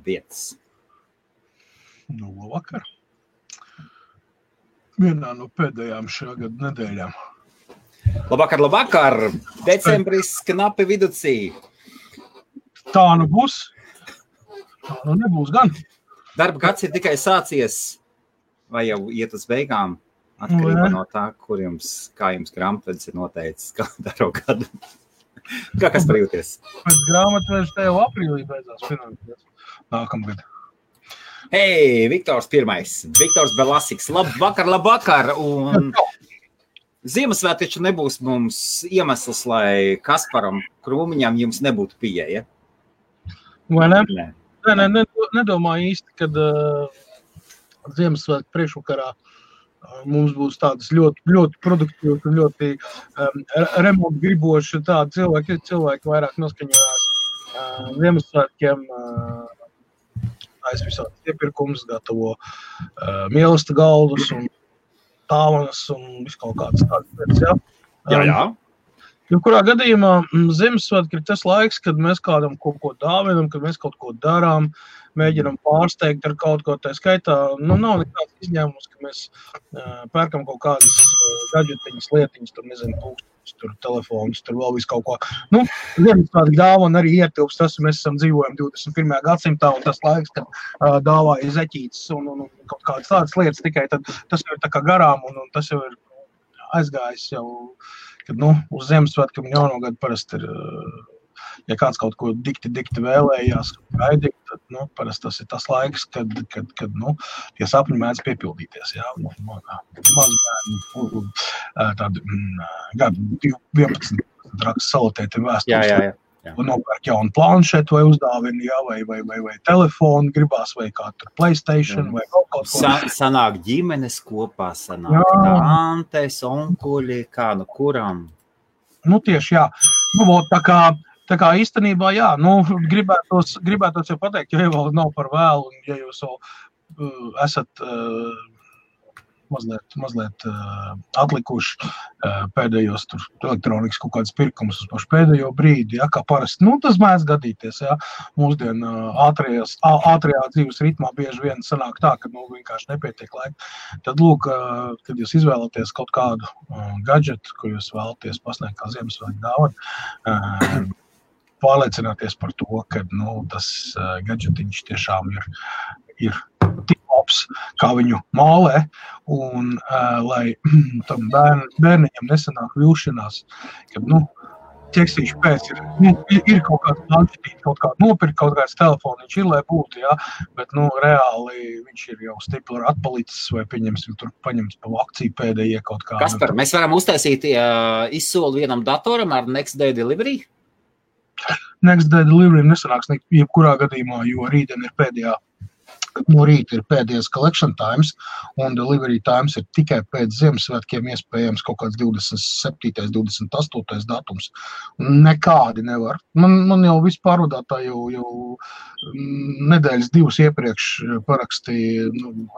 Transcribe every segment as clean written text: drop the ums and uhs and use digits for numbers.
vietas. Nu, labvakar. Vienā no pēdējām šā gada nedēļām. Labvakar! Decembris knapi viducī. Tā nu būs. Tā nu nebūs gan. Darba gads ir tikai sācies, vai jau iet uz beigām, atkarībā no tā, kā jums grāmatvedis ir noteicis kalendāro gadu. Kā kas parjūties? Pēc grāmatvedis te jau aprīlī beidzās finansies. Nākamgad. Hei, Viktors pirmais. Viktors Belasiks. Labvakar. Un Ziemassvētki taču nebūs mums iemesls, lai Kasparam Krūmiņam jums nebūtu pieeja. Vai ne? Nē, nedomāju īsti, kad Ziemassvētku priekšvakarā mums būs tādas ļoti, ļoti produktīvas un ļoti remontu griboši tādi cilvēki vairāk noskaņojās Ziemassvētkiem. Es visādi iepirkums gatavo mīlesta galdus un tāvanas un visu kaut kādas tādas lietas, jā? Jā. Kurā gadījumā Ziemassvētki ir tas laiks, kad mēs kādam kaut ko dāvinam, kad mēs kaut ko darām, mēģinam pārsteigt ar kaut ko, tā skaitā, nav nekāds izņēmums, ka mēs pērkam kaut kādas gadžetiņas, lietiņas, tur nezinu, pūkstošus, tur telefonus, tur vēl visu kaut ko. Ziemassvētki dāvana arī ietilpst, tas mēs esam dzīvojam 21. gadsimtā, un tas laiks, kad dāvāja zeķītes un kaut kādas tādas lietas tikai, tad tas jau ir tā kā garām, un tas jau ir aizgājis jau, kad, uz Ziemassvētkiem jaunogad parasti ir, ja kāds kaut ko dikti vēlējās gaidīt, tad, parasti tas ir tas laiks, kad tie sapņi mēdz piepildīties, jā, mazbērni, tādi gadu 11 raksts salotētiem vēstules. Jā. Nopērk jaunu planšetu vai uzdāvini, jā, vai telefonu gribās, vai kā tur PlayStation, vai kaut ko. Sanāk ģimenes kopā, sanāk tantes, onkuļi, kā kuram. Tieši, jā. Tā kā īstenībā, jā, gribētos jau pateikt, ja vēl nav par vēlu, un ja jūs vēl esat mazliet atlikuši pēdējos tur elektronikas kaut kādas pirkumus uz pašu pēdējo brīdi, ja, kā parasti, tas mēdz gadīties, ja, mūsdien ātrajā dzīves ritmā bieži vien sanāk tā, ka, vienkārši nepietiek laika. Tad, lūk, kad jūs izvēlaties kaut kādu gadžetu, ko jūs vēlaties pasniegt kā Ziemassvētku dāvanu, pārliecināties par to, ka, tas gadžetiņš tiešām ir tik labs, kā viņu mālē, un lai tam bērniņam nesanāk vilšanās, kad, ķeksīši pēc ir kaut kāds planšetīt, kaut kādu nopirkt, kaut kāds telefoniņš ir, lai būtu, jā, bet, reāli viņš ir jau stipli atpalicis, vai pieņemsim, tur paņemts pa akciju pēdējie kaut kā. Kaspar, mēs varam uztaisīt izsoli vienam datoram ar Next Day Delivery? Next Day Delivery nesanāks jebkurā gadījumā, jo rītdien ir no rīta ir pēdējais collection times, un delivery times ir tikai pēc Ziemassvētkiem, iespējams kaut kāds 27. 28. datums. Nekādi nevar. Man jau viss pārvadātāji jau nedēļas 2 iepriekš parakstīja,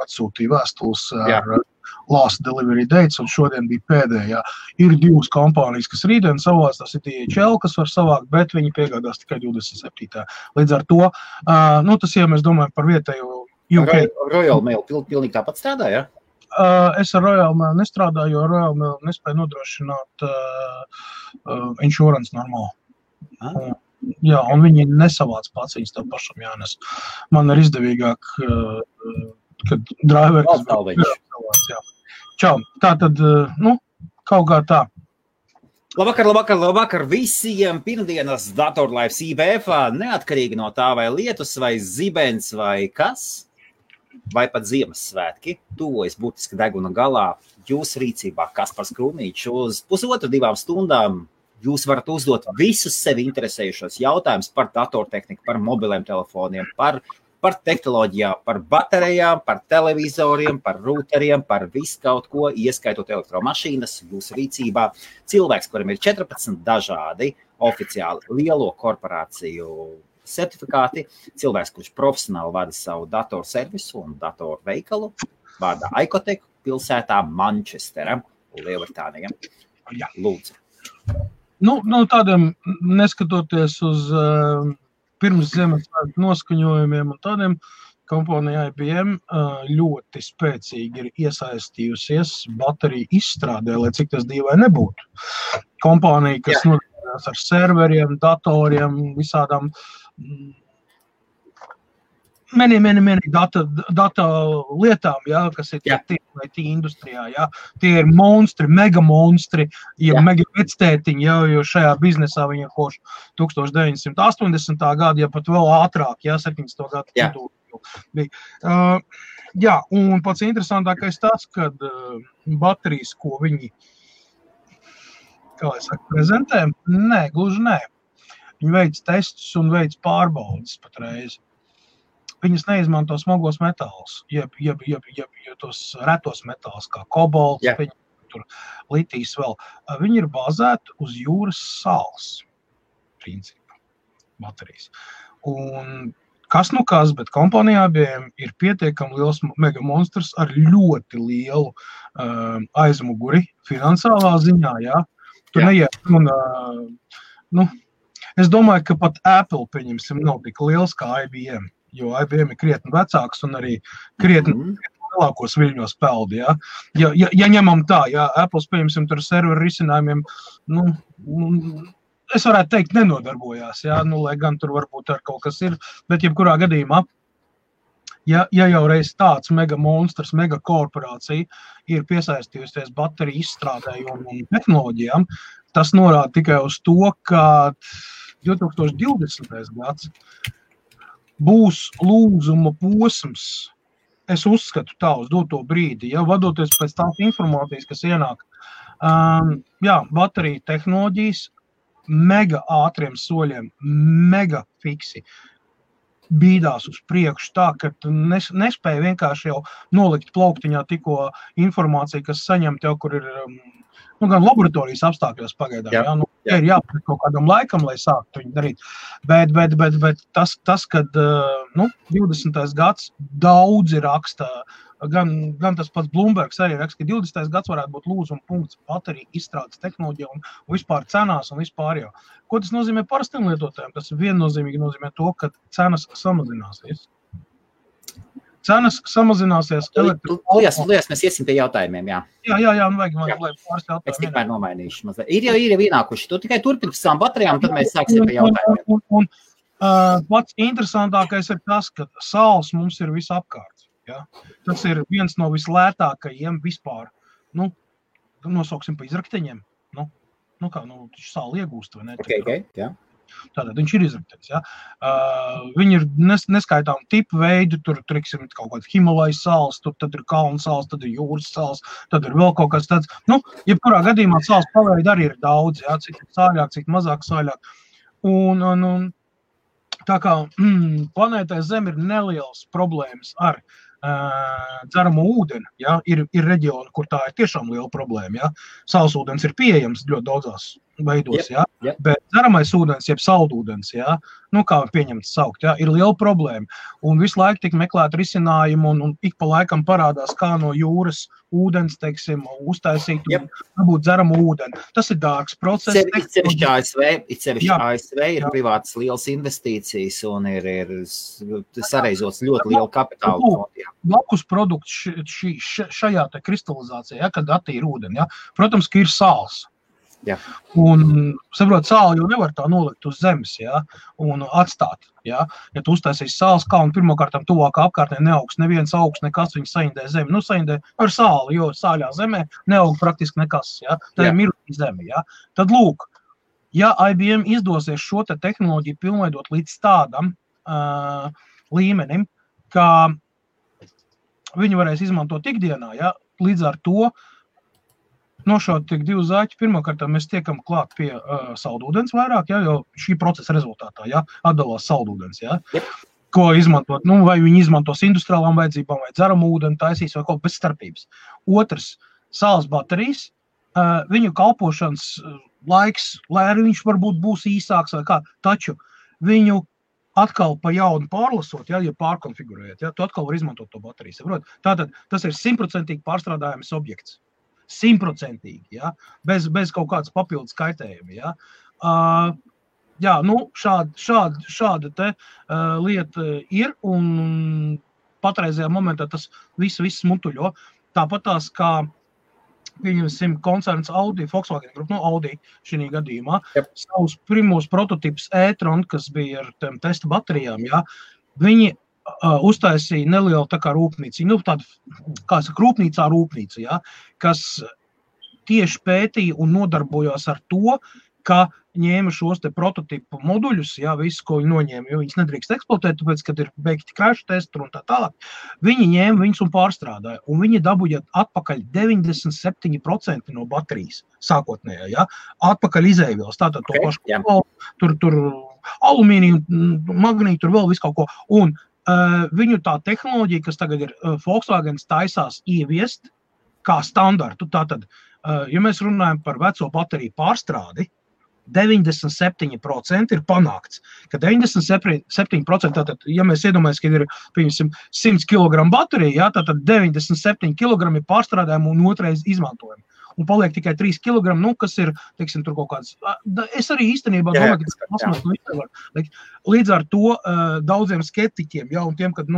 atsūtīja vēstules ar last delivery dates, un šodien bija pēdējā. Ir 2 kompānijas, kas rītdien savās, tas ir DHL, kas var savākt, bet viņi piegādās tikai 27. Līdz ar to, tas, ja mēs domājam par vietējo Royal Mail pilnīgi tāpat strādā, ja? Es ar Royal Mail nestrādāju, jo Royal Mail nespēja nodrošināt insurance normāli. Jā, un viņi nesavāc pats, viņas tev pašam jānes. Man ir izdevīgāk, kad driveri, kas savāc, jā. Čau, tā tad, kaut kā tā. Labvakar visiem pirmdienas datorlaivs IBF, neatkarīgi no tā vai lietus, vai zibens, vai kas, vai pat Ziemassvētki, tuvojas būtiski deguna galā, jūsu rīcībā Kaspars Krūmiņš uz 1,5–2 stundām. Jūs varat uzdot visus sevi interesējušos jautājumus par datortehniku, par mobiliem telefoniem, par tehnoloģijām, par baterijām, par televizoriem, par routeriem, par visu kaut ko, ieskaitot elektromašīnas, jūsu rīcībā. Cilvēks, kuram ir 14 dažādi oficiāli lielo korporāciju certifikāti, cilvēks, kurš profesionāli vada savu datorservisu un datorveikalu, vārdā Icotech pilsētā Manchestera, Lielbritānija. Lūdzu. Tādiem, neskatoties uz pirms Ziemassvētku noskaņojumiem un tādiem kompānija IBM ļoti spēcīgi ir iesaistījusies bateriju izstrādē, lai cik tas dīvai nebūtu. Kompānija, kas nodarbojas ar serveriem, datoriem, visādām many data lietām, kas ir IT industrijā, tie ir monstri, mega monstri, mega vectētiņi, jo šajā biznesā viņi ir koši 1980. gadu, pat vēl ātrāk, 70. gadu. Un pats interesantākais tas, kad baterijas, ko viņi, prezentē, gluži nē. Viņi veic testus un veic pārbaudas patreiz. Viņas neizmanto smagos metālus, jeb tos retos metālus, kā kobolts, tur litijs vēl. Viņi ir bāzēti uz jūras sāls, principā, baterijas. Un kas nu kas, bet kompānijā ir pietiekami liels mega monstrs ar ļoti lielu aizmuguri finansālā ziņā, Tu neiet un, es domāju, ka pat Apple, pieņemsim, nav tik liels kā IBM. Jo IBM ir krietni vecāks un arī krietni lielākos viļņos peldi, Ja ņemam tā, Apple, pieņemsim, tur serveru risinājumiem, es varētu teikt, nenodarbojās, lai gan tur varbūt ar kaut kas ir, bet jebkurā gadījumā, ja jau reiz tāds mega monstrs, mega korporācija ir piesaistījusies bateriju izstrādēju un tehnoloģijām, tas norāda tikai uz to, ka 2020. gads būs lūzuma posms, es uzskatu tā uz doto brīdi, vadoties pēc tās informācijas, kas ienāk. Bateriju tehnoloģijas mega ātriem soļiem, mega fiksi bīdās uz priekšu tā, ka tu nespēji vienkārši jau nolikt plauktiņā tikko informāciju, kas saņemt jau, kur ir gan laboratorijas apstākļos pagaidām, ir jāpēc kaut kādam laikam, lai sāktu viņu darīt. Bet tas kad 20. gads daudzi raksta, gan tas pats Bloombergs arī raksta, ka 20. gads varētu būt lūzuma punkts bateriju izstrādes tehnoloģija un vispār cenās un vispār jau. Ko tas nozīmē parastiem lietotājiem? Tas viennozīmīgi nozīmē to, ka cenas samazināsies. Cenas samazināsies. Liekas, mēs iesim pie jautājumiem, vajag pāris jautājumiem. Es tikmēr nomainīšu mazliet. Ir jau ienākuši. Tu tikai turpini savām baterijām, tad mēs sāksim pie jautājumiem. Un pats interesantākais ir tas, ka sāls mums ir visapkārt. Tas ir viens no vislētākajiem vispār. Nosauksim pa izrakteņiem. Sāli iegūst, vai ne? Okay, Tātad viņš ir izraktenis, Viņi ir neskaitām tipu veidu, tur triksim kaut kāds Himalajas sāls, tad ir kalnu sāls, tad ir jūras sāls, tad ir vēl kaut kas tāds. Jebkurā gadījumā sāls paveidi arī ir daudz, cik sāļāk, cik mazāk sāļāk. Un tā kā planētai Zem ir nelielas problēmas ar dzeramo ūdeni, ir reģioni, kur tā ir tiešām liela problēma, Saulsūdens ir pieejams ļoti daudzās veidos, bet dzeramais ūdens, jeb saldūdens, kā pieņemts saukt, ir liela problēma. Un visu laiku tik meklēt risinājumu un ik pa laikam parādās, kā no jūras ūdens, teiksim, uztaisīt un dabūt dzeramu ūdeni. Tas ir dārgs process. Itsevišķi ASV ir privātas lielas investīcijas un ir sareizots ļoti lielu kapitālu. Blakus produkts šajā te kristalizācijā, kad attīra ūdeni, protams, ka ir sāls. Un, saprot, sāli jau nevar tā nolikt uz zemes, un atstāt, Ja tu uztaisīsi sāls kalnu, pirmkārtām tuvākā apkārtnē neaugs neviens augs, nekas viņu saindē zemi. Saindē ar sāli, jo sāļā zemē neaug praktiski nekas, Tā ir mirkļa zeme, Tad lūk, ja IBM izdosies šo te tehnoloģiju pilnveidot līdz tādam līmenim, ka viņi varēs izmantot ikdienā, līdz ar to nošaut tik divu zaķi. Pirmkārt, mēs tiekam klāt pie saldūdens vairāk, jo šī procesa rezultātā, atdalās saldūdens, ko izmantot, vai viņi izmantos industriālām vajadzībām, vai dzeramu ūdeni taisīs, vai kaut bez starpības. Otrs, sāls baterijas, viņu kalpošanas laiks, lai arī viņš varbūt būs īsāks vai kā, taču viņu atkal pa jaunu pārlasot, ja pārkonfigurējot, tu atkal var izmantot to bateriju. Tātad tas ir 100% pārstrādājams objekts. 100%, bez kaut kādas papildus kaitējuma, Jā, šāda te lieta ir, un patreizajā momentā tas viss mutuļo. Tāpat tās, kā pieņemsim koncerns Audi, Volkswagen grupa, Audi šī gadījumā, savus pirmos prototipus e-tron, kas bija ar tiem testa baterijām, jā, viņi uztaisīja nelielu tā kā rūpnīcu, tādu, kā saka, rūpnīca, jā, kas tieši pētīja un nodarbojās ar to, ka ņēma šos te prototipu moduļus, jā, visu, ko viņi noņēma, jo viņas nedrīkst eksploatēt, tāpēc, kad ir beigti crash testi un tā tālāk, viņi ņēma viņus un pārstrādāja, un viņi dabūja atpakaļ 97% no baterijas sākotnējā, jā, atpakaļ izēvielas, tātad to pašu, tur alumīniju, magnītu, tur vēl visu kaut ko, un viņu tā tehnoloģija, kas tagad ir Volkswagen taisās ieviest kā standartu, tātad, ja mēs runājam par veco bateriju pārstrādi, 97% ir panākts, ka 97%, tātad, ja mēs iedomājamies, ka ir, piemēram, 100 kg baterija, jā, tātad 97 kg ir pārstrādājumi un otrais izmantojumi. Un paliek tikai 3 kg, kas ir, teiksim, tur kaut kāds. Es arī īstenībā domāju, ka tas pasmās. Līdz ar to daudziem skeptiķiem, jā, un tiem, kad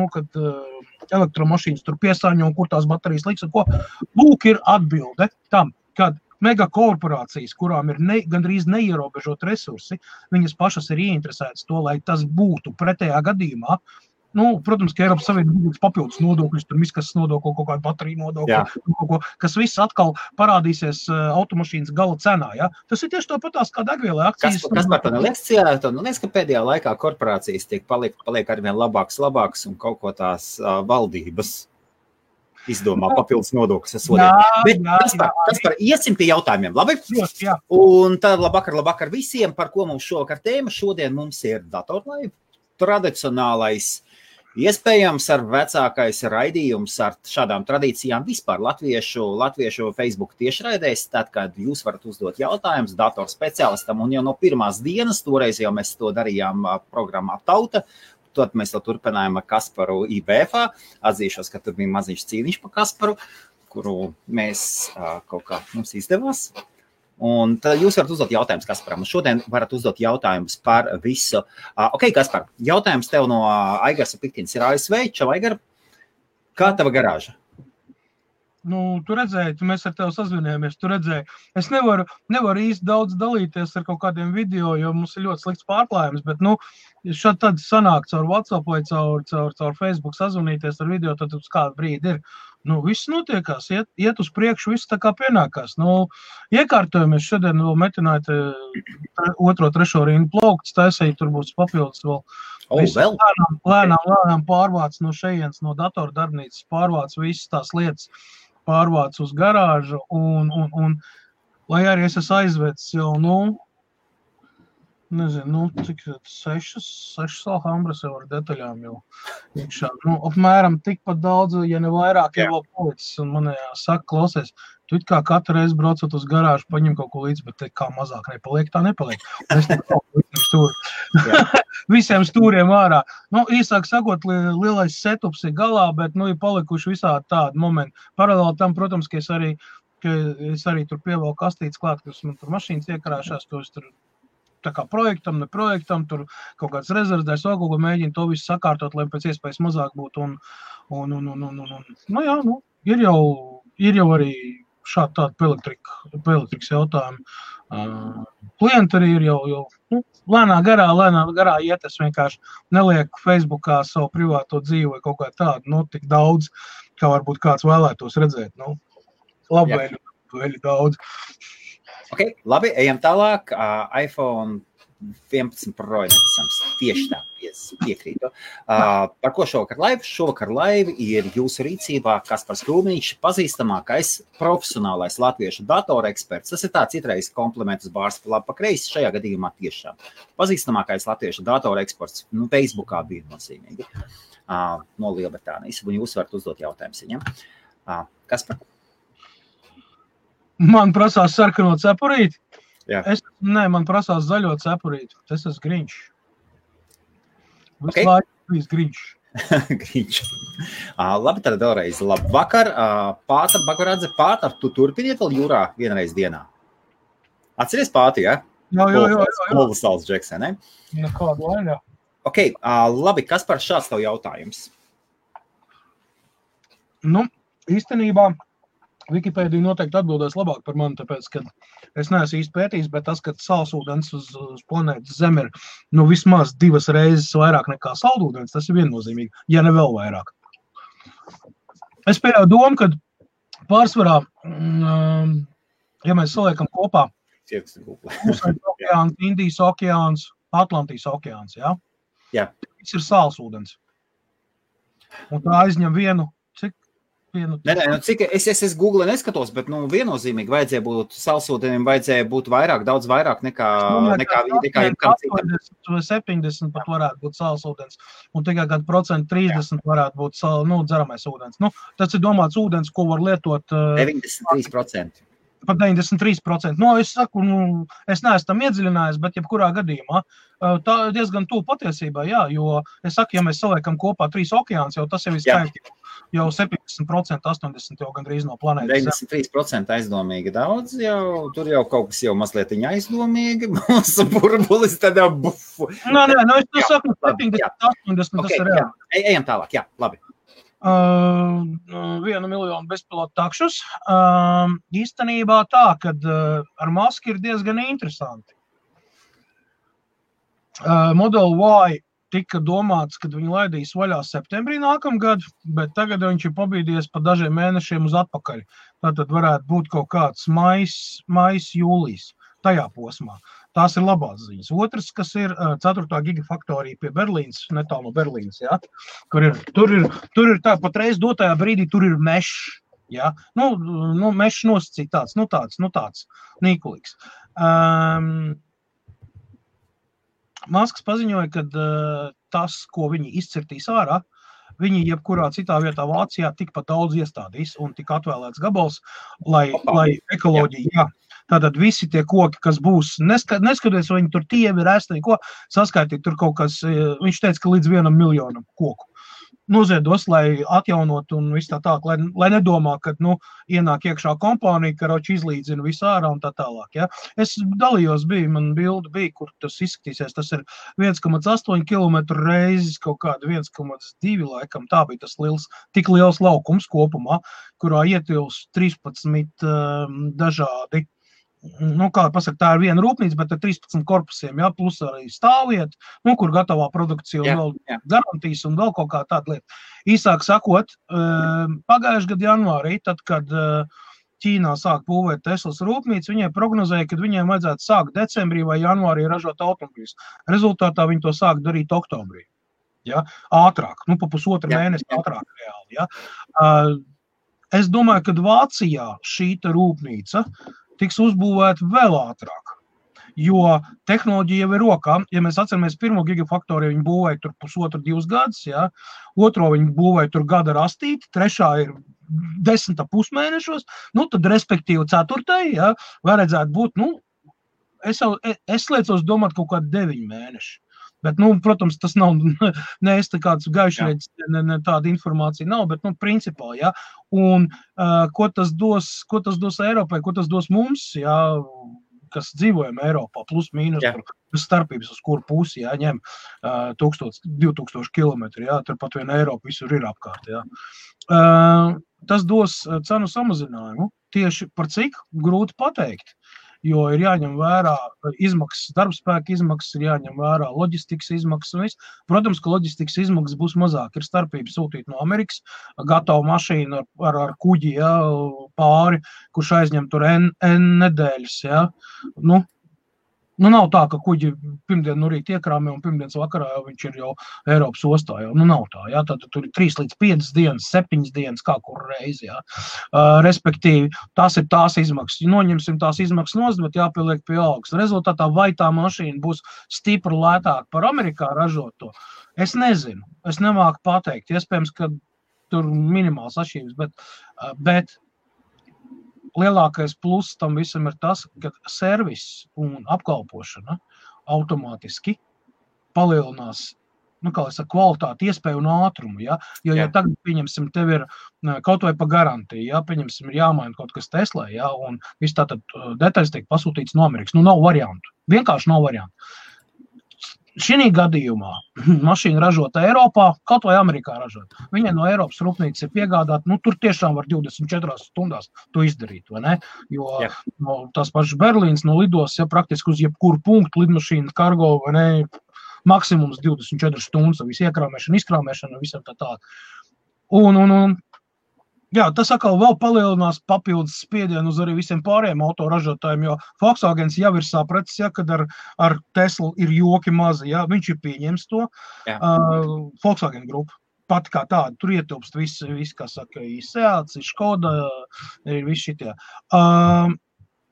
elektromašīnas tur piesāņo un kur tās baterijas liks, un ko, lūk ir atbilde tam, kad megakorporācijas, kurām ir gandrīz neierobežot resursi, viņas pašas ir ieinteresētas to, lai tas būtu pretējā gadījumā. Protams, ka Eiropas Savienības papildus nodokļus, tur miskas nodokli, kaut kādu bateriju nodokli, kas viss atkal parādīsies automašīnas gala cenā. Ja? Tas ir tieši tāpatās kā degvielai akcijas. Kas par to neliekas, ka pēdējā laikā korporācijas paliek arvien labāks un kaut ko tās valdības izdomā papildus nodokļus sodēt. Bet Kaspar, iesim pie jautājumiem, labi? Jā. Un tad labvakar visiem, par ko mums šovakar tēma. Šodien mums ir datorlaiva, tradicionālais, iespējams ar vecākais raidījums ar šādām tradīcijām vispār latviešu Facebook tiešraidēs, tad, kad jūs varat uzdot jautājumus datorspeciālistam, un jau no pirmās dienas, toreiz jau mēs to darījām programmā Tauta, tad mēs to turpinājām ar Kasparu IBF. Atzīšos, ka tur bija maziņš cīniņš par Kasparu, kuru mēs kaut kā mums izdevās. Un tad jūs varat uzdot jautājumus Kasparam. Šodien varat uzdot jautājumus par visu. Ok, Kaspar, jautājums tev no Aigars Piktins ir ASV. Čau, Aigar, kā tava garāža? Tu redzēji, mēs ar tevi sazvinājāmies, tu redzēji. Es nevaru īsti daudz dalīties ar kaut kādiem video, jo mums ir ļoti slikts pārklājums, bet, šādi tad sanāk caur WhatsApp vai caur Facebook sazvanīties ar video, tad uz kādu brīdi ir. Viss notiekās, iet uz priekšu, viss tā kā pienākās. Iekārtojamies šodien vēl metināt 2-3 rindu plaukts, taisēji tur būs papildus vēl. Lēnām pārvāc no šejienes, no datora darbnīcas, pārvāc visas tās lietas, pārvāc uz garāžu, un lai arī es esmu aizvedis jau, nezinu, cik 6 Alhambras jau ar detaļām jau iekšā. Apmēram tikpat daudz, ja ne vairāk, jau vēl policis, un man saka, klausies, tu it kā katru reizi braucot uz garāžu, paņem kaut ko līdzi, bet kā mazāk nepaliek, tā nepaliek. Es visiem stūriem ārā. Īsāk sakot, lielais setups ir galā, bet, ir palikuši visādi tādi momenti. Paralēli tam, protams, ka es arī tur pievēlu kastītes klāt, kas man tur mašīnas iekarāšās, to es tur tā kā projektam, ne projektam, tur kaut kāds rezervdēs, vēl kaut ko mēģina to visu sakārtot, lai pēc iespējas mazāk būtu. Ir jau arī šādi tādi elektrikas jautājumi. Klienti arī ir jau lēnā garā iet, es vienkārši nelieku Facebookā savu privāto dzīvi vai kaut kā tādu, tik daudz, kā varbūt kāds vēlētos redzēt. Labvēļi daudz. Ok, labi, ejam tālāk. iPhone 11 Pro necams. Tieši tā, piekrītu. Par ko šovakar laiva? Šovakar laiva ir jūsu rīcībā Kaspars Krūmiņš, pazīstamākais profesionālais latviešu datoreksperts. Tas ir tāds itreiz kompliments bārs labi pa kreisi, šajā gadījumā tiešām. Pazīstamākais latviešu datoreksperts, Facebookā bija nozīmīgi, no Lielbritānijas. Un jūs varat uzdot jautājumus viņam. Kaspar? Man prasās sarkano cepurīti. Jā. Man prasās zaļo cepurīti. Tas esmu Grinčs. Okay. Visu Grinčs. Grinčs. Labi, tad vēlreiz labvakar. Pāta, Bagoradze, Pāta, tu turpiniet vēl jūrā vienreiz dienā? Atceries Pāti, ja? Kolosāls džeks, ne? Nekādu vainā. Ok, labi, kas par šāds tev jautājums? Nu, īstenībā Wikipēdija noteikti atbildēs labāk par mani, tāpēc, ka es neesmu īsti pētījis, bet tas, ka salsūdens uz planētas Zeme ir vismaz 2 reizes vairāk nekā saldūdens, tas ir viennozīmīgi, ja ne vēl vairāk. Es pieļauju domu, ka pārsvarā, ja mēs saliekam kopā Klusais okeāns, Indijas okeāns, Atlantijas okeāns, ja? Jā. Tas ir salsūdens. Un tā aizņem vienu. Cik es Google neskatos, bet viennozīmīgi vajadzēja būt salsūdenim, vajadzēja būt daudz vairāk nekā jebkam citam. 70 pat varētu būt salsūdens, un tikai kādu 30% varētu būt dzeramais ūdens. Tas ir domāts ūdens, ko var lietot 93%. Pat 93%. Es saku, es neesmu tam iedziļinājis, bet jebkurā gadījumā tā diezgan tuvu patiesībā, jā, jo es saku, ja mēs saliekam kopā 3 okeāns, jau tas jau ir skaitļi, jau 70%, 80% jau gandrīz no planētas. 93% aizdomīgi daudz, tur jau kaut kas jau mazliet aizdomīgi, mūsu burbulis tādā bufu. Nē, es to saku, 70, 80, tas ir reāli. Ejam tālāk, jā, labi. 1 miljonu bezpilotu takšus. Īstenībā tā, kad ar Musk ir diezgan interesanti. Model Y tika domāts, kad viņi laidīs vaļā septembrī nākamgad, bet tagad viņš ir pabīdies pa dažiem mēnešiem uz atpakaļ. Tātad varētu būt kaut kāds mais, jūlijas, tajā posmā. Tās ir labās ziņas. Otrs, kas ir 4. gigafaktorija pie Berlīnas, netālu no Berlīnas, ja, kur tur ir tā patreiz dotajā brīdī, tur ir mešs, ja, mešs nosacīt tāds nīkulīgs. Masks paziņoja, ka tas, ko viņi izcirtīs ārā, viņi jebkurā citā vietā Vācijā tikpat daudz iestādīs un tik atvēlēts gabals, lai ekoloģija, jā. Tātad visi tie koki, kas būs, neskatoties, vai viņi tur tievi, rēsti, ko saskaitīt, tur kaut kas, viņš teica, ka līdz 1 miljonam koku noziedos, lai atjaunot un viss tā tālāk, lai nedomā, ka, ienāk iekšā kompānija, karoči izlīdzina visu ārā un tā tālāk, ja. Es dalījos, man bilde bija, kur tas izskatīsies, tas ir 1,8 kilometru reizes kaut kāda 1,2 laikam, tā bija tas tik liels laukums kopumā, kurā ietilps 13 dažādi. Kā pasaka, tā ir viena rūpnīca, bet ar 13 korpusiem, ja, plus arī stāvvieta, kur gatavā produkcija un vēl garantijas un vēl kaut kā tāda lieta. Īsāk sakot, pagājušajā gada janvārī, tad, kad Ķīnā sāk būvēt Teslas rūpnīcu, viņai prognozēja, ka viņiem vajadzētu sākt decembrī vai janvārī ražot automobiļus. Rezultātā viņi to sāk darīt oktobrī. Ja? Ātrāk, pa pusotru mēnesi ātrāk reāli. Ja? Es domāju, ka Vācijā šīta rūpnīca tiks uzbūvēta vēl ātrāk, jo tehnoloģija jau ir rokā. Ja mēs atceramies 1. gigafaktoriju, viņi būvēja tur 1,5–2 gadus, ja? 2. viņi būvēja tur gada rastīti, 3. ir 10,5 mēnešos, tad respektīvi 4. ja? Vajadzētu būt, es liecos domāt kaut kādi 9 mēneši. Bet, protams, tas nav, es tā kāds gaišrēdis, tāda informācija nav, bet, principā, ja, un ko tas dos Eiropai, ko tas dos mums, ja, kas dzīvojam Eiropā, plus mīnus, starpības, uz kuru pusi, ja, ņem 1000–2000 kilometri, ja, tur pat vien Eiropa visur ir apkārt, ja. Tas dos cenu samazinājumu, tieši par cik grūti pateikt. Jo ir jāņem vērā izmaksas, darbspēka izmaksas, ir jāņem vērā loģistikas izmaksas un viss. Protams, ka loģistikas izmaksas būs mazāk. Ir starpība sūtīt no Amerikas gatavu mašīnu ar kuģi, ja, pāri, kurš aizņem tur N nedēļas. Ja. Nav tā, ka kuģi pirmdien no rīta iekrāmē un pirmdienas vakarā jau viņš ir jau Eiropas ostā. Jau. Nav tā, ja. Tad tur ir 3 līdz 5 dienas, 7 dienas, kā kur reizi. Ja. Respektīvi, tās ir tās izmaksas. Noņemsim tās izmaksas nost, bet jāpieliek pie algas. Rezultātā vai tā mašīna būs stipri lētāk par Amerikā ražoto? Es nezinu. Es nemāku pateikt. Iespējams, ka tur minimāls atšķirības, bet lielākais pluss tam visam ir tas, ka servis un apkalpošana automātiski palielinās kā es saku, kvalitāti, iespēju un ātrumu, ja? Jo tagad, pieņemsim, tev ir kaut vai pa garantiju, ja? Pieņemsim, ir jāmaina kaut kas Teslā, ja? Un viss tātad detaļas tiek pasūtīts no Amerikas. Nu, nav variantu. Vienkārši nav variantu. Šī gadījumā mašīna ražota Eiropā, kaut vai Amerikā ražota. Viņai no Eiropas rūpnīcas ir piegādāt, nu, tur tiešām var 24 stundās to izdarīt, vai ne? Jo no tās pašas Berlīnas no lidos, ja praktiski uz jebkuru punktu lidmašīna, kargo, vai ne, maksimums 24 stundas, visu iekrāmēšanu, izkrāmēšanu, visam tā. Un jā, tas atkal vēl palielinās papildus spiedienu uz arī visiem pārējiem autoražotājiem, jo Volkswagens jau ir sapratis, ja, kad ar Teslu ir joki mazi, ja, viņš ir pieņems to. Volkswagen grupa, pat kā tāda, tur ietilpst viss, kā saka, Seats, Škoda, ir visi šitie.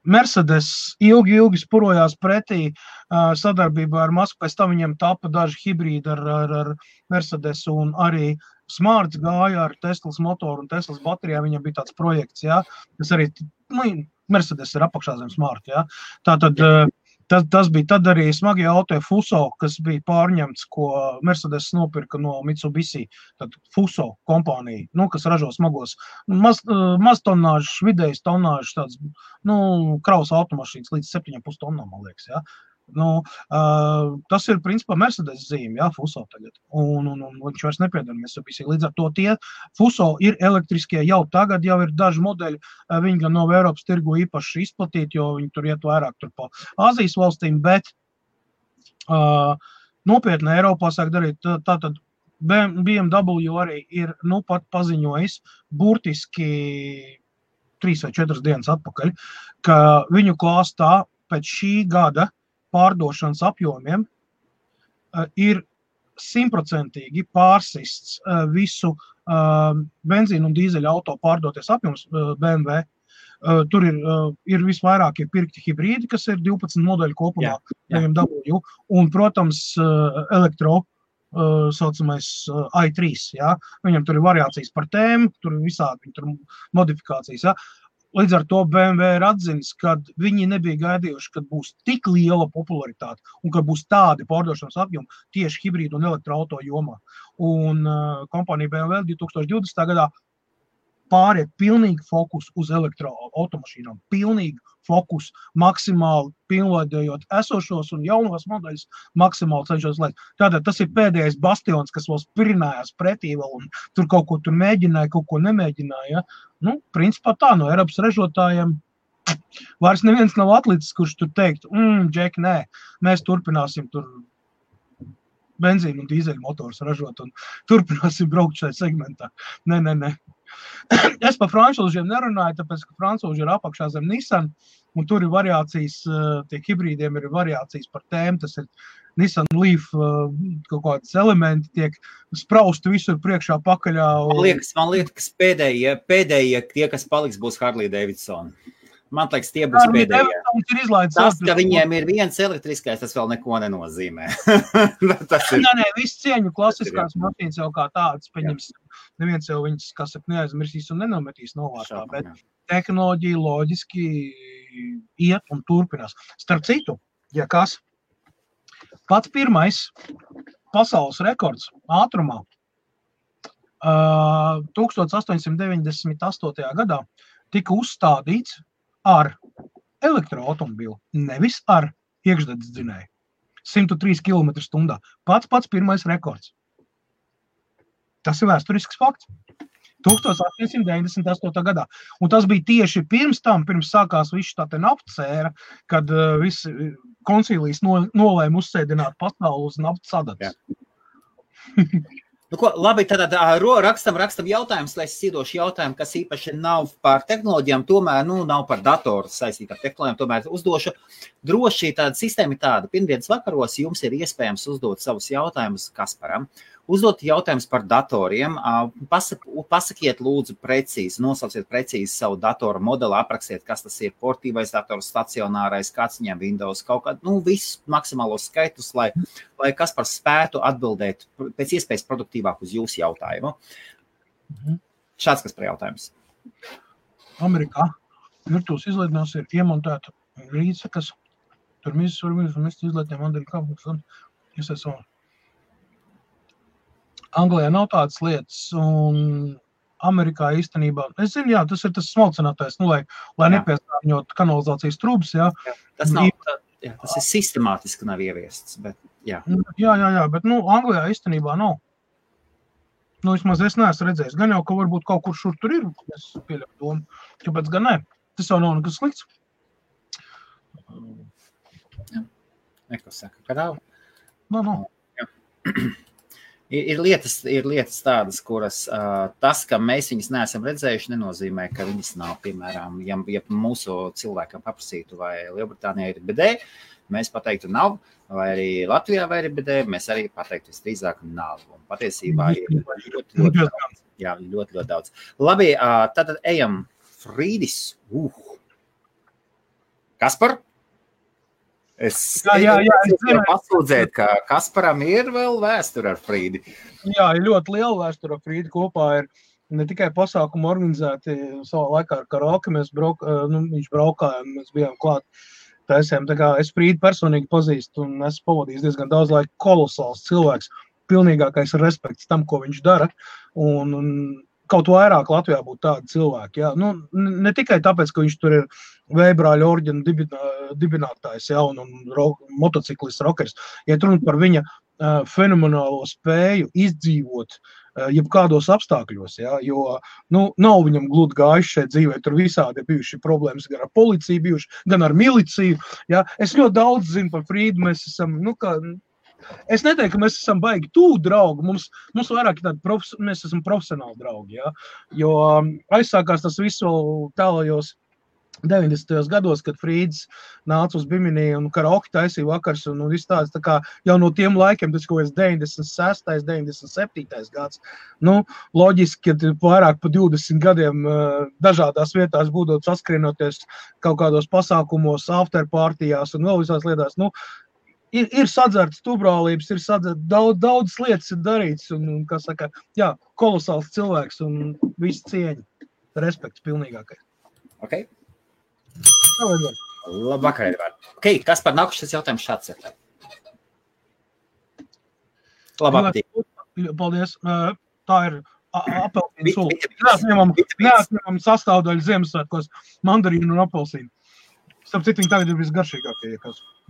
Mercedes ilgi spurojās pretī sadarbībā ar Masku, pēc tam viņiem tapa daži hibrīdi ar Mercedes un arī Smarts gāja ar Teslas motoru un Teslas baterijā, viņam bija tāds projekts, ja, kas arī, Mercedes ir apakšā zem Smart, ja. Tātad, tas bija tad arī smagie auto Fuso, kas bija pārņemts, ko Mercedes nopirka no Mitsubishi, tad Fuso kompānija, kas ražo smagos, maz tonāžas, vidējas tonāžas, tāds, kravas automašīnas līdz 7,5 tonnām, man liekas, ja. Tas ir principā Mercedes zīme, jā, Fuso tagad, un viņš vairs nepiedara Mitsubishi. Līdz ar to tie Fuso ir elektriskie jau tagad, jau ir daži modeļi, viņi gan nav Eiropas tirgu īpaši izplatīti, jo viņi tur iet vairāk tur pa Āzijas valstīm, bet nopietni Eiropā sāk darīt, tātad BMW arī ir pat paziņojis burtiski 3 vai 4 dienas atpakaļ, ka viņu klāstā pēc šī gada pārdošanas apjomiem ir 100% pārsists visu benzīnu un dīzeļu auto pārdoties apjoms BMW. Tur ir visvairāk pirkti hibrīdi, kas ir 12 modeļu kopumā, BMW, un, protams, elektro saucamais i3, ja? Viņam tur ir variācijas par tēmu, tur ir visādi tur modifikācijas, ja? Līdz ar to BMW ir atzinis, ka viņi nebija gaidījuši, kad būs tik liela popularitāte un ka būs tādi pārdošanas apjomi tieši hibrīdu un elektroauto jomā. Un kompānija BMW 2020. Gadā pāriet pilnīgi fokus uz elektroautomašīnām, pilnīgi fokus, maksimāli pilnveidojot esošos un jaunos modeļus, maksimāli cenšos laist. Tātad tas ir pēdējais bastions, kas vēl spirinājās pretī vēl un tur kaut ko tur mēģināja, kaut ko nemēģināja. Ja? Principā tā, no Eiropas ražotājiem vairs neviens nav atlicis, kurš tur teikt, Džek, nē, mēs turpināsim tur benzīnu un dīzeļu motors ražot un turpināsim braukt šajā segmentā. Nē. Es par francūžiem nerunāju, tāpēc, ka francūži ir apakšā zem Nissan, un tur ir variācijas, tie hibrīdiem ir variācijas par tēmu, tas ir Nissan Leaf, kaut kādas elementi tiek sprausti visur priekšā pakaļā. Man liekas, pēdējie tie, kas paliks, būs Harley Davidson. Man liekas, tie būs pēdējie. Tas, ka viņiem ir viens elektriskais, tas vēl neko nenozīmē. Nē, viss cieņu klasiskās mašīnas jau kā tādas, pieņems, neviens jau viņas, kas neaizmirsīs un nenometīs novārtā, bet tehnoloģija loģiski iet un turpinās. Starp citu, ja kas, pats pirmais pasaules rekords ātrumā 1898. Gadā tika uzstādīts ar elektroautomobīlu, nevis ar iekšdedzes dzinēju. 103 km/h. Pats pirmais rekords. Tas ir vēsturisks fakts. 1898. gadā. Un tas bija tieši pirms sākās viss tā te naftas ēra, kad visi koncīlijas nolēma uzsēdināt pasauli uz naftas sadatas. Labi, tad rakstam jautājumus, lai es iedošu jautājumu, kas īpaši nav par tehnoloģijām, tomēr nav par datoru saistīt ar tehnoloģijām, tomēr uzdošu. Droši tāda sistēma ir tāda. Pirmdienas vakaros jums ir iespējams uzdot savus jautājumus Kasparam. Uzdot jautājumus par datoriem. Pasakiet lūdzu precīzi, nosauciet precīzi savu datoru modeli, aprakstiet, kas tas ir, portīvais dators, stacionārais, kāds viņam Windows, kaut kādu, visus maksimālos skaitus, lai Kaspars spētu atbildēt pēc iespējas produktīvāk uz jūsu jautājumu. Šāds kas par jautājums. Amerikā virtuves izlaidnās ir iemontēta rīce, kas tur mizas var mest izlaidniem Andriju Kapuks un iesaistām. Anglijā nav tādas lietas, un Amerikā īstenībā, es zinu, jā, tas ir tas smalcinātais, lai nepiesārņot kanalizācijas trūbas, jā. Tas nav, tas ir sistemātiski nav ieviests, bet jā. Jā, bet, Anglijā īstenībā nav. Vismaz es neesmu redzējis. Gan jau, ka varbūt kaut kur šur tur ir, es pieļauju domu, kāpēc gan ne. Tas jau nav nekas slikts. Jā. Neko saka, ka nav. Nav. Ir lietas tādas, kuras tas, ka mēs viņas neesam redzējuši, nenozīmē, ka viņas nav. Piemēram, ja mūsu cilvēkam paprasītu, vai Lielbritānijā ir BD, mēs pateiktu nav, vai arī Latvijā vai ir BD, mēs arī pateiktu visdrīzāk nav. Un patiesībā ir ļoti daudz. Labi, tad ejam. Frīdis. Kaspar? Es pasūdzēt, ka Kasparam ir vēl vēsture ar Frīdi. Jā, ir ļoti liela vēsture ar Frīdi. Kopā ir ne tikai pasākumu organizēti savā laikā ar karaoke, viņš braukāja un mēs bijām klāt. Taisiem, tā kā es Frīdi personīgi pazīstu un esmu pavadījis diezgan daudz laika, kolosāls cilvēks, pilnīgākais respekts tam, ko viņš dara. Un kaut vairāk Latvijā būtu tādi cilvēki. Jā. Ne tikai tāpēc, ka viņš tur ir Vējbrāļa orģena dibinātājs, jā, un motociklists, rockers. Ja runa par viņa fenomenālo spēju izdzīvot jebkādos apstākļos, jā, jo nav viņam gludi gājuši šeit dzīvē, tur visādi bijuši problēmas gan ar policiju bijuši, gan ar miliciju. Jā. Es ļoti daudz zinu par Frīdu, mēs esam, es neteiktu, ka mēs esam baigi tuvu draugi, mums vairāk ir tādi, mēs esam profesionāli draugi, jā, jo aizsākās tas visu tālajos 90. gados, kad Frīds nāca uz Bimini un karaoke taisīja vakars un viss tāds, tā kā jau no tiem laikiem, tas kaut kāds 96. 97. gads, loģiski, ka vairāk pa 20 gadiem dažādās vietās būdot saskrienoties kaut kādos pasākumos, afterpartijās un vēl visās lietās, Ir sadzerts tubrālības, ir sadzerts, daudz lietas ir darīts, un kā saka, jā, kolosāls cilvēks un viss cieņa, respekts pilnīgākais. Ok. Labvakar, Edvard. Ok, kas par nākušas jautājums šāds ir? Labāk. Paldies. Tā ir apelsīnu sula. Neatņemam sastāvdaļu Ziemassvētkos mandarīnu un apelsīnu. Starp citu, viņi tagad ir visgaršīgākie,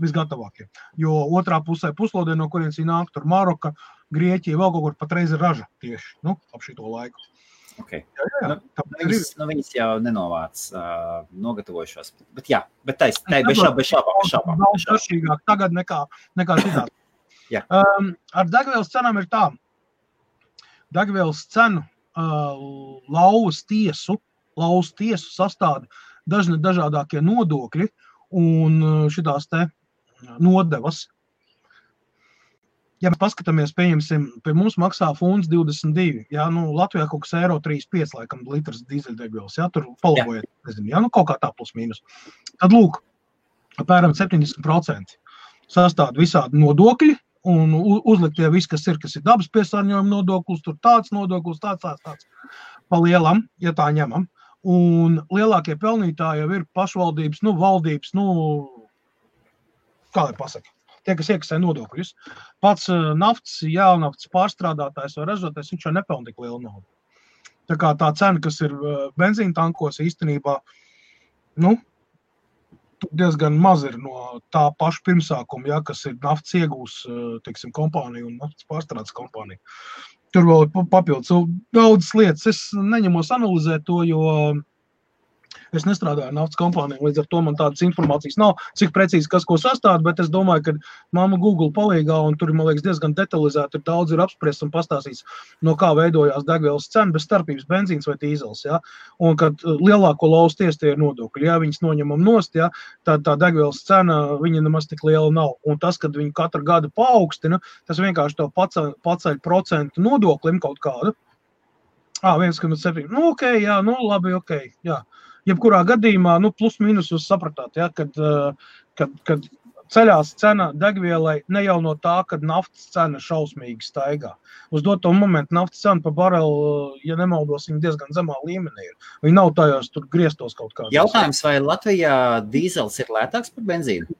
visgatavākie. Jo otrā pusē puslodē, no kurienes viņi nāk, tur Maroka, Grieķija, vēl kaut kur patreiz ir raža tieši, ap šito laiku. Okay. Viņas jau nenovāc nogatavojušos. Bet jā, bez šābām. Daudz garšīgāk tagad nekā citādi. Ar degvielas cenām ir tā. Degvielas cenu lauvas tiesu sastāda dažādākie nodokļi un šitās te nodevas. Ja mēs paskatāmies, pieņemsim, pie mums maksā funds 22, jā, Latvijā kaut kas eiro 35, laikam, litrs dīzeļdegvielas, jā, tur palabojiet, nezinu, jā, kaut kā tā plus mīnus. Tad, lūk, apmēram 70% sastāda visādi nodokļi un uzliktie viss, kas ir dabas piesārņojuma nodoklis, tur tāds nodoklis, tāds. Pa lielam, ja tā ņemam. Un lielākie pelnītāji jau ir pašvaldības, valdības, kā lai pasaka, tie, kas iekasē nodokļus. Pats naftas, jēlnaftas pārstrādātājs vai ražotājs, viņš jau nepelna tik lielu naudu. Tā kā tā cena, kas ir benzīna tankos, īstenībā, diezgan maz ir no tā paša pirmsākuma, kas ir naftas iegūs, teiksim, kompānija un naftas pārstrādes kompānija. Tur vēl ir papildus daudzas lietas. Es neņemos analizēt to, jo es nestrādāju naftas kompānijā, līdz ar to man tādas informācijas nav, cik precīzi kas ko sastāda, bet es domāju, ka mamma Google palīgā, un tur, man liekas, diezgan detalizēti ir daudz ir apspriests un pastāstīts, no kā veidojās degvielas cena, bez starpības benzīns vai dīzels, jā. Un kad lielāko lauvas tiesu tie ir nodokļi, jā, viņas noņemam nost, jā, tā degvielas cena, viņa nemaz tik liela nav. Un tas, kad viņi katru gadu paaugstina, tas vienkārši to paceļ procentu nodoklim kaut kādu. 1,7. Ok, jā, labi, ok, jā. Jebkurā gadījumā, plus mīnus jūs sapratāt, ja, kad ceļās cena degvielai ne jau no tā, kad naftas cena šausmīgi staigā. Uz doto momentu naftas cena pa barelu, ja nemaldos, viņa diezgan zemā līmenī ir. Viņa nav tajos tur griestos kaut kādā. Jautājums, vai Latvijā dīzels ir lētāks par benzīnu?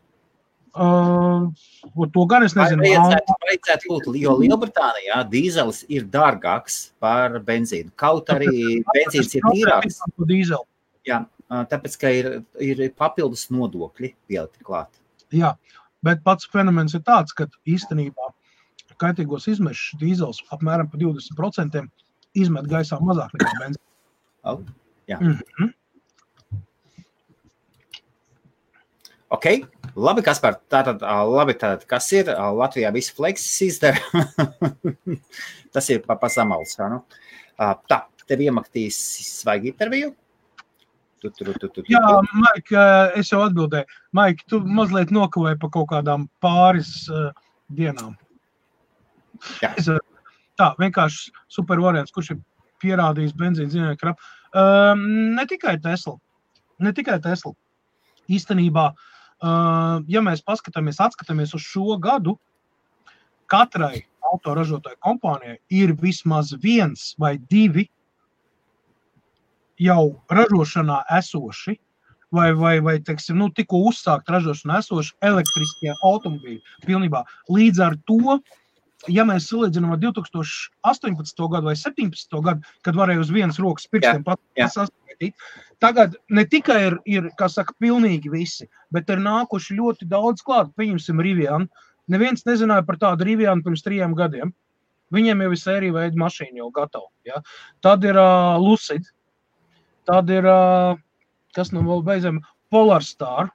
To gan es nezinu. Vajadzētu būt, jo Lielbritānijā dīzelis ir dārgāks par benzīnu. Kaut arī benzīns ir tīrāks. Jā, tāpēc, ka ir papildus nodokļi pielikti klāt. Jā, bet pats fenomens ir tāds, ka īstenībā kaitīgos izmešus dīzels apmēram pa 20% izmet gaisā mazāk nekā benzīns. Jā. Ok, labi, Kaspar, tātad, kas ir? Latvijā visi fleksis izdara. Tas ir pa samalus. Nu? Tā, tev iemakstīs svaigi interviju? Jā, Maika, es jau atbildēju. Maika, tu mazliet nokavēji pa kaut kādām pāris dienām. Jā. Tā, vienkārši super variants, kurš ir pierādījis benzīnu zinājumi krapu. Ne tikai Tesla. Īstenībā, ja mēs atskatāmies uz šo gadu, katrai autoražotāju kompānijai ir vismaz 1 vai 2 jau ražošanā esoši, vai teiksim, tikko uzsākt ražošanā esoši elektriskie automobīļi pilnībā. Līdz ar to, ja mēs salīdzinām ar 2018. gadu vai 17. gadu, kad varēja uz vienas rokas pirkstiem saskaitīt, tagad ne tikai ir, kā saka, pilnīgi visi, bet ir nākuši ļoti daudz klāt. Pieņemsim Rivian. Neviens nezināja par tādu Rivian pirms 3 gadiem. Viņiem jau ir sērija veida mašīna jau gatava. Ja? Tad ir Lucid. Tad ir, kas nu vēl beidzam, Polarstar,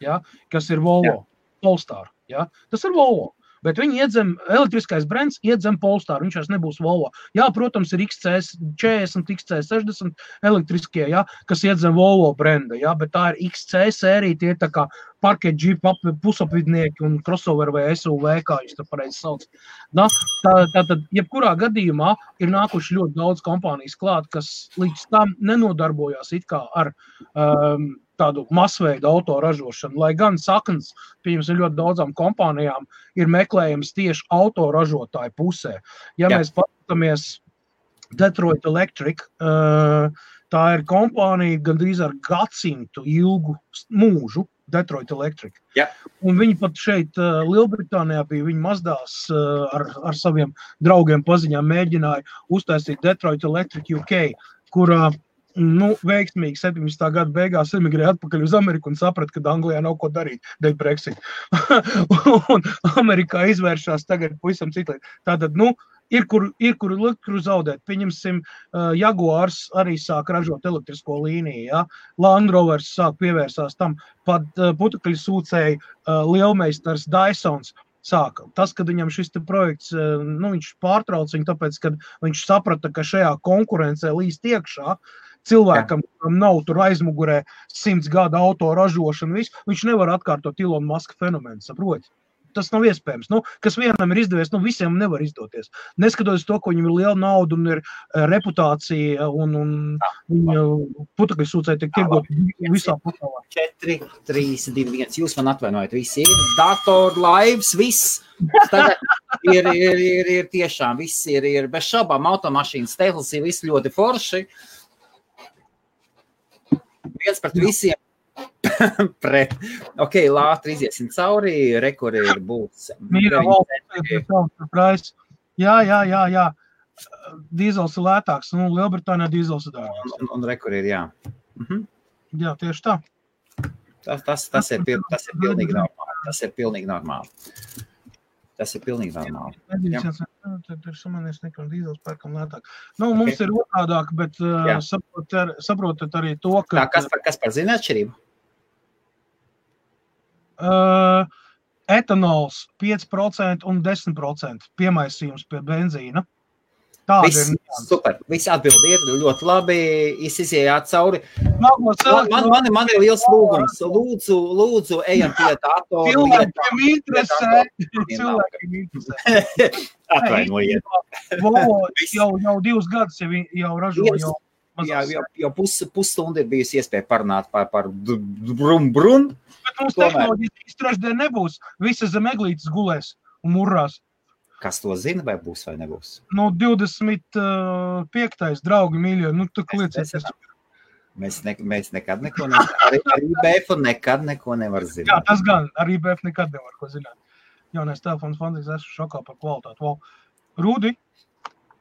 ja? Kas ir Volvo. Polestar. Ja? Tas ir Volvo. Bet viņi iedzem, elektriskais brands iedzem Polestar, viņš vairs nebūs Volvo. Jā, protams, ir XC40, XC60 elektriskie, ja, kas iedzem Volvo branda, ja, bet tā ir XC sērija, tie tā kā parket džip pusapvidnieki un crossover vai SUV, kā jūs tā pareizi sauc. Tātad, jebkurā gadījumā ir nākuši ļoti daudz kompānijas klāt, kas līdz tam nenodarbojās it kā ar tādu masveidu autoražošanu, lai gan saknes, pieņemsim, ļoti daudzām kompānijām ir meklējums tieši autoražotāju pusē. Ja mēs paskatāmies Detroit Electric, tā ir kompānija gandrīz ar gadsimtu ilgu mūžu, Detroit Electric. Un viņi pat šeit Lielbritānijā bija, viņi mazdās ar saviem draugiem paziņām mēģināja uztaisīt Detroit Electric UK, kurā veiksmīgi 17. gada beigās emigrēja atpakaļ uz Ameriku un saprata, ka Anglijā nav ko darīt dēļ Brexit. Un Amerikā izvēršās tagad pavisam citlīt. Tātad, ir kur zaudēt. Pieņemsim, Jaguars arī sāk ražot elektrisko līniju, ja? Land Rovers sāk pievērsās tam, pat putekļu sūcēji lielmeistars Dysons sāka. Tas, kad viņam šis projekts, viņš pārtrauc viņu, tāpēc, kad viņš saprata, ka šajā konkurencē līst iekšā, cilvēkam, kuram nav tur aizmugurē 100 gadu auto ražošana, viņš nevar atkārtot Elon Musk fenomenu, saproti? Tas nav iespējams. Kas vienam ir izdevies, visiem nevar izdoties. Neskatoties to, ka viņam ir liela nauda un ir reputācija un viņa putekļu sūcēji tiek tirgot visā pasaulē. 4, 3, 2, 1. Jūs man atvainojat, visi ir dator, lives, viss. Tagad ir tiešām, viss ir bez šaubām, automašīnas, Teslas ir viss ļoti forši. Viens pret visiem. Pret. Ok, lātri iziesim cauri, rekuri ir būs. Mīra valsts, jā. Dīzels ir lētāks, Lielbritānijā dīzels ir dārgāks. Un rekuri ir, jā. Jā, tieši tā. Tas ir pilnīgi normāli. Tas ir pilnīgi normāli. Tur samanīs nekam dīzels pērkam lētāk. Mums ir otrādāk, bet saprotat arī to, ka... Kas par zina atšķirību? Etanols 5% un 10% piemaisījums pie benzīna. Tāda ir. Super, viss atbildi ir ļoti labi, izējāt cauri. Man ir liels lūgums. Lūdzu, ejam pie datoru. Cilvēkiem interesē. Atvainojiet. Volvo jau 2 gadus jau ražo. Jau pusstundu ir bijusi iespēja parunāt par brum. Bet mums tehnoloģijas trešdien nebūs. Visas zem eglītes gulēs un murrās. Kas to zina, vai būs vai nebūs? 25. draugi mīļo, tu klieciet. Mēs nekad neko nevar. Arī IBF nekad neko nevar zināt. Jā, tas gan. Ar IBF nekad nevar ko zināt. Jaunais telefons fantastisks, esmu šokā par kvalitāti. Wow. Rudi,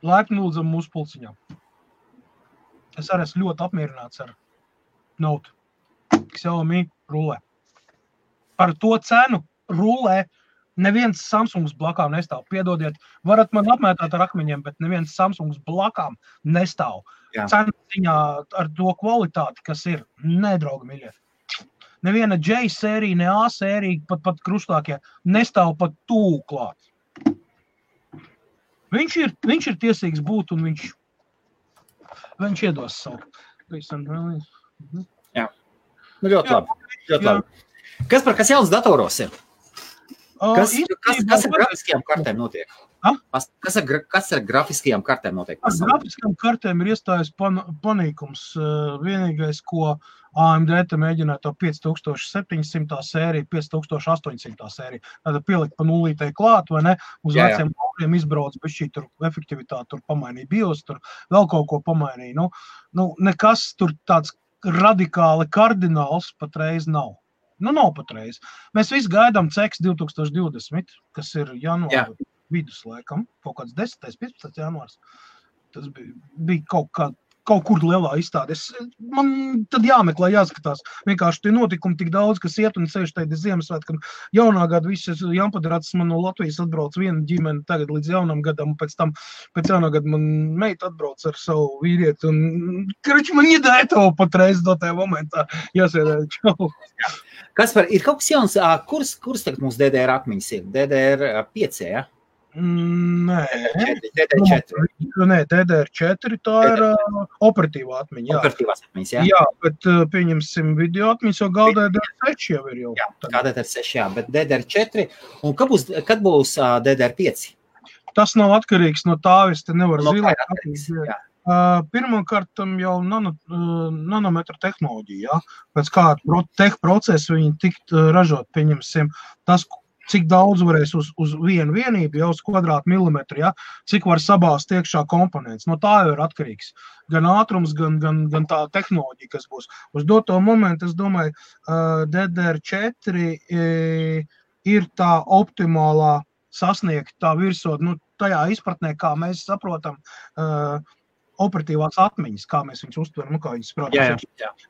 laipni lūdzam mūsu pulciņā. Es arī esmu ļoti apmierināts ar Note. Xiaomi rulē. Par to cenu rulē neviens Samsungs blakām nestāv. Piedodiet, varat man apmētāt ar akmeņiem, bet neviens Samsungs blakām nestāv. Cenu ziņā ar to kvalitāti, kas ir nedraugi miļie. Neviena J sērija, ne A sērija, pat krustākie, nestāv pat tūl klāt. Viņš ir tiesīgs būt un viņš iedos savu. Jā. Nu, ļoti labi. Kas jauns datoros ir? Kas ar grafiskajām kartēm notiek? Kas ar grafiskajām kartēm notiek? Ar grafiskajām kartēm ir iestājas panīkums. Vienīgais, ko AMD te mēģināja to 5700 sēriju, 5800 sēriju. Tātad pielikt pa nulītei klāt, vai ne? Uz veciem kokiem izbrauc, bet šī tur efektivitāte tur pamainīja BIOS, tur vēl kaut ko pamainīja. Nu, nekas tur tāds radikāli kardināls patreiz nav. Nu, nav patreiz. Mēs visi gaidām CEX 2020, kas ir janvāra vidus laikam, kaut kāds 10. 15. janvārs. Tas bija kaut kur lielā izstāde. Man tad jāmeklē, jāskatās. Vienkārši tie notikumi tik daudz, kas iet un sevišķi tajā Ziemassvētkam. Jaunā gada viss Jaunpadrats man no Latvijas atbrauc viena ģimene tagad līdz jaunam gadam, pēc jaunā gada man meita atbrauc ar savu vīrieti. Man iedēja to patreiz do tajā momentā. Jāsēdē, čau. Kaspar, ir kaut kas jauns, kurs tagad mūsu DDR akmiņas ir? DDR5, ja? Nē. DDR4. Nē, DDR4 tā ir operatīvā atmiņa. Jā. Operatīvās atmiņas, jā? Jā, bet pieņemsim video atmiņas, jo gal DDR6 jau ir jau. Jā, kā DDR6, jā, bet DDR4. Un kad būs DDR5? Tas nav atkarīgs no tā, es te nevaru zilēt. Pirmkārt, jau nanometra tehnoloģija, ja? Pēc kāda procesu viņi tikt ražot, pieņemsim, tas, cik daudz varēs uz vienu vienību, jau uz kvadrātmilimetru, ja? Cik var sabāzt iekšā komponents. No tā jau ir atkarīgs. Gan ātrums, gan tā tehnoloģija, kas būs. Uz doto momentu, es domāju, DDR4 ir tā optimālā sasniegt tā virsot, tajā izpratnē, kā mēs saprotam, operatīvās atmiņas, kā mēs viņus uztveram, kā viņus sprādām.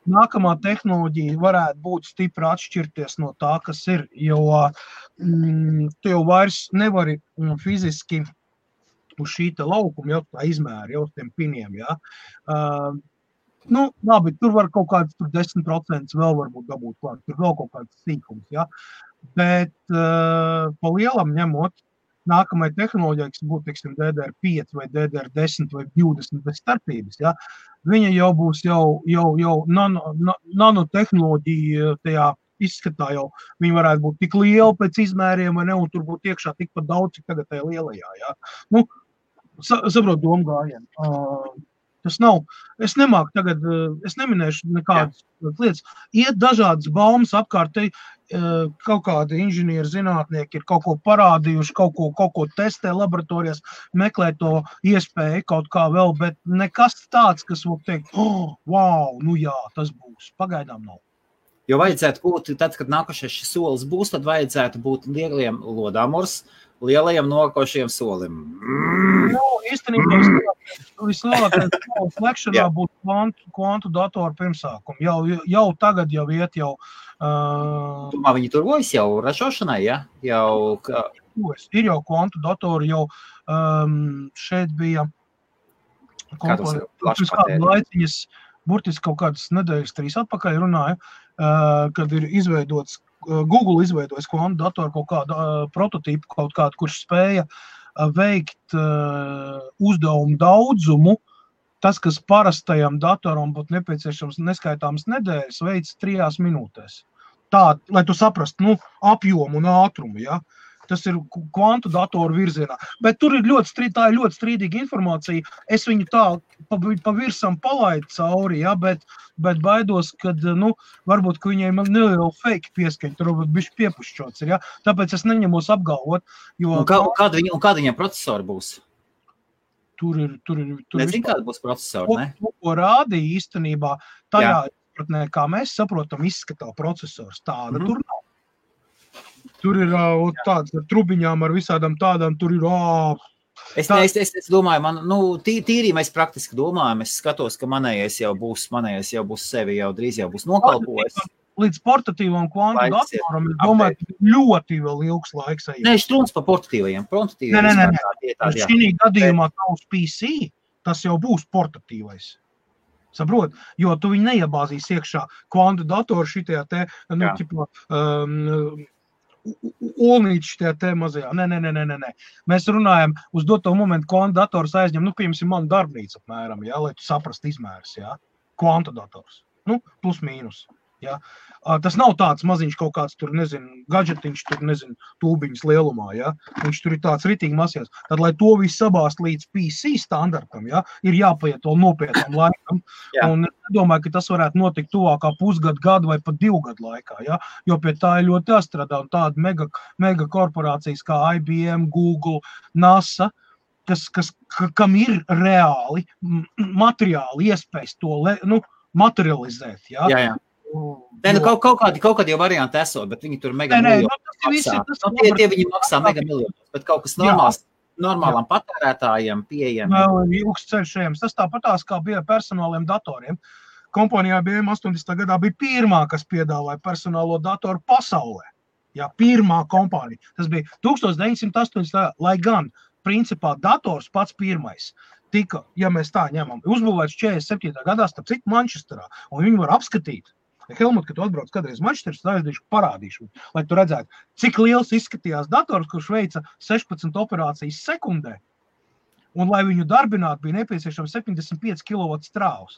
Nākamā tehnoloģija varētu būt stipri atšķirties no tā, kas ir, jo tu jau vairs nevari fiziski uz šī te laukuma, jau tā izmēra, jau uz tiem piniem, ja. Labi, tur var kaut kāds 10% vēl varbūt dabūt klāt, tur vēl kaut kāds sīkums, ja. Bet pa lielam ņemot, nākamai tehnoloģijai, kas būtu, teiksim, DDR5 vai DDR10 vai 20 bez starpības, ja, viņa jau būs jau nanotehnoloģija tajā izskatā jau, viņa varētu būt tik liela pēc izmēriem, vai ne, un tur būtu iekšā tikpat daudz, cik tagad tajā lielajā, ja. Saprot domu gājienu. Tas nav, es nemāku tagad, es neminēšu nekādas lietas. Iet dažādas baumas apkārt, kaut kādi inženieri, zinātnieki ir kaut ko parādījuši, kaut ko testē laboratorijās, meklē to iespēju kaut kā vēl, bet nekas tāds, kas var teikt, wow, jā, tas būs, pagaidām nav. Jo vajadzētu būt, tad, kad nākošais šis solis būs, tad vajadzētu būt lieliem lodāmurs, lielajam nokošiem solim. Īstenībā vislielākais slēgšanā būtu kvantu datoru pirmsākumu. Jau tagad jau iet jau... Domā, viņi turvojas jau ražošanai, ja? Ir jau kvantu datoru, jau šeit bija laiciņas, burtiski kaut kādas nedēļas 3 atpakaļ runāju, kad ir izveidots Google izveidojas kvantu datoru kaut kādu prototīpu, kaut kādu, kurš spēja veikt uzdevumu daudzumu. Tas, kas parastajam datoram būtu nepieciešams neskaitāmas nedēļas, veids 3 minūtēs. Tā, lai tu saprastu, apjomu un ātrumu, ja? Tas ir kvantu datoru virzienā. Bet tur ir tā ir ļoti strīdīga informācija. Es viņu tā pa virsam palaidu cauri, ja? Bet baidos, kad, varbūt, ka viņiem neliela fake pieskaņa, tur varbūt bišķi piepušķots ir, ja? Tāpēc es neņemos apgalvot, jo... Un kāda viņam procesori būs? tur ir Nezinu, kāda būs procesori, ne? Ko rādīja īstenībā tajā izpratnē, kā mēs saprotam, izskatā procesors. Tāda tur nav. Tur ir tāds ar trubiņām, ar visādām tādām, tur ir Es domāju, tīri mēs praktiski domājam, es skatos, ka manējais jau būs sevi, jau drīz jau būs nokalpojis. Līdz portatīvam kvantu datoram, es domāju, ka ļoti vēl ilgs laiks ejam. Nē, štrūns pa portatīvajiem. Nē. Šī gadījumā tavs PC, tas jau būs portatīvais. Saprot? Jo tu viņu neiebāzīs iekšā kvantu datoru šitajā te, olnīči tajā te mazajā. Nē. Mēs runājam, uz doto momentu kvantu dators aizņem, piemēram, manu darbnīcu apmēram, lai tu saprast izmērs, kvantu dators. Plus mīnus. Ja? Tas nav tāds maziņš kaut kāds tur, gadžetiņš, tur, tūbiņas lielumā, ja? Viņš tur ir tāds ritīgi masījās. Tad, lai to visu sabāst līdz PC standartam, ja? Ir jāpaiet vēl nopietnam laikam. Un es domāju, ka tas varētu notikt tuvākā gadu vai pat 2 gadu laikā, ja? Jo pie tā ir ļoti jāstrādā. Un tāda mega korporācijas kā IBM, Google, NASA, kam ir reāli materiāli iespējas to materializēt, ja? Jā. Kaut kādi jau varianti esot, bet viņi tur mega miljonus maksā. Tie viņi maksā mega miljonus, bet kaut kas normālam patērētājiem pieejam. Vēl ilgs ceļš ejams. Tas tāpatās, kā bija personāliem datoriem. Kompanijā IBM 80. gadā bija pirmā, kas piedāvāja personālo datoru pasaulē. Jā, pirmā kompānija. Tas bija 1980. Lai gan, principā, dators pats pirmais tika, ja mēs tā ņemam, uzbūvēts 47. gadā, starp citu Manchesterā, un viņi var apskatīt. Helmut, kad tu atbrauc kādreiz Manchesteras, parādīšu, lai tu redzētu, cik liels izskatījās dators, kurš veica 16 operācijas sekundē, un lai viņu darbinātu, bija nepieciešams 75 kW strāvs.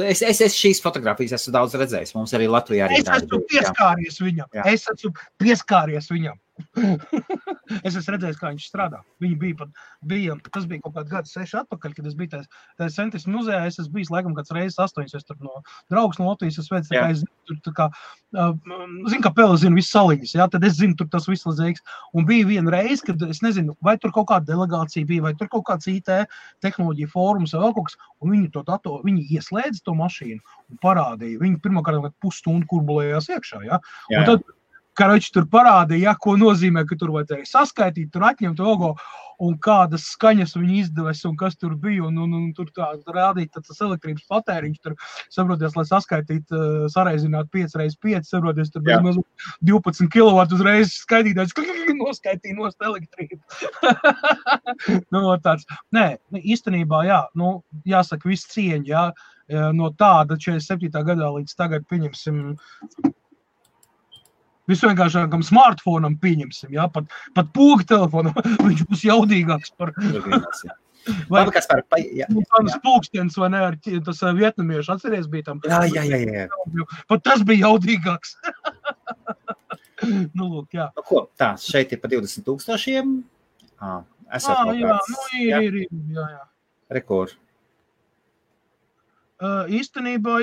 Es šīs fotogrāfijas esmu daudz redzējis, mums arī Latvijā arī Es esmu pieskāries viņam. Es esmu redzējis, kā viņš strādā. Viņi tas bija kaut kāds gads 6 atpakaļ, kad es biju tajā Centis muzejā, es esmu bijis laikam kāds reizes 8, es tur no draugs no Latvijas, es veicu, es zinu, kā Pele zinu visu saliņas, tad es zinu tur tas viss lazēks. Un bija viena reize, kad es nezinu, vai tur kaut kāda delegācija bija, vai tur kaut kāds IT tehnoloģija fórums vai vēl kaut kas, un viņi ieslēdza to mašīnu un parādīja. Viņi pirmkārt pusstundu kurbulējās iekšā, Un tad Karoči tur parādīja, ko nozīmē, ka tur vajadzēja saskaitīt, tur atņemt logo un kādas skaņas viņi izdevēs un kas tur bija. Un tur tā rādīt tas elektrības patēriņš, tur saproties, lai saskaitītu, sareizināt 5x5, saproties, tur bija 12 kW uzreiz skaitītājs, noskaitīja nost elektrību. Tāds. Nē, īstenībā, jāsaka viss cieņa, no tāda 47. gadā līdz tagad pieņemsim visvienkāršākam smartfonam pieņemsim, pat poga telefonam, viņš būs jaudīgāks par... Vai tas pulkstens, vai ne, ar tas vietnamiešu atceries bija tam? Jā. Pat tas bija jaudīgāks. Lūk, jā. Ko, šeit ir pa 20,000? Jā. Rekord. Īstenībā,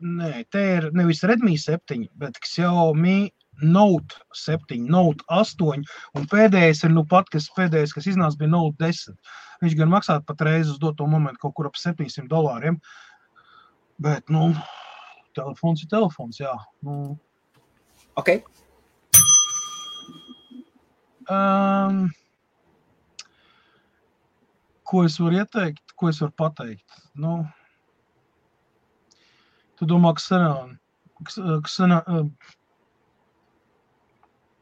nē, te ir nevis Redmi 7, bet Xiaomi Note 7, Note 8, un pēdējais ir pēdējais, kas iznāca, bija Note 10. Viņš gan maksātu pat reizi uz doto momentu kaut kur ap $700, bet, telefons ir telefons, jā. Ok. Ko es varu ieteikt, ko es varu pateikt? Tu domā,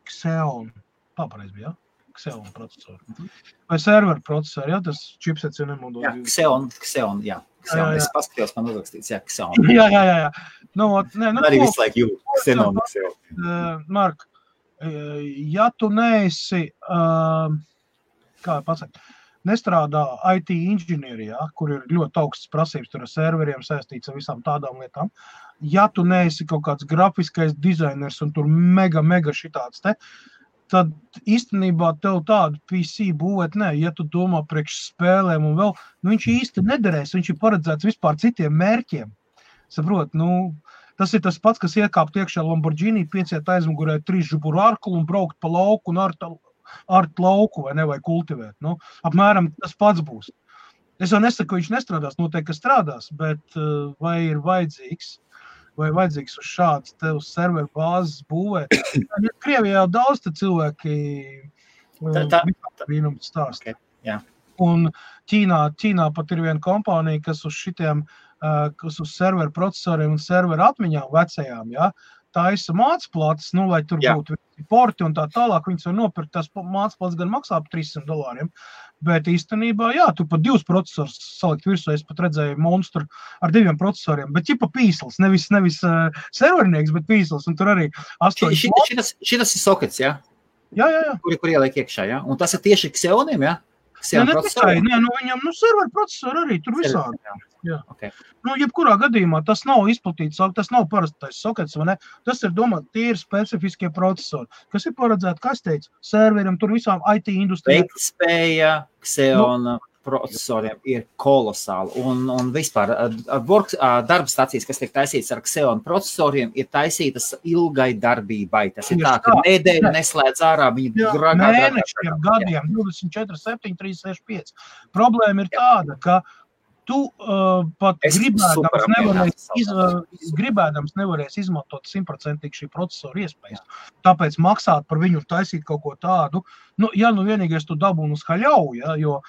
Xeon, pareiz bija, Xeon procesori. Vai server procesori, tas chipsets jau nemodo. Jā, Xeon, jā. Es paskatījos, man uzrakstīts, Xeon. Jā. Arī visu laiku jūt, Xeon. Mark, ja tu neesi, kā pasaka, nestrādā IT inženierijā, kur ir ļoti augsts prasības, tur ar serveriem saistīts ar visām tādām lietām. Ja tu neesi kaut kāds grafiskais dizainers un tur mega šitāds tad īstenībā tev tādu PC būvēt, ja tu domā priekš spēlēm un vēl, viņš īsti nederēs, viņš ir paredzēts vispār citiem mērķiem. Saprot, tas ir tas pats, kas iekāpt iekšā Lamborghini, pieciet aizmugurē 3 žuburu arklu un braukt pa lauku un ar art lauku vai ne, vai kultivēt. Nu, apmēram tas pats būs. Es jau nesaku, ka viņš nestrādās, noteikti, ka strādās, bet vai ir vajadzīgs uz šādas te uz serveru bāzes būvēt. Krievijā jau daudz te cilvēki brīnumu stāsta. Okay, jā. Un Ķīnā pat ir viena kompānija, kas uz šitiem, kas uz serveru procesoriem un serveru atmiņām vecajām, ja, taisa mācplates, nu, lai tur būtu porti un tā tālāk, viņas var nopirkt, tās mācplates gan maksā par $300, bet īstenībā, jā, tu pat 2 procesors salikt virsū, es pat redzēju monstru ar 2 procesoriem, bet ķipa pīsls, nevis servernieks, bet pīsls, un tur arī 8. Šitas ir sokets, jā? Jā. Kur ieliek iekšā, jā? Un tas ir tieši Xeoniem, jā? Ne tikai, viņam, serveru procesori arī tur visādi. Jā. Okay. Jebkurā gadījumā tas nav izplatīts, tas nav parastais sokets, vai ne? Tas ir domāt, tie ir specifiskie procesori, kas ir paredzēti, kā es teicu, serveriem, tur visām IT industrijām. Veiktspēja Xeona procesoriem ir kolosāli, un vispār darba stacijas, kas tiek taisītas ar Xeona procesoriem, ir taisītas ilgai darbībai. Tas ir tā, ka nedēļa neslēdz ārā, viņi mēnešiem, gadiem, 24, 7, 3, 6, 5. Problēma ir tāda, ka tu pat gribēdams nevarēs izmantot 100% šī procesora iespējas. Tāpēc maksāt par viņu taisīt kaut ko tādu, vienīgais tu dabūni uz haļauju, ja, jo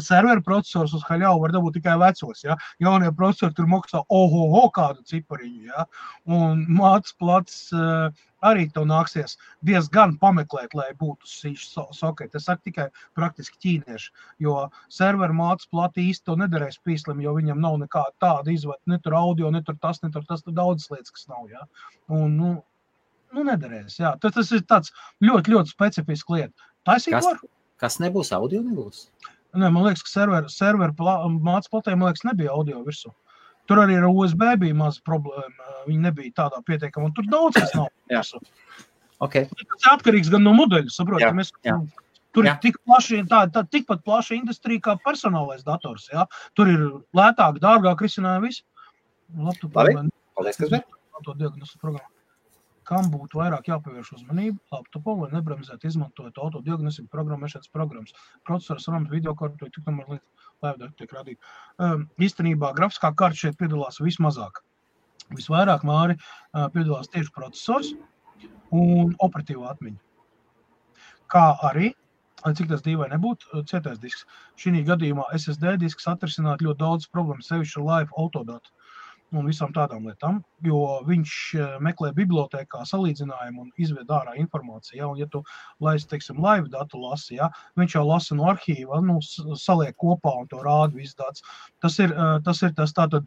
serveru procesors uz haļauju var dabūt tikai vecos, ja. Jaunie procesori tur maksā kādu cipariņu, ja. Un mācplats arī tev nāksies diezgan pameklēt, lai būtu šīs soketi. Es saku tikai praktiski ķīnieši, jo serveru mācplati īsti to nederēs pīslim, jo viņam nav nekāda tāda izvada, ne tur audio, ne tur tas, tur daudzas lietas, kas nav, ja. Un, nederēs, jā. Tas ir tāds ļoti, ļoti specifiski lieta. Taisīt var? Kas nebūs, audio nebūs? Nē, man liekas, ka serveru mācplatē, man liekas, nebija audio virsū. Tur arī ar USB bija maza problēma, viņi nebija tādā pietiekama, un tur daudz kas nav virsū. Okay. Tas atkarīgs gan no modeļa, saprot, tur ir tikpat plaša industrija kā personālais dators, jā. Tur ir lētāk, dārgāk risinājumi visi. Labi, paldies, kas bija? Kam būtu vairāk jāpievērš uzmanību laptopam, lai nebremzētu izmantojot autodiagnostiku programmēšanas programmas. Procesors, RAM, videokartu, tik tomēr lieta tiek radīta. Īstenībā grafiskā karta šeit piedalās vismazāk. Visvairāk, Māri, piedalās tieši procesors un operatīvā atmiņa. Kā arī, cik tas dīvai nebūtu, cietais disks. Šī gadījumā SSD disks atrisināt ļoti daudz problēmas, sevišķi live autodatu un visām tādām lietām, jo viņš meklē bibliotēkā salīdzinājumu un izved ārā informāciju, ja, un ja tu laisi, teiksim, live datu lasi, ja, viņš jau lasa no arhīva, saliek kopā un to rāda viss dats. Tas ir tas tātad,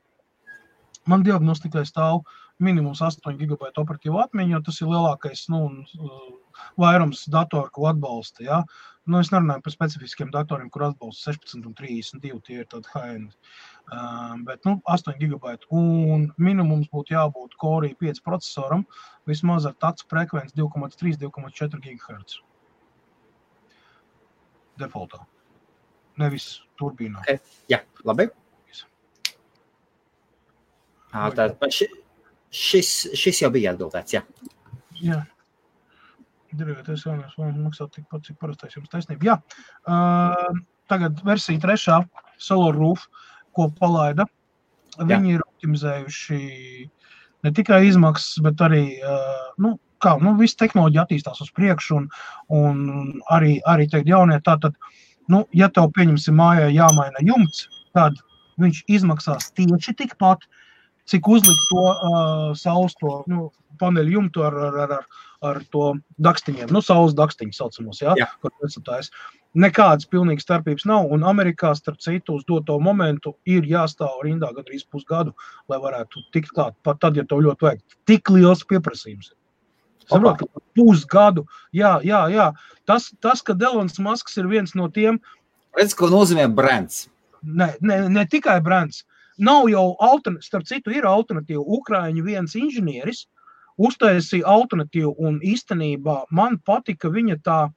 man diagnostikai stāv minimums 8 GB operatīva atmiņa, jo tas ir lielākais, vairums datoru, ko atbalsta, ja. Es nerunāju par specifiskiem datoriem, kur atbalsta 16 un 32, tie ir tādi high-end. Bet 8 GB un minimums būtu jābūt Core i5 procesoram, vismaz ar takts frekvenci 2,3–2,4 GHz. Defaultā. Nevis turbīnā. Okay. Jā, labi. Šis jau bija atbildēts, jā. Jā. Dirigēties jaunās maksāt tikpat, cik parastais jums taisnība. Jā, tagad versija 3. Solar Roof, ko palaida. Viņi ir optimizējuši ne tikai izmaksas, bet arī, viss tehnoloģija attīstās uz priekšu un arī teikt jaunie. Tātad, ja tev pieņemsim mājā jāmaina jumts, tad viņš izmaksās tieši tikpat, cik uzlikt to saules paneļu jumtu ar to dakstiņiem, saules dakstiņu saucamos, kur nesatājs. Nekādas pilnīgas starpības nav, un Amerikā, starp citu, uz doto momentu ir jāstāv rindā gandrīz pusgadu, lai varētu tikt klāt, pat tad, ja tev ļoti vajag. Tik liels pieprasījums. Saprot, ka pusgadu, jā. Tas, ka Elons Musks ir viens no tiem... Redz, ko nozīmē brands. Ne tikai brands. Nav jau starp citu, ir alternatīva. Ukraiņu viens inženieris uztaisīja alternatīvu, un īstenībā man patika viņa tā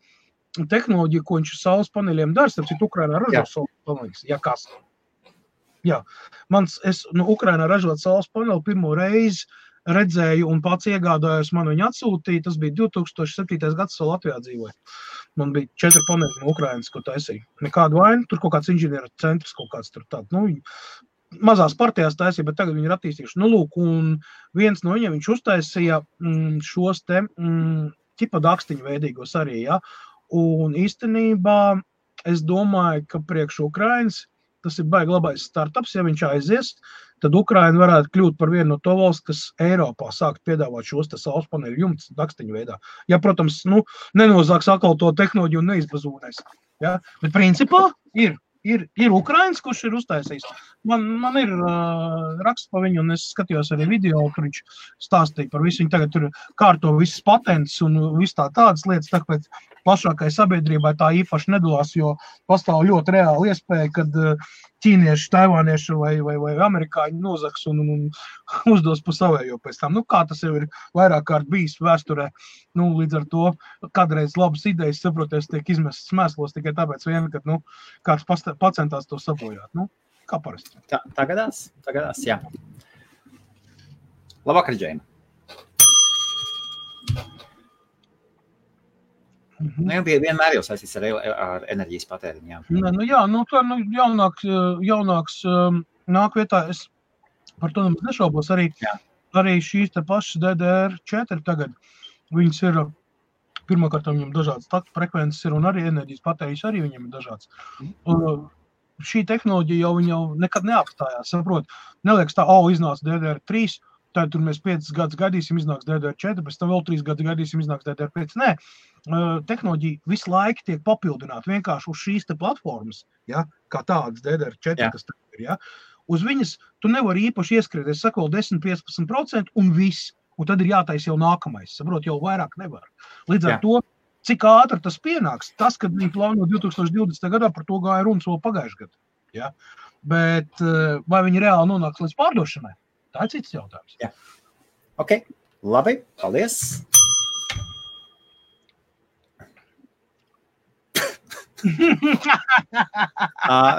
tehnoloģija, ko viņš saules paneļiem dara, starp citu, Ukrainā ražot saules paneļus. Jā, kas? Jā. Ukrainā ražot saules paneļu pirmo reizi redzēju un pats iegādājos, man viņu atsūtīja, tas bija 2007. gads, vēl Latvijā dzīvoja. man bija 4 paneļi no Ukrainas, ko taisīja. Nekādu vainu, tur kaut kāds inženieru centrs, kaut kāds tur tāds, mazās partijās taisīja, bet tagad viņi ir attīstījuši. Lūk, un viens no viņiem, viņš uztaisīja šos te ķipa dakstiņu veidīgos arī, ja. Un īstenībā es domāju, ka priekš Ukrainas tas ir baigi labais startups, ja viņš aizies, tad Ukraina varētu kļūt par vienu no to valsts, kas Eiropā sākt piedāvāt šos te saules paneļu jumts dakstiņu veidā. Ja, protams, nenozāks atkal to tehnoloģiju un neizbazūnēs. Ja? Bet principā ir Ukrainas, kurš ir uztaisījis. Man ir raksts pa viņu, un es skatījos arī video, kur viņš stāstīja par visu. Viņi tagad tur kārto visas patents un viss tādas lietas, tāpēc plašākai sabiedrībai tā īpaši nedalās, jo pastāv ļoti reāli iespēja, kad ķīnieši, taivānieši vai amerikāņi nozaks un uzdos pa savējo pēc tam. Kā tas jau ir vairāk kārt bijis vēsturē, līdz ar to kādreiz labas idejas, saproties, tiek izmestas mēslos tikai tāpēc vien, kad, kāds pacentās to sabojāt. Kā parasti. Tā gadās, jā. Labvakar, Džeina. Vienmēr jau saistīts ar enerģijas patēriņu, jā. Jaunāks nāk vietā, es par to nemaz nešaubos, arī šīs te pašas DDR4 tagad, viņas ir, pirmkārt, viņam dažādas taktu frekvences ir, un arī enerģijas patēriņš arī viņam ir dažāds. Šī tehnoloģija jau nekad neapstājās, saprot, neliekas tā, iznāca DDR3, tad tur mēs 5 gadus gaidīsim, iznāks DDR4, pēc tam vēl 3 gadus gaidīsim, iznāks DDR5. Nē, tehnoloģija visu laiku tiek papildināta vienkārši uz šīs te platformas, ja, kā tādas DDR4, kas tagad ir, ja. Uz viņas tu nevari īpaši ieskriet, es saku vēl 10-15% un viss, un tad ir jātais jau nākamais, saprot, jau vairāk nevar. Līdz ar to, cik ātri tas pienāks, tas, kad viņi plāno 2020. gadā, par to gāja runas vēl pagājušajā gadā, ja. Bet vai viņi reāli nonāks līdz pārdošanai? Tā ir cits jautājums. Jā. Ok, labi, paldies.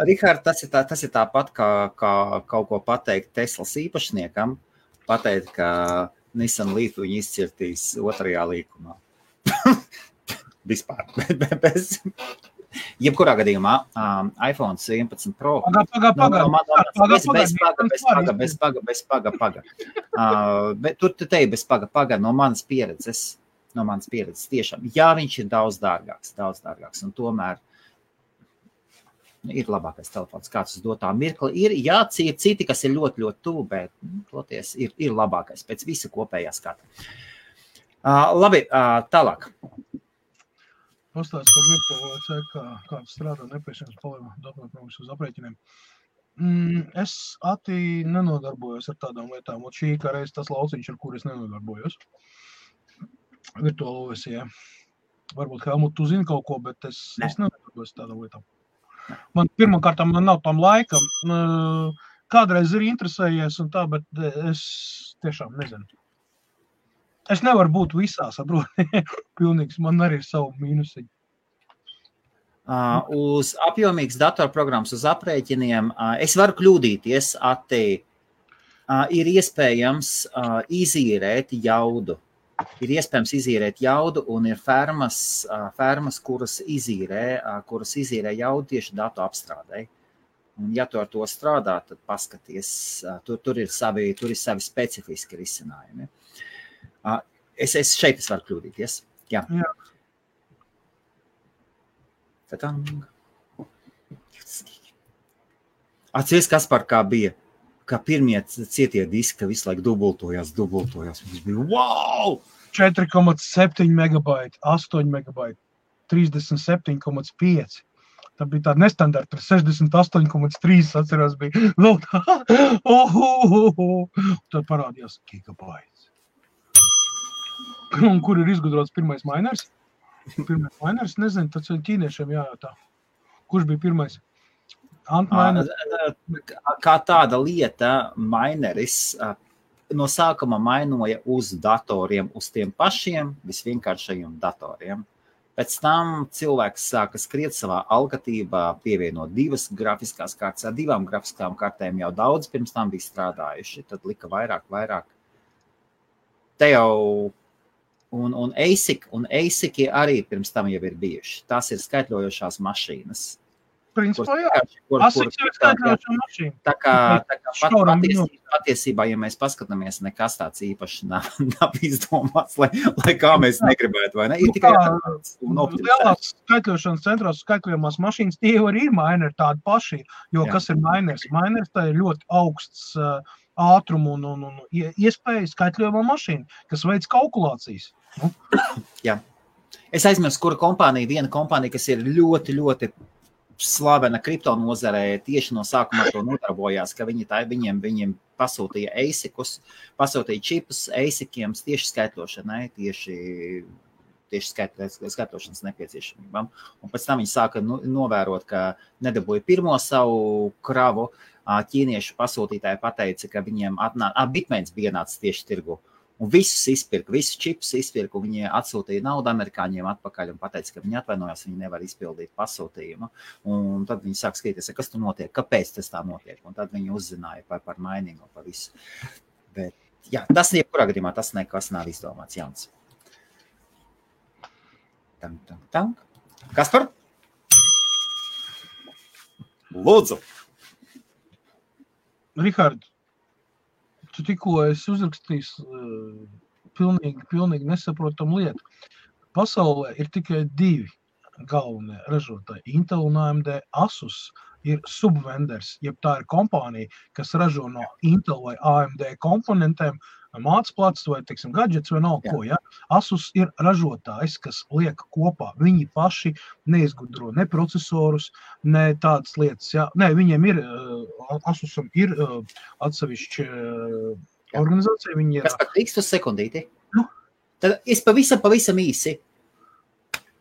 Rihard, tas ir tāpat, kā kaut ko pateikt Teslas īpašniekam, pateikt, ka Nissan Leaf viņu izcirtīs 2. līkumā. Vispār. Jebkurā gadījumā iPhone 11 Pro. Bez paga. Bet tu teji bez paga no manas pieredzes tiešām. Jā, viņš ir daudz dārgāks, un tomēr ir labākais telefons, kāds uz dotā mirkli. Ir citi, kas ir ļoti, ļoti tuvu, bet toties ir labākais pēc visa kopējā skata. Labi, tālāk. Pastāst par virtuālo ceļu, kāds strādā nepieciešams palīdzināt uz aprēķiniem. Es nenodarbojos ar tādām lietām, un šī kā reiz tas lauciņš, ar kur es nenodarbojos. Virtuālo versijā. Varbūt Helmut, tu zini kaut ko, bet es nenodarbojos ar tādām lietām. Man pirmkārt, man nav tam laika. Kādreiz ir interesējies un tā, bet es tiešām nezinu. Es nevaru būt visā, saproti, pilnīgs, man arī ir savu mīnusiņu. Uz apjomīgas datorprogrammas, uz aprēķiniem, es varu kļūdīties, ir iespējams izīrēt jaudu. Un ir fermas, kuras izīrē jaudu tieši datu apstrādē. Un ja tu ar to strādā, tad paskaties, tur ir savi specifiski risinājumi. Es varu kļūdīties. Jā. Atceries, Kaspar, kā bija, kā pirmie cietie diski visu laiku dubultojās. Viņš bija, wow! 4,7 megabaiti, 8 megabaiti, 37,5. Tā bija tāda nestandarta, 68,3 atcerās bija. Tad parādījās gigabaits. Un kur ir izgudrots pirmais miners? Pirmais miners, nezinu, tas ķīniešiem jājautā. Kurš bija pirmais? Kā tāda lieta, mineris no sākuma mainoja uz datoriem, uz tiem pašiem visvienkāršajiem datoriem. Pēc tam cilvēks sāka skriet savā algatībā, pievienot 2 grafiskās kārtas. Ar 2 grafiskām kārtēm jau daudz pirms tam bija strādājuši, tad lika vairāk. Te jau Un ASIC arī pirms tam jau ir bijuši. Tās ir skaitļojošās mašīnas. Principā, jā. ASIC ir skaitļojošā mašīna. Tā kā patiesībā, ja mēs paskatāmies, nekas tāds īpaši nav izdomāts, lai kā mēs negribētu, vai ne? Ir tikai lielās skaitļošanas centros skaitļojamās mašīnas, tie jau arī ir mineri tādi paši, jo kas ir miners? Miners tā ir ļoti augsts ātrumu un iespēja skaitļojamā mašīna, kas veids kalkulācijas. Jā. Es aizmirstu, kura kompānija, viena kompānija, kas ir ļoti, ļoti slavena kripto nozarē, tieši no sākuma to nodarbojās, ka viņiem pasūtīja ASICus, pasūtīja čipus ASICiem tieši skaitļošanai, tieši skaitļošanas nepieciešamībām. Un pēc tam viņi sāka novērot, ka nedabūja pirmo savu kravu. Ķīniešu pasūtītāji pateica, ka viņiem Bitmains bija nācis tieši tirgu. Un visus izpirka, visus čipus izpirka, un viņi atsūtīja naudu amerikāņiem atpakaļ un pateica, ka viņi atvainojās, viņi nevar izpildīt pasūtījumu. Un tad viņi sāk skatīties, kas tur notiek, kāpēc tas tā notiek. Un tad viņi uzzināja par miningu, par visu. Bet, jā, tas jebkurā gadījumā, tas nekas nav izdomāts jauns. Kaspar? Lūdzu! Rihard, tu tikko esi uzrakstījis pilnīgi nesaprotam lietu. Pasaulē ir tikai 2 galvenie ražotāji. Intel un AMD. Asus ir subvenders, jeb tā ir kompānija, kas ražo no Intel vai AMD komponentiem mācplats vai, teiksim, gadgets vai nav ko, ja? Asus ir ražotājs, kas liek kopā. Viņi paši neizgudro ne procesorus, ne tādas lietas, ja? Nē, viņiem ir, Asusam ir atsevišķi organizācija. Viņi ir... Kas pat līkst uz sekundīti? Tad es pavisam īsi.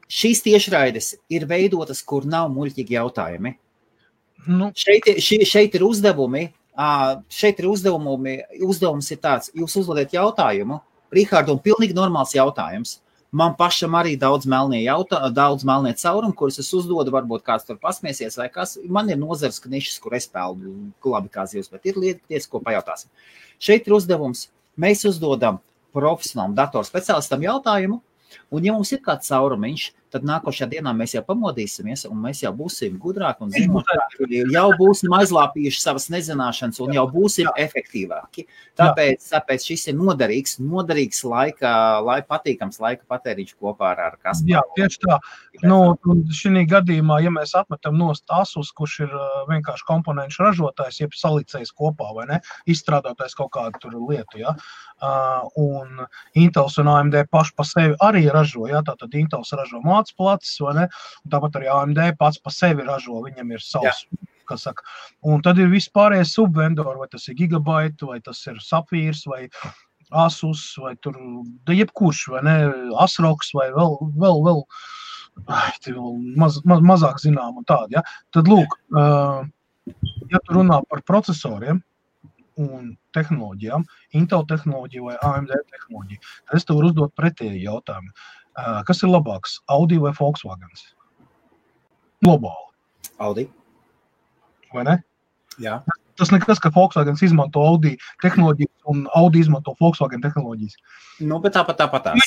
Šīs tiešraides ir veidotas, kur nav muļķīgi jautājumi. Šeit ir uzdevumi. Šeit ir uzdevums ir tāds, jūs uzdodat jautājumu, Rihardu, un pilnīgi normāls jautājums. Man pašam arī daudz melnie caurumi, kurus es uzdodu, varbūt kāds tur pasmiesies vai kas. Man ir nozars knišas, kur es peldu labi kā zivs, bet ir lietas, ko pajautāsim. Šeit ir uzdevums, mēs uzdodam profesionālam datorspeciālistam jautājumu, un ja mums ir kāds caurumiņš, tad nākošajā dienā mēs jau pamodīsimies, un mēs jau būsim gudrāki un zinošāki, jau būsim aizlāpījuši savas nezināšanas un jau būsim efektīvāki. Tāpēc šis ir noderīgs patīkams laika patēriņš kopā ar Kasparu. Jā, tieši tā. Un šī gadījumā, ja mēs atmetam nost Asus, kurš ir vienkārši komponenšu ražotājs, jeb salicējs kopā, vai ne, izstrādātais kaut kādu tur lietu, ja, un Intels un AMD paši pa sevi arī ražo, ja, tātad Intels ražo mācplacis, vai ne, un tāpat arī AMD pats pa sevi ražo, viņam ir savs, kas saka. Un tad ir vispārējie subvendori, vai tas ir Gigabyte, vai tas ir Sapphīrs, vai Asus, vai tur, jebkurš, vai ne, Asroks, vai vēl mazāk zinām un tādi, ja. Tad lūk, ja tu runā par procesoriem un tehnoloģijām, Intel tehnoloģiju vai AMD tehnoloģiju, tad es tev varu uzdot pretēju jautājumu. Kas ir labāks, Audi vai Volkswagens? Globāli. Audi. Vai ne? Jā. Tas nekas, ka Volkswagens izmanto Audi tehnoloģijas un Audi izmanto Volkswagen tehnoloģijas. Bet tāpatās.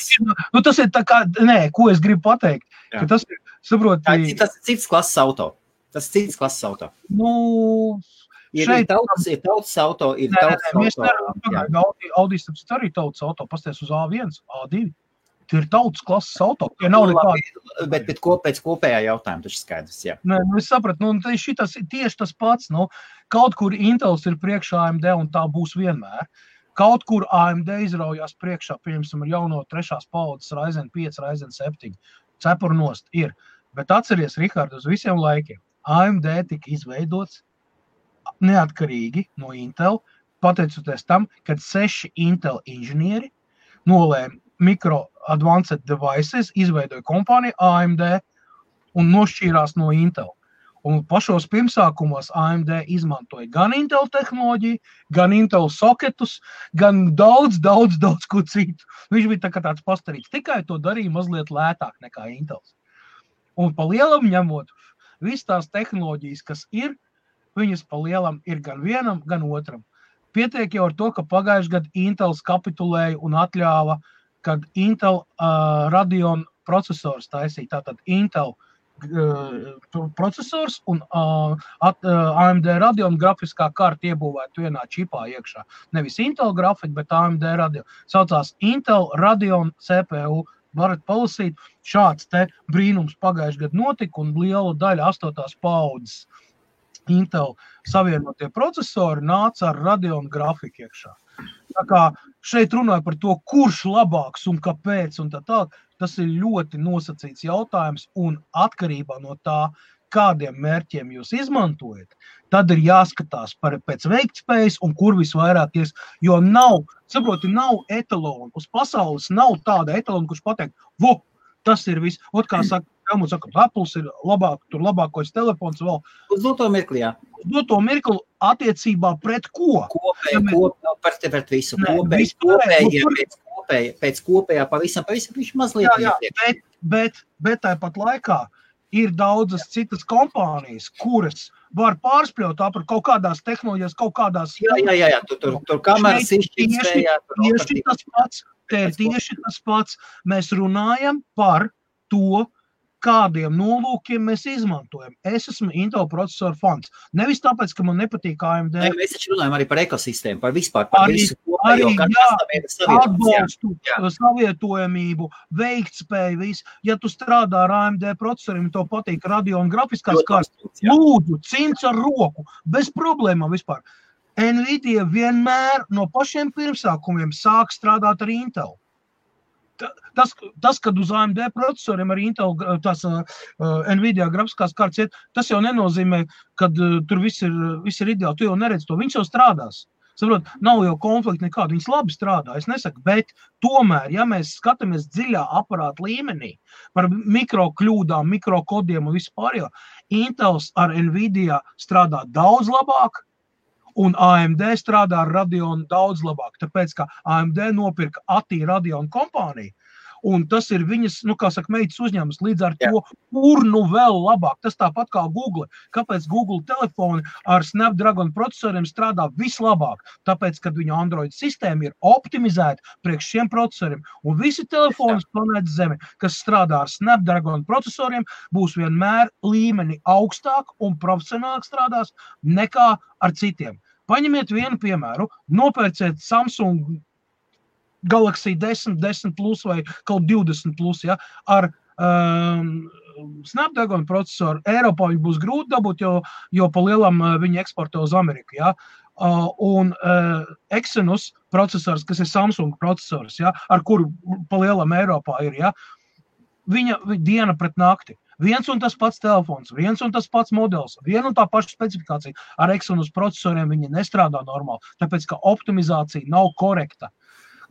Tas ir tā kā, ko es gribu pateikt, ka tas ir, saproti... Tas ir cits klases auto. Ir tautas auto, ir tautas auto. Audi arī tautas auto, pasties uz A1, A2. Tie ir tautas klases auto. Nav nekādi... Bet pēc kopējā jautājuma taču skaidrs, jā. Es sapratu, šitas ir tieši tas pats. Kaut kur Intels ir priekšā AMD un tā būs vienmēr. Kaut kur AMD izraujās priekšā, piemēram, ar jauno 3. paudzes Ryzen 5, Ryzen 7. Cepur nost ir. Bet atceries, Rihard, uz visiem laikiem. AMD tika izveidots neatkarīgi no Intel, pateicoties tam, kad 6 Intel inženieri nolēma Micro Advanced Devices, izveidoja kompāniju AMD un nošķīrās no Intel. Un pašos pirmsākumos AMD izmantoja gan Intel tehnoloģiju, gan Intel soketus, gan daudz ko citu. Viņš bija tāds pastarīts, tikai to darīja mazliet lētāk nekā Intels. Un pa lielam ņemot, visas tās tehnoloģijas, kas ir, viņas pa lielam ir gan vienam, gan otram. Pietiek jau ar to, ka pagājušajā gadā Intels kapitulēja un atļāva kad Intel Radeon procesors taisīja, tātad Intel procesors un AMD Radeon grafiskā karta iebūvētu vienā čipā iekšā. Nevis Intel grafika, bet AMD Radeon. Saucās Intel Radeon CPU. Varat palasīt, šāds te brīnums pagājuši gadu notika un liela daļa 8. paudzes Intel savienotie procesori nāca ar Radeon grafiku iekšā. Tā kā šeit runāja par to, kurš labāks un kāpēc un tā tālāk, tas ir ļoti nosacīts jautājums un atkarībā no tā, kādiem mērķiem jūs izmantojat, tad ir jāskatās pēc veiktspējas un kur visvairāk ies, jo nav etalona. Uz pasaules nav tāda etalona, kurš pateikt, tas ir viss. Kā saka, Apples ir labākais telefons vēl. Uz doto mirkli, jā. Uz doto mirkli attiecībā pret ko? Pret visu. Pēc kopējā pavisam viņš mazliet. Bet tāpat laikā ir daudzas citas kompānijas, kuras var pārspļaut par kaut kādās tehnoloģijas, kaut kādās... Jā, tur kameras izšķirtspējā. Tieši tas pats. Mēs runājam par to, kādiem nolūkiem mēs izmantojam. Es esmu Intel procesoru fans. Nevis tāpēc, ka man nepatīk AMD. Mēs taču runājam arī par ekosistēmu, par vispār, par visu kopējo, atbalstu, savietojamību, veiktspēju, visu. Ja tu strādā ar AMD procesoriem, to patīk Radeon grafiskās kartas, lūdzu, cins ar roku, bez problēmām vispār. Nvidia vienmēr no pašiem pirmsākumiem sāk strādāt ar Intel. Tas, kad uz AMD procesoriem ar Intel Nvidia grafiskās kartas iet, tas jau nenozīmē, kad tur viss ir ideāli. Tu jau neredzi to, viņš jau strādās. Saprot, nav jau konflikti nekādu, viņas labi strādā, es nesaku, bet tomēr, ja mēs skatāmies dziļā aparāta līmenī par mikrokļūdām, mikrokodiem un vispārējo, Intels ar Nvidia strādā daudz labāk, un AMD strādā ar Radeon daudz labāk, tāpēc, ka AMD nopirka ATI Radeon kompāniju, un tas ir viņas, meitas uzņēmums, līdz ar to, kur vēl labāk. Tas tāpat kā Google. Kāpēc Google telefoni ar Snapdragon procesoriem strādā vislabāk? Tāpēc, kad viņu Android sistēma ir optimizēta priekš šiem procesoriem, un visi telefoni planētas Zeme, kas strādā ar Snapdragon procesoriem, būs vienmēr līmeni augstāk un profesionālāk strādās nekā ar citiem. Paņemiet vienu piemēru, nopērciet Samsung Galaxy 10, 10 Plus vai kaut 20 Plus, ja, ar Snapdragon procesoru. Eiropā viņi būs grūti dabūt, jo pa lielam viņi eksportē uz Ameriku, ja. Un Exynos procesors, kas ir Samsung procesors, ja, ar kuru pa lielam Eiropā ir, ja, viņa diena pret nakti. Viens un tas pats telefons, viens un tas pats modelis, viena un tā paša specifikācija. Ar Exynos procesoriem viņi nestrādā normāli, tāpēc, ka optimizācija nav korekta.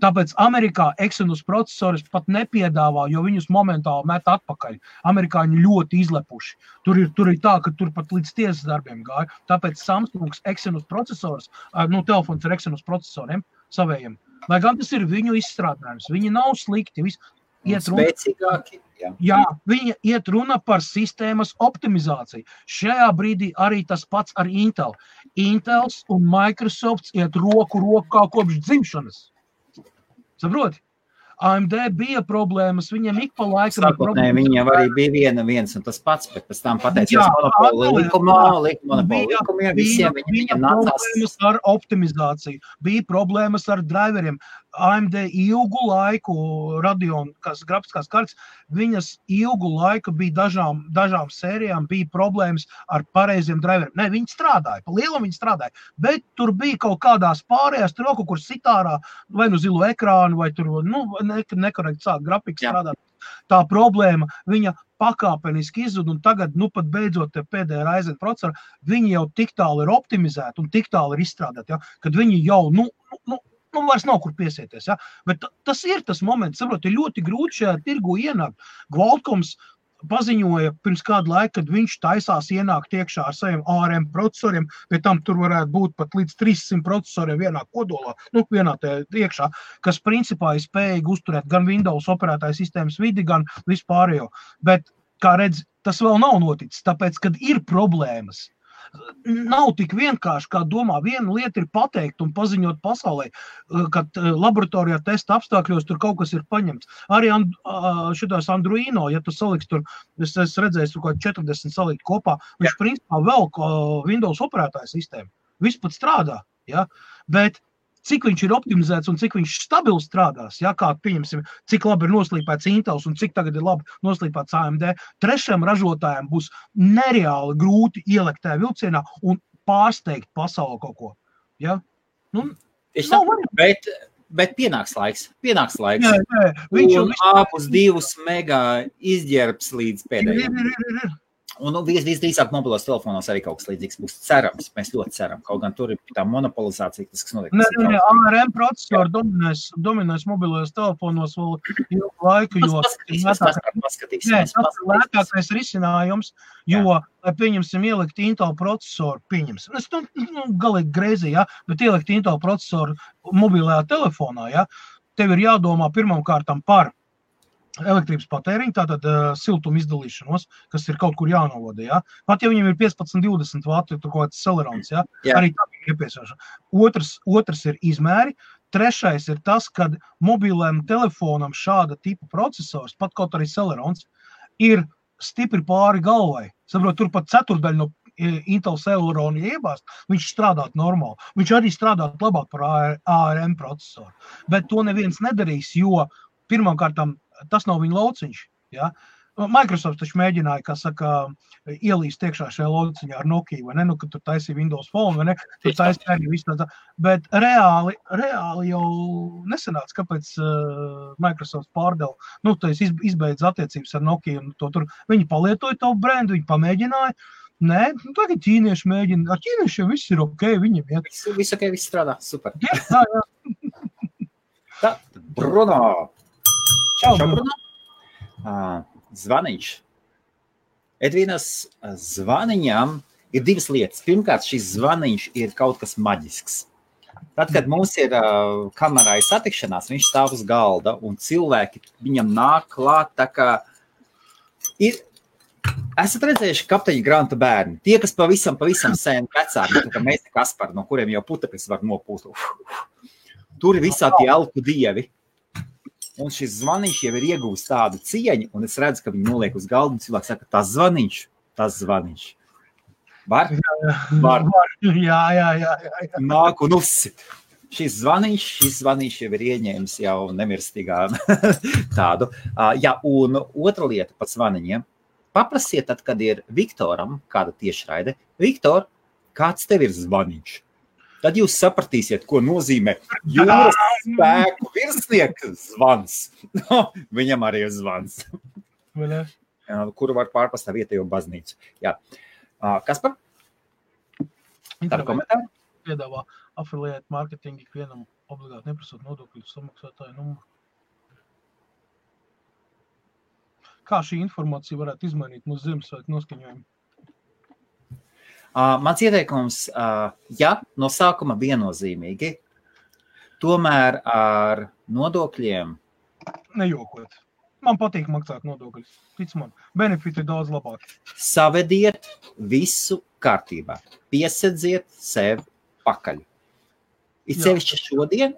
Tāpēc Amerikā Exynos procesoris pat nepiedāvā, jo viņus momentāli met atpakaļ. Amerikāņi ļoti izlepuši. Tur ir tā, ka tur pat līdz tiesas darbiem gāja. Tāpēc Samsungs Exynos procesors, telefons ar Exynos procesoriem savējiem. Lai gan tas ir viņu izstrādājums, viņi nav slikti. Spēcīgāki. Jā, viņa iet runa par sistēmas optimizāciju. Šajā brīdī arī tas pats ar Intel. Intels un Microsofts iet roku rokā kopš dzimšanas. Saproti? AMD bija problēmas, viņiem ik pa laikam ir problēmas. Viņiem arī bija viens un tas pats, bet pēc tam pateicies monopoli likumiem, visiem viņiem nācās. Bija problēmas ar optimizāciju, bija problēmas ar driveriem. AMD ilgu laiku, Radeon, grafiskās kartas, viņas ilgu laiku bija dažām sērijām, bija problēmas ar pareiziem driveriem. Ne, viņi strādāja, pa lielam viņi strādāja, bet tur bija kaut kādās pārējās, tur kaut kur sitārā, vai nu zilo ekrānu, vai tur, nekorekti sāk grafikas strādāt. Tā problēma, viņa pakāpeniski izzud, un tagad, pat beidzot pēdējā Ryzen procesori, viņi jau tik tālu ir optimizēti un tik tālu ir izstrādāti, ja, kad viņi jau, vairs nav kur piesieties, ja, bet tas ir tas moments, saprot, ir ļoti grūti šajā tirgu ienākt. Qualcomms paziņoja pirms kādu laiku, kad viņš taisās ienākt iekšā ar saviem ARM procesoriem, bet tam tur varētu būt pat līdz 300 procesoriem vienā kodolā, vienā iekšā, kas principā ir spējīgi uzturēt gan Windows operētāju sistēmas vidi, gan vispārējo. Bet, kā redz, tas vēl nav noticis, tāpēc, kad ir problēmas. nav tik vienkārši, kā domā. Viena lieta ir pateikt un paziņot pasaulē, kad laboratorijā testa apstākļos tur kaut kas ir paņemts. Arī šitās Androino, ja tu saliks tur, es redzēju, tur kaut 40 salikt kopā, viņš principā vēl Windows operētāja sistēma. Viss pat strādā, ja? Bet cik viņš ir optimizēts un cik viņš stabili strādās, ja, kā pieņemsim, cik labi ir noslīpēts Intels un cik tagad ir labi noslīpēts AMD, trešajam ražotājiem būs nereāli grūti ielikt tajā vilcienā un pārsteigt pasauli kaut ko. Ja? Nu, bet pienāks laiks. Jā. Un āpus 2 megā izģērbs līdz pēdējiem. Un visdrīzāk mobilos telefonos arī kaut kas līdzīgs būs cerams. Mēs ļoti ceram. Kaut gan tur ir tā monopolizācija, kas notiek. ARM procesori dominēs mobilajos telefonos vēl ilgu laiku, jo tas ir lētākais risinājums, jo, lai pieņemsim ielikt Intel procesoru, es galīgi greizi, ja, bet ielikt Intel procesoru mobilajā telefonā, ja, tev ir jādomā pirmām kārtām par elektrības patēriņu, tātad siltuma izdalīšanos, kas ir kaut kur jānovada, ja? Pat ja viņam ir 15-20 vati, tur kaut kāds celerons, ja? Arī tā ir iepiesāšana. Otrs ir izmēri. Trešais ir tas, kad mobilēm telefonam šāda tipa procesors, pat kaut arī celerons, ir stipri pāri galvai. Saprot, tur pat ceturdaļa no Intel Celeronu iebāzt, viņš strādāt normāli. Viņš arī strādāt labāk par ARM procesoru. Bet to neviens nedarīs, jo pirmām kārtām tas nav viņa lauciņš. Ja? Microsoft taču mēģināja, kā saka, ielīst iekšā šajā lauciņā ar Nokia, vai ne? Nu, kad tur taisīja Windows Phone, vai ne? Tur taisīja arī visu tādā. Bet reāli jau nesanāca, kāpēc Microsoft pārdeva. Nu, tu izbeidz attiecības ar Nokia un to tur. Viņi palietoja tavu brendu, viņi pamēģināja. Nē, nu, tagad ķīnieši mēģina. Ar ķīniešiem viss ir ok, viņiem iet. Viss ok, viss strādā, super. Jā. Tā, Bruno. Čau, Bruno. Zvaniņš. Edvīnas zvaniņām ir divas lietas. Pirmkārt, šis zvaniņš ir kaut kas maģisks. Tad, kad mums ir kamerai satikšanās, viņš stāv uz galda un cilvēki viņam nāk klāt, tā kā esat redzējuši Kapteiņa Granta bērni. Tie, kas pavisam sen vecāki, tā kā mēs Kaspari, no kuriem jau putekļus var nopūst. Tur ir visādi elku dievi. Un šis zvaniņš jau ir iegūst tādu cieņu, un es redzu, ka viņi noliek uz galdu, un cilvēks saka, tas zvaniņš. Var? Jā. Nāk un uzsit. Šis zvaniņš jau ir ieņēmis jau nemirstīgā tādu. Jā, un otra lieta par zvaniņiem. Paprasiet tad, kad ir Viktoram kāda tiešraide. Viktor, kāds tev ir zvaniņš? Tad jūs sapratīsiet, ko nozīmē jūras spēku virsnieka zvans. Viņam arī ir zvans. Kuru var pārpast tā vietējo baznīcu. Jā. Kaspar? Tāda komentāra? Piedāvā affiliate marketing ikvienam obligāti neprasot nodokļu samaksātāju numuru. Kā šī informācija varētu izmainīt mūsu Ziemassvētku noskaņojumu? Mans ieteikums, ja no sākuma viennozīmīgi, tomēr ar nodokļiem. Nejokot. Man patīk maksāt nodokļus. Tic man, benefiti ir daudz labāk. Savediet visu kārtībā. Piesedziet sev pakaļ. Ir sevišķi šodien,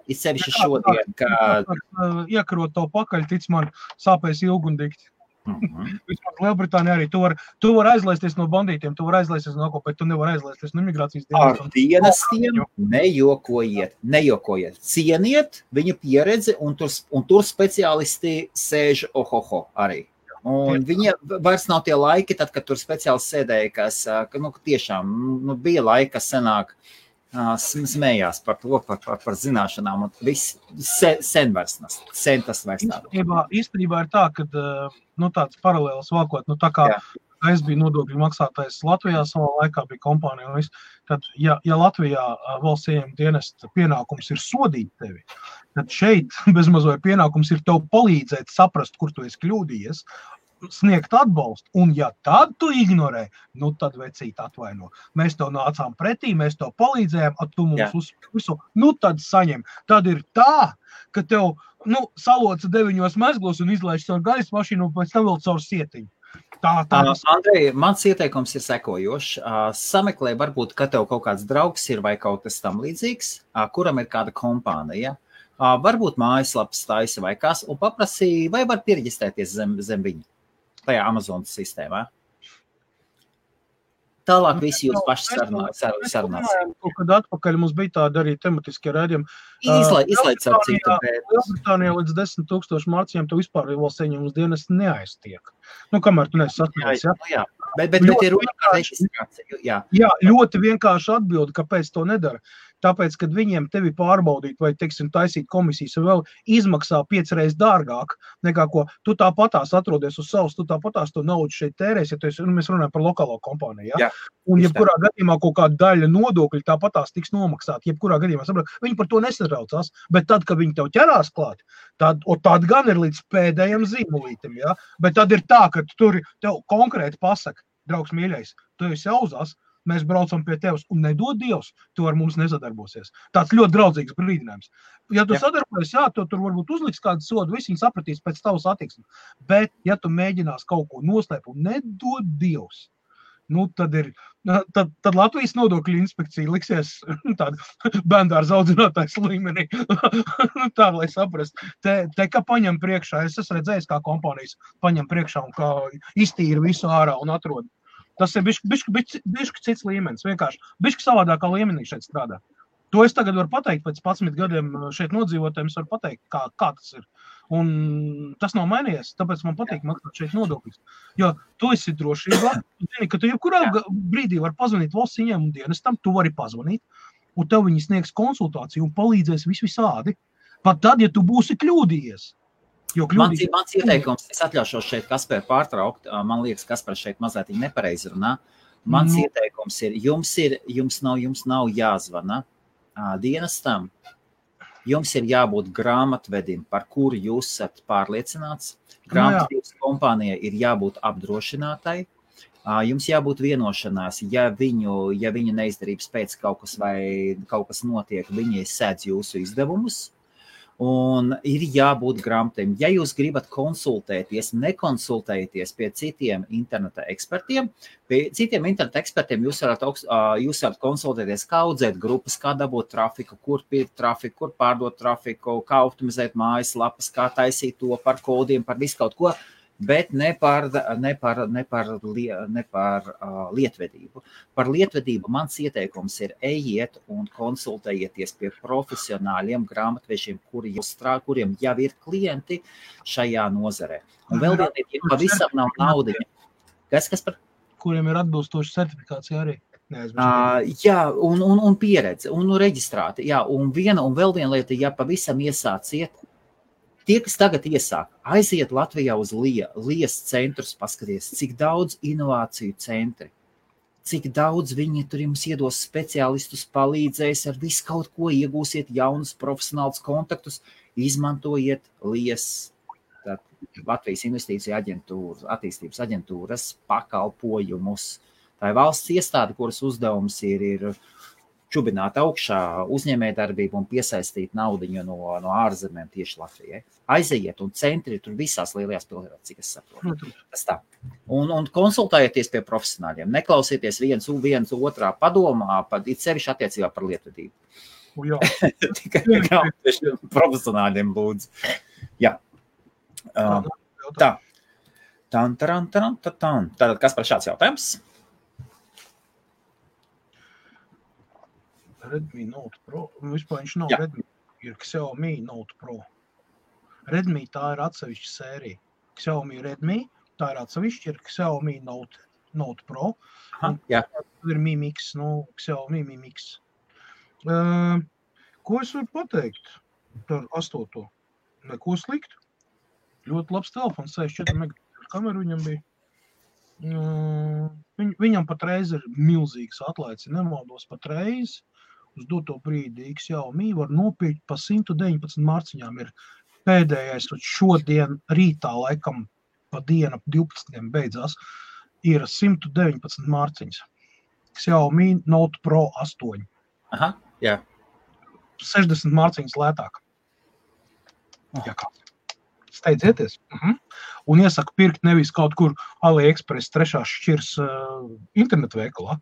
kad... Iekarot to pakaļ, tic man, sāpēs ilgi un dikti. Vismaz Lielbritānija arī. Tu var aizlaisties no bandītiem, tu var aizlaisties no ko, bet tu nevar aizlaisties no imigrācijas dienestiem. Ar dienestiem nejokojiet. Cieniet viņa pieredzi, un tur speciālisti sēž arī. Un viņiem vairs nav tie laiki, tad, kad tur speciālisti sēdēja, kas tiešām bija laika, kas senāk smējās par to, par zināšanām, un viss sen tas vairs nav. Īstenībā ir tā, ka tāds paralēls valkot, tā kā es biju nodokļu maksātājs Latvijā, savā laikā bija kompānija, un tad, ja Latvijā valsts ieņem dienesta pienākums ir sodīt tevi, tad šeit bezmazoja pienākums ir tev palīdzēt saprast, kur tu esi kļūdījies, sniegt atbalstu, un ja tad tu ignorē, tad vecīt atvaino. Mēs tev nācām pretī, mēs tev palīdzējām, tu mums uzspisu, tad saņem. Tad ir tā, ka tev, saloca 9 mezglos un izlaiž caur gaisa mašīnu, un pēc tam vēl caur sietiņu. Andrej, mans ieteikums ir sekojošs. Sameklē varbūt, ka tev kaut kāds draugs ir vai kaut kas tam līdzīgs, kuram ir kāda kompānija. Varbūt mājaslapas taisa vai kas, un paprasīja, vai var pierģistrēties zem viņa tajā Amazonas sistēmā. Tālāk visi jūs paši sarunāsim. Kaut kad atpakaļ mums bija tāda arī tematiskie rēdījumi. Izlaic ar citu, bet... Lielbritānijā līdz 10,000 marciņiem tu vispār valsts ieņemumus dienas neaiztiek. Kamēr tu neesi sasniedzis, jā? Bet ir runa par reģistrāciju, jā. Jā, ļoti vienkārši atbildi, kāpēc to nedara. Tāpēc, kad viņiem tevi pārbaudīt vai, teiksim, taisīt komisijas vēl izmaksā 5 reizes dārgāk nekā ko, tu tāpatās atrodies uz savas, tu tāpatās to naudu šeit tērēs, ja tu esi, mēs runājam par lokālo kompāniju, ja? Un jebkurā gadījumā kaut kāda daļa nodokļu tāpatās tiks nomaksāt, jebkurā gadījumā, saprot, viņi par to nesatraucās, bet tad, kad viņi tev ķerās klāt, tad gan ir līdz pēdējiem zīmolītim, ja? Bet tad ir tā, ka tur tev konkrēti pasaka, draugs mīļais, tu esi auzās, mēs braucam pie tevis un nedod Dievs, tu ar mums nesadarbosies. Tāds ļoti draudzīgs brīdinājums. Ja tu sadarbojies, jā, tu tur varbūt uzliks kādu sodu, visi viņi sapratīs pēc tavas attieksmes. Bet, ja tu mēģinās kaut ko noslēpt un nedod Dievs, tad Latvijas nodokļu inspekcija liksies tāda bērndārza audzinātājs līmenī. Tā, lai saprast. Te kā paņem priekšā, es esmu redzējis, kā kompānijas paņem priekšā un kā iztīra visu ārā un atrod. Tas ir bišķi cits līmenis, vienkārši bišķi savādākā līmenī šeit strādā. To es tagad varu pateikt, pēc 11 gadiem šeit nodzīvotājiem es varu pateikt, kā tas ir. Un tas nav mainījies, tāpēc man patīk maksāt šeit nodokļus. Jo tu esi drošībā, tu zini, ka tu jebkurā brīdī var pazvanīt valsts ieņēmumu dienestam, tu vari pazvanīt, un tev viņi sniegs konsultāciju un palīdzēs visādi. Pat tad, ja tu būsi kļūdījies. Mans ieteikums, es atļaušos šeit Kasperu pārtraukt, man liekas, Kaspars šeit mazliet nepareizi runā. Mans ieteikums ir, jums nav jāzvana dienestam, jums ir jābūt grāmatvedim, par kuru jūs esat pārliecināts. Grāmatvedības kompānijai ir jābūt apdrošinātai. Jums jābūt vienošanās, ja viņa neizdarības pēc kaut kas notiek, viņi sēdz jūsu izdevumus. Un ir jābūt grāmatiem. Ja jūs gribat konsultēties, nekonsultēties pie citiem interneta ekspertiem, jūs varat konsultēties, kā audzēt grupas, kā dabūt trafiku, kur pirkt trafiku, kur pārdot trafiku, kā optimizēt mājaslapas, kā taisīt to par kodiem, par visu kaut ko, bet ne par lietvedību. Par lietvedību mans ieteikums ir ejiet un konsultējieties pie profesionāļiem grāmatvežiem, kuriem jau ir klienti šajā nozarē. Un vēl vienīgi, ja pavisam nav naudiņa. Kas par? Kuriem ir atbilstoša certifikācija arī. Jā, un pieredze, un reģistrāti. Jā, un vēl viena lieta, ja pavisam iesāciet, tie, kas tagad iesāk, aiziet Latvijā uz Lies centrus, paskaties, cik daudz inovāciju centri, cik daudz viņi tur jums iedos speciālistus, palīdzēs ar visu kaut ko, iegūsiet jaunus profesionālus kontaktus, izmantojiet Lies, Latvijas investīciju attīstības aģentūras pakalpojumus. Tā ir valsts iestāde, kuras uzdevums ir čubināt augšā uzņēmējdarbību un piesaistīt naudiņu no ārzemēm tieši Latvijai. Aiziet un centri tur visās lielajās pilsētās, cik es saprotu. Tas tā. Un konsultējieties pie profesionāļiem. Neklausieties viens otrā padomā, it sevišķi attiecībā par lietvedību. Tikai profesionāļiem lūdzu. Jā. Tā. Tātad, kas par šāds jautājums? Redmi Note Pro. Vispār viņš nav Redmi, ir Xiaomi Note Pro. Redmi tā ir atsevišķa sērija. Xiaomi Redmi, tā ir atsevišķa, ir Xiaomi Note Pro. Tur ir Mi Mix, Xiaomi Mi Mix. Ko es varu pateikt par 8. Neko sliktu. Ļoti labs telefons, 64 megapikseļu kameru viņam bija. Viņam patreiz ir milzīgs atlaids, nemaldos patreiz. Uz doto brīdi Xiaomi var nopirkt pa 119 marciņām. Ir pēdējais, šodien rītā laikam pa dienu ap 12 beidzās, ir 119 marciņas. Xiaomi Note Pro 8. Aha, jā. 60 marciņas lētāk. Jā, kā? steidzieties. Un iesaku pirkt nevis kaut kur AliExpress 3. šķirs internetu veikalā,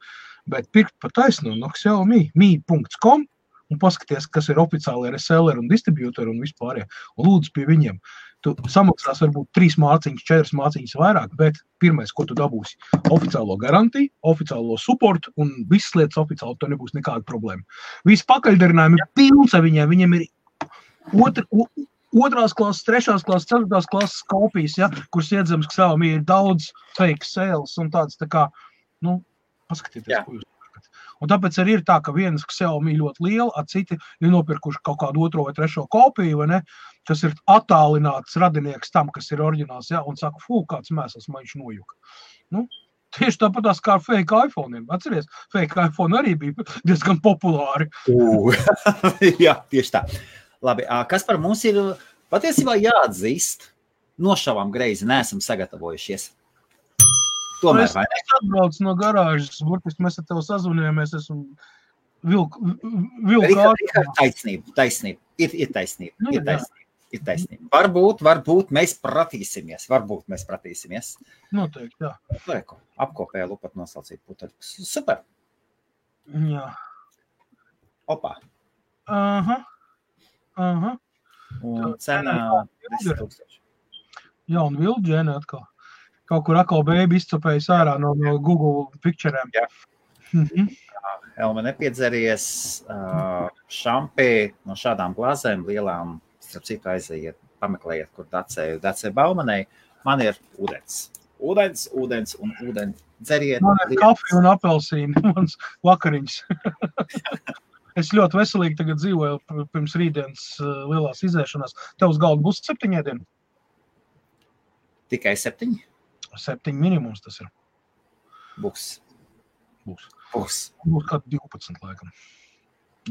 bet pirkt pa taisnu no Xiaomi, mi.com, un paskaties, kas ir oficiāli reseller un distributori un vispārējie. Un lūdzu pie viņiem. Tu samaksās varbūt 3 māciņas, 4 māciņas vairāk, bet pirmais, ko tu dabūsi, oficiālo garantiju, oficiālo supportu un visas lietas oficiāli, to nebūs nekāda problēma. Visi pakaļdarinājumi ir pilns ar viņiem ir otrās klases, 3. klases, 4. klases kopijas, ja, kuras iedzams, ka Xiaomi ir daudz fake sales un tāds tā kā, paskatieties, ko jūs. Un tāpēc arī ir tā, ka vienas Xiaomi ļoti liela, a citi ir nopirkuši kaut kādu 2. vai 3. kopiju, vai ne, kas ir attālināts radinieks tam, kas ir oriģināls, ja, un saka, kāds mēsls man viņš nojuka. Tieši tāpatās kā ar fake iPhone'iem. Atceries, fake iPhone arī bija diezgan populāri. Jā, tieši tā. Labi, kas par mums ir patiesībā jāatzīst? Nošavām greizi, neesam sagatavojušies. Tomēr, vai ne? Es atbraucu no garāžas, burtiski mēs ar tevi sazvanījāmies, esmu vilku Taisnība. Ir taisnība. Varbūt mēs pratīsimies. Noteikti, jā. Lēku, apkopēja lupat nosaucīt puteļus. Super. Jā. Opā. Aha. Un cena 10,000. Jā, un Vilģēne atkal. Kaut kur atkal bēbi izcapējis ārā no Google Picture'iem. Jā. Elma nepiedzeries šampī no šādām glāzēm lielām, starp citu aiziet, pameklējiet, kur Dacē Baumanei. Man ir ūdens. Ūdens un ūdens. Dzeriet. Man ir kafija un apelsīni, mans vakariņas. Es ļoti veselīgi tagad dzīvoju pirms rītdienas lielās izēšanās. Tev uz galda būs 7 ēdieni? Tikai 7? 7 minimums tas ir. Būs. Būs kāds 12 laikam.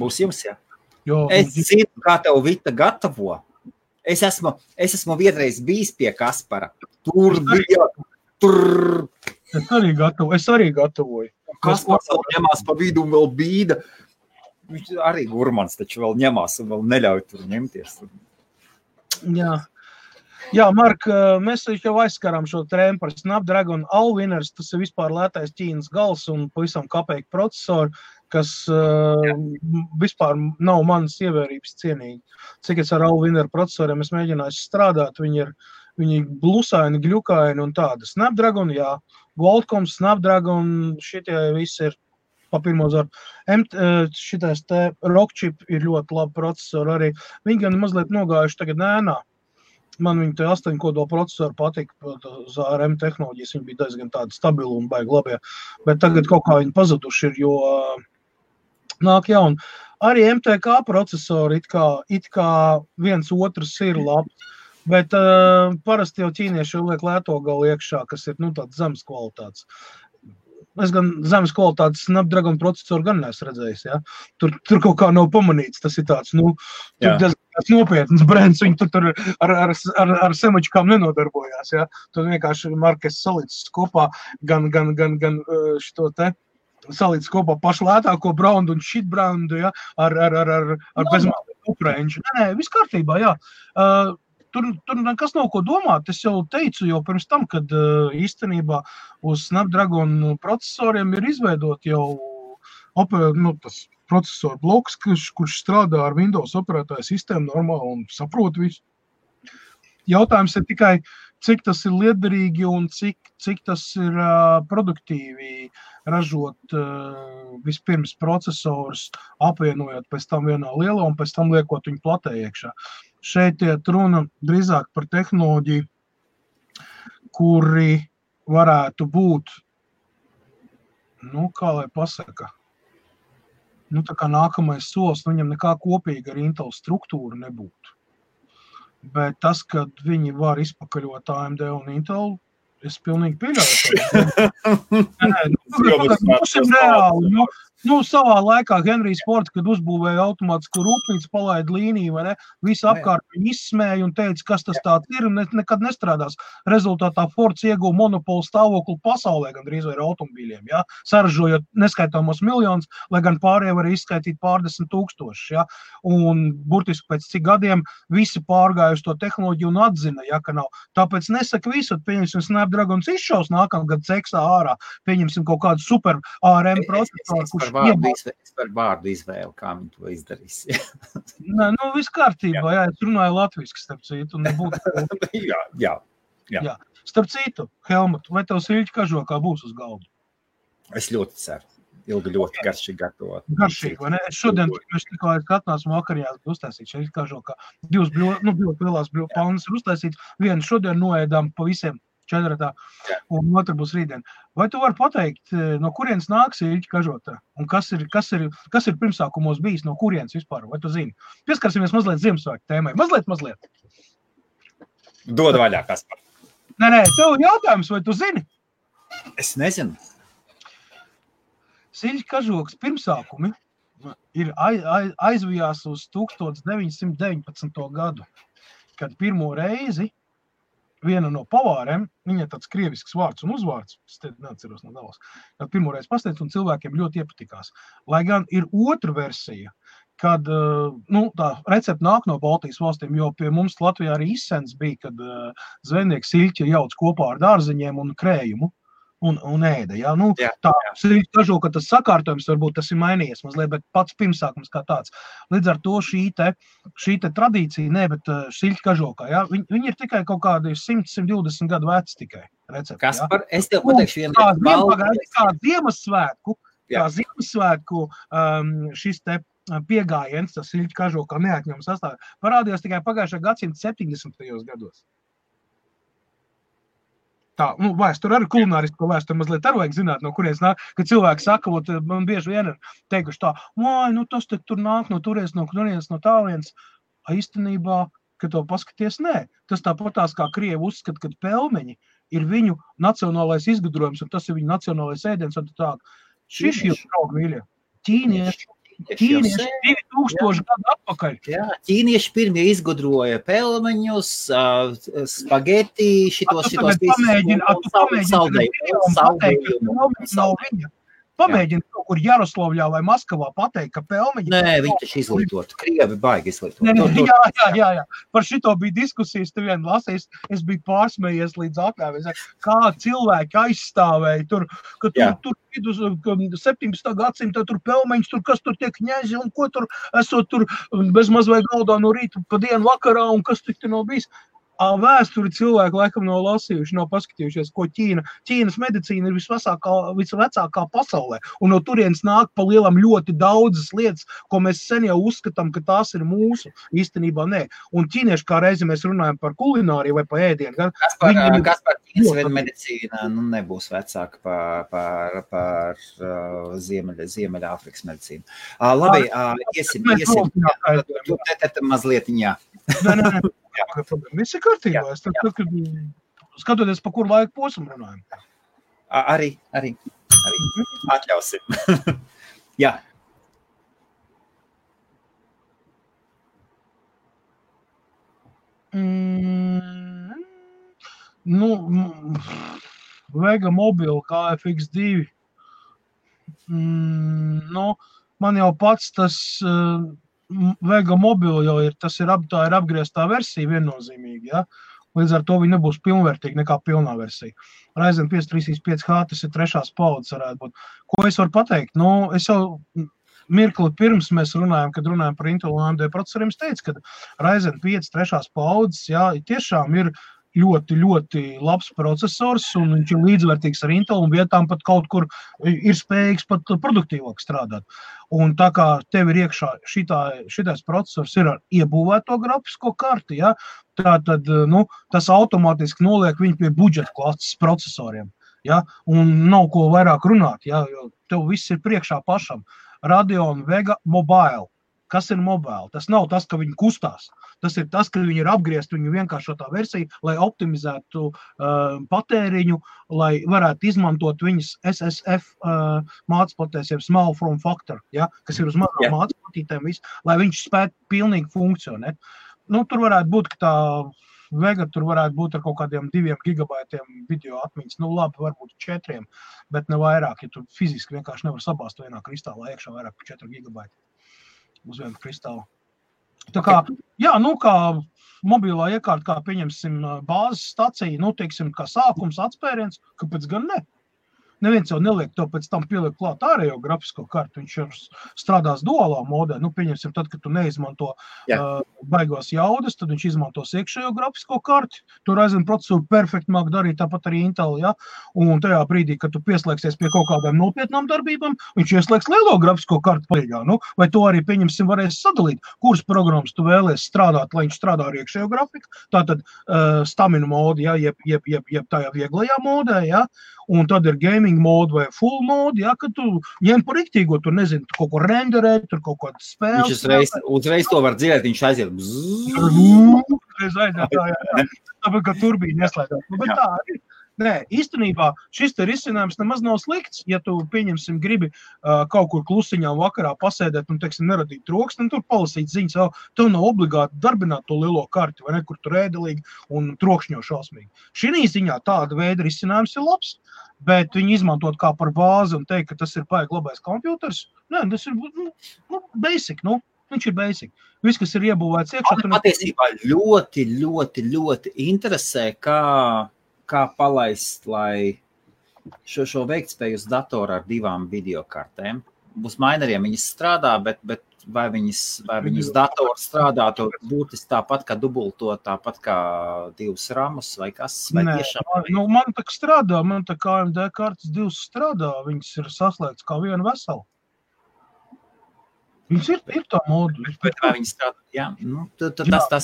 Būs jums, jā? Jo, es zinu, kā tev Vita gatavo. Es esmu vienreiz bijis pie Kaspara. Tur bija. Es arī gatavoju. Kaspars vēl ņemās pa vidu un vēl bīda. Viņš arī gurmans taču vēl ņemās un vēl neļauj tur ņemties. Jā, Mark, mēs jau aizskarām šo trēmu par Snapdragon Allwinners, tas ir vispār lētais Ķīnas gals un pavisam kapeiku procesori, kas vispār nav manas ievērības cienīgi. Cik es ar Allwinner procesoriem es mēģināju strādāt, viņi blusaini, gļukaini un tāda. Snapdragon, jā, Qualcomm, Snapdragon, šitie visi ir pa pirmo zaru. Šitais te Rockchip ir ļoti labi procesori arī. Viņi gan mazliet nogājuši tagad nēnā. Man viņi te 8 kodola procesori patika, uz ARM tehnoloģijas, viņi bija diezgan tādi stabili un baigi labie, bet tagad kaut kā viņi pazuduši ir, jo nāk jauni. Arī MTK procesori it kā viens otrs ir labs, bet parasti jau ķīnieši liek lēto galu iekšā, kas ir tāds zemes kvalitātes. Es gan zemes kvalitātes Snapdragon procesoru gan neesmu redzējis, ja? Tur kaut kā nav pamanīts, tas ir tāds, tur diezgan nopietns brands, viņi tur ar semačkām nenodarbojās, ja? Tur vienkārši Markes salīdzis kopā gan šito te, salīdzis kopā pašu lētāko brandu un šit brandu, ja? Ar bezmālīgu upranģu. Nē, viss kārtībā, jā. Tur nekas nav ko domāt. Es jau teicu jau pirms tam, kad īstenībā uz Snapdragon procesoriem ir izveidot jau tas procesoru bloks, kurš strādā ar Windows operētāju sistēmu normāli un saprot visu. Jautājums ir tikai, cik tas ir liederīgi un cik tas ir produktīvi ražot vispirms procesorus, apvienojot pēc tam vienā lielā un pēc tam liekot viņu platē iekšā. Šeit iet runa drīzāk par tehnoloģiju, kuri varētu būt, kā lai pasaka, tā kā nākamais solis, viņam nekā kopīga ar Intel struktūru nebūtu. Bet tas, kad viņi var izpakaļot AMD un Intel, es pilnīgi pieļauju. Būsim reāli. Savā laikā Henrijs Fords, kad uzbūvēja automātisku rūpnīcu, palaida līniju, vai ne? Visi apkārt viņu izsmēja un teica, kas tas tāds ir, un nekad nestrādās. Rezultātā Fords ieguva monopolu stāvokli pasaulē, gandrīz vai ar automobīļiem, ja? Saražojot neskaitāmos miljonus, lai gan pārējie var izskaitīt pārdesmit tūkstošus, ja? Un burtiski pēc cik gadiem visi pārgāja uz to tehnoloģiju un atzina, ja, ka nav. Tāpēc nesaka visu, pieņemsim Snapdragons izšaus nākamgad ceksā ārā, pieņemsim kaut kādu super ARM procesoru, Es par vārdu izvēlu, kā viņi to izdarīs. Nē, viss kārtībā, jā, es runāju latviski, starp citu, un nebūtu. Jā. Starp citu, Helmut, vai tev Siļķa kažokā būs uz galdu? Es ļoti ceru. Ilgi ļoti garšīgi gatavot. Garšīgi, vai ne? Es šodien, mēs tikko atnāsim vakarījās uztaisīt Siļķa kažokā. Divas lielās palnas ir uztaisīts. Vienu šodien noēdām pa visiem 4. un otru būs rītdien. Vai tu vari pateikt, no kurienes nāk Siļķa kažotā? Un kas ir pirmsākumos bijis, no kurienes vispār? Vai tu zini? Pieskarsimies mazliet Ziemassvētku tēmai. Mazliet. Dod vaļā, Kaspar. Nē, tev jautājums, vai tu zini? Es nezinu. Siļķa kažokas pirmsākumi ir aizvijās uz 1919. gadu, kad pirmo reizi viena no pavāriem, viņa tāds krievisks vārds un uzvārds, es te neatceros no galvas, kad pirmoreiz pasniedz un cilvēkiem ļoti iepatikās. Lai gan ir otra versija, kad tā recepte nāk no Baltijas valstīm, jo pie mums Latvijā arī izsens bija, kad zvejnieks Siļķi jauc kopā ar dārziņiem un krējumu un ēda. Ja? Tā Siļķa kažoka, tas sakārtojums varbūt tas ir mainījies mazliet, bet pats pirmsākums kā tāds. Līdz ar to šī te tradīcija, bet Siļķa kažokā, ja? Viņi ir tikai kaut kādi 100-120 gadu veci tikai recepti. Kaspar, es tev pateikšu kā Ziemassvētku šis te piegājiens, tas Siļķa kažokā neatņemams sastāv, parādījās tikai pagājušā gadsimta 70. gados. Tā, vēsture arī kulinārisko vēsturi mazliet arī vajag zināt, no kurienes nāk, kad cilvēki saka, man bieži vien ir teikuši tā, tas te tur nāk no turienes, no tālienes. Īstenībā, kad to paskaties, nē. Tas tāpatās kā krievi uzskata, kad pelmeņi ir viņu nacionālais izgudrojums, un tas ir viņu nacionālais ēdiens, un tā. Šis ir draugi mīļie. Ķīnieši 2000 gadu atpakaļ. Jā, ķīnieši pirmie izgudroja pelmeņus, spageti, šitos saldējumus. Pamēģini kaut kur Jaroslavļā vai Maskavā pateikt, ka pelmeņi... Nē, viņi taču izglītot. Krievi baigi izglītot. Jā. Par šito bija diskusijas, te vien lasījis, es biju pārsmējies līdz akām. Kā cilvēki aizstāvēja tur, ka tur 17. gadsimta tur pelmeņus, tur kas tur tiek ņēzi un ko tur esot tur bezmaz vai galdā no rīta pa dienu vakarā un kas tik te nav bijis. Vēsturi cilvēki laikam nav lasījuši, nav paskatījušies, ko Ķīnas medicīna ir visvecākā pasaulē. Un no turienes nāk pa lielam ļoti daudzas lietas, ko mēs sen jau uzskatām, ka tās ir mūsu. Īstenībā nē. Un ķīnieši kā reizi mēs runājam par kulināriju vai par ēdienu. Kaspar, Ķīnas medicīna nebūs vecāka par Ziemeļāfrikas medicīnu. Labi, iesim. Mazlietiņā. Nē. Viss ir kārtībā. Skatoties, pa kuru laiku posmu runājam. Arī. Atļausim. Jā. Vega Mobile KFX2. Man jau pats tas Vega Mobile jau ir, tā ir apgrieztā versija viennozīmīgi, ja? Līdz ar to viņi nebūs pilnvērtīgi nekā pilnā versija. Ryzen 5 335H, tas ir 3. paudzes varētu būt. Ko es varu pateikt? Es jau mirkli pirms mēs runājam, kad runājam par Intel un AMD procesoriem, es teicu, ka Ryzen 5 3. paudzes, jā, tiešām ir ļoti, ļoti labs procesors, un viņš ir līdzvērtīgs ar Intel, un vietām pat kaut kur ir spējīgs pat produktīvāk strādāt. Un tā kā tev ir iekšā šitais procesors ir ar iebūvēto grafisko karti, ja, tad tas automātiski noliek viņu pie budžeta klases procesoriem. Ja, un nav ko vairāk runāt, ja, jo tev viss ir priekšā pašam. Radeon Vega Mobile kas ir mobile. Tas nav tas, ka viņi kustās. Tas ir tas, ka viņi ir apgriezt viņu vienkāršotā versija, lai optimizētu patēriņu, lai varētu izmantot viņas SSF mācplatēs, jeb small form factor, ja, kas ir uz mazām mācplatītēm, lai viņš spētu pilnīgi funkcionēt. Nu, tur varētu būt, ka tā Vega tur varētu būt ar kaut kādiem 2 gigabaitiem video atmiņas. Nu, labi, varbūt 4, bet ne vairāk, ja tu fiziski vienkārši nevar sabāzt vienā kristālā iekšā vairāk par 4 gigabaiti uz vienu kristālu. Tā kā, jā, nu, kā mobilā iekārta, kā pieņemsim bāzes stacija, nu, teiksim, kā sākums, atspēriens, kāpēc gan ne? Neviens jau neliek to pēc tam pieliek klāt ārējo grafisko kartu, viņš ir strādās duālā modē. Nu, pieņemsim, tad, kad tu neizmanto baigos jaudas, tad viņš izmantos iekšējo grafisko karti. Tu Ryzen procesoru perfekti māk darīt, tāpat arī Intel, ja? Un tajā brīdī, kad tu pieslēgsies pie kaut kādām nopietnām darbībām, viņš ieslēgs lielo grafisko kartu palīgā. Nu, vai to arī, pieņemsim, varēs sadalīt, kuras programmas tu vēlies strādāt, lai viņš strādā ar iekšējo grafiku. Tātad stamina modi, ja? jeb tajā vieglajā modē, ja? Un tad ir gaming mode vai full mode, ja, kad tu ņem par riktīgo, tur nezinu, tu kaut ko renderēt, tur kaut kādas spēles. Viņš uzreiz to var dzirdēt, viņš aiziet. Tāpēc, ka turbīna ieslēdzās. Bet tā arī. Nē, īstenībā šis te risinājums nemaz nav slikts, ja tu, pieņemsim, gribi kaut kur klusiņām vakarā pasēdēt un, teiksim, neradīt troksni, un tur palasīt ziņas, tev nav obligāti darbināt to lielo karti, vai ne, kur tur ēdelīgi un trokšņo šausmīgi. Šī ziņā tāda veida risinājums ir labs, bet viņi izmantot kā par bāzi un teikt, ka tas ir baigi labais kompjuters, nē, tas ir, basic, viņš ir basic. Viss, kas ir iebūvēts iekšā. Man patiesībā ļoti interesē, kā palaist, lai šo veiktspēju uz datoru ar 2 videokartēm. Uz maineriem viņas strādā, bet vai viņas datoru strādātu būtiski tāpat kā dubulto, tāpat kā 2 ramus vai kas? Vai Nē, man tā strādā, man tā kā AMD kartas 2 strādā, viņas ir saslēgts kā viena vesela. Viņas ir tā modu. Bet vai viņas strādā? Jā, nu, tas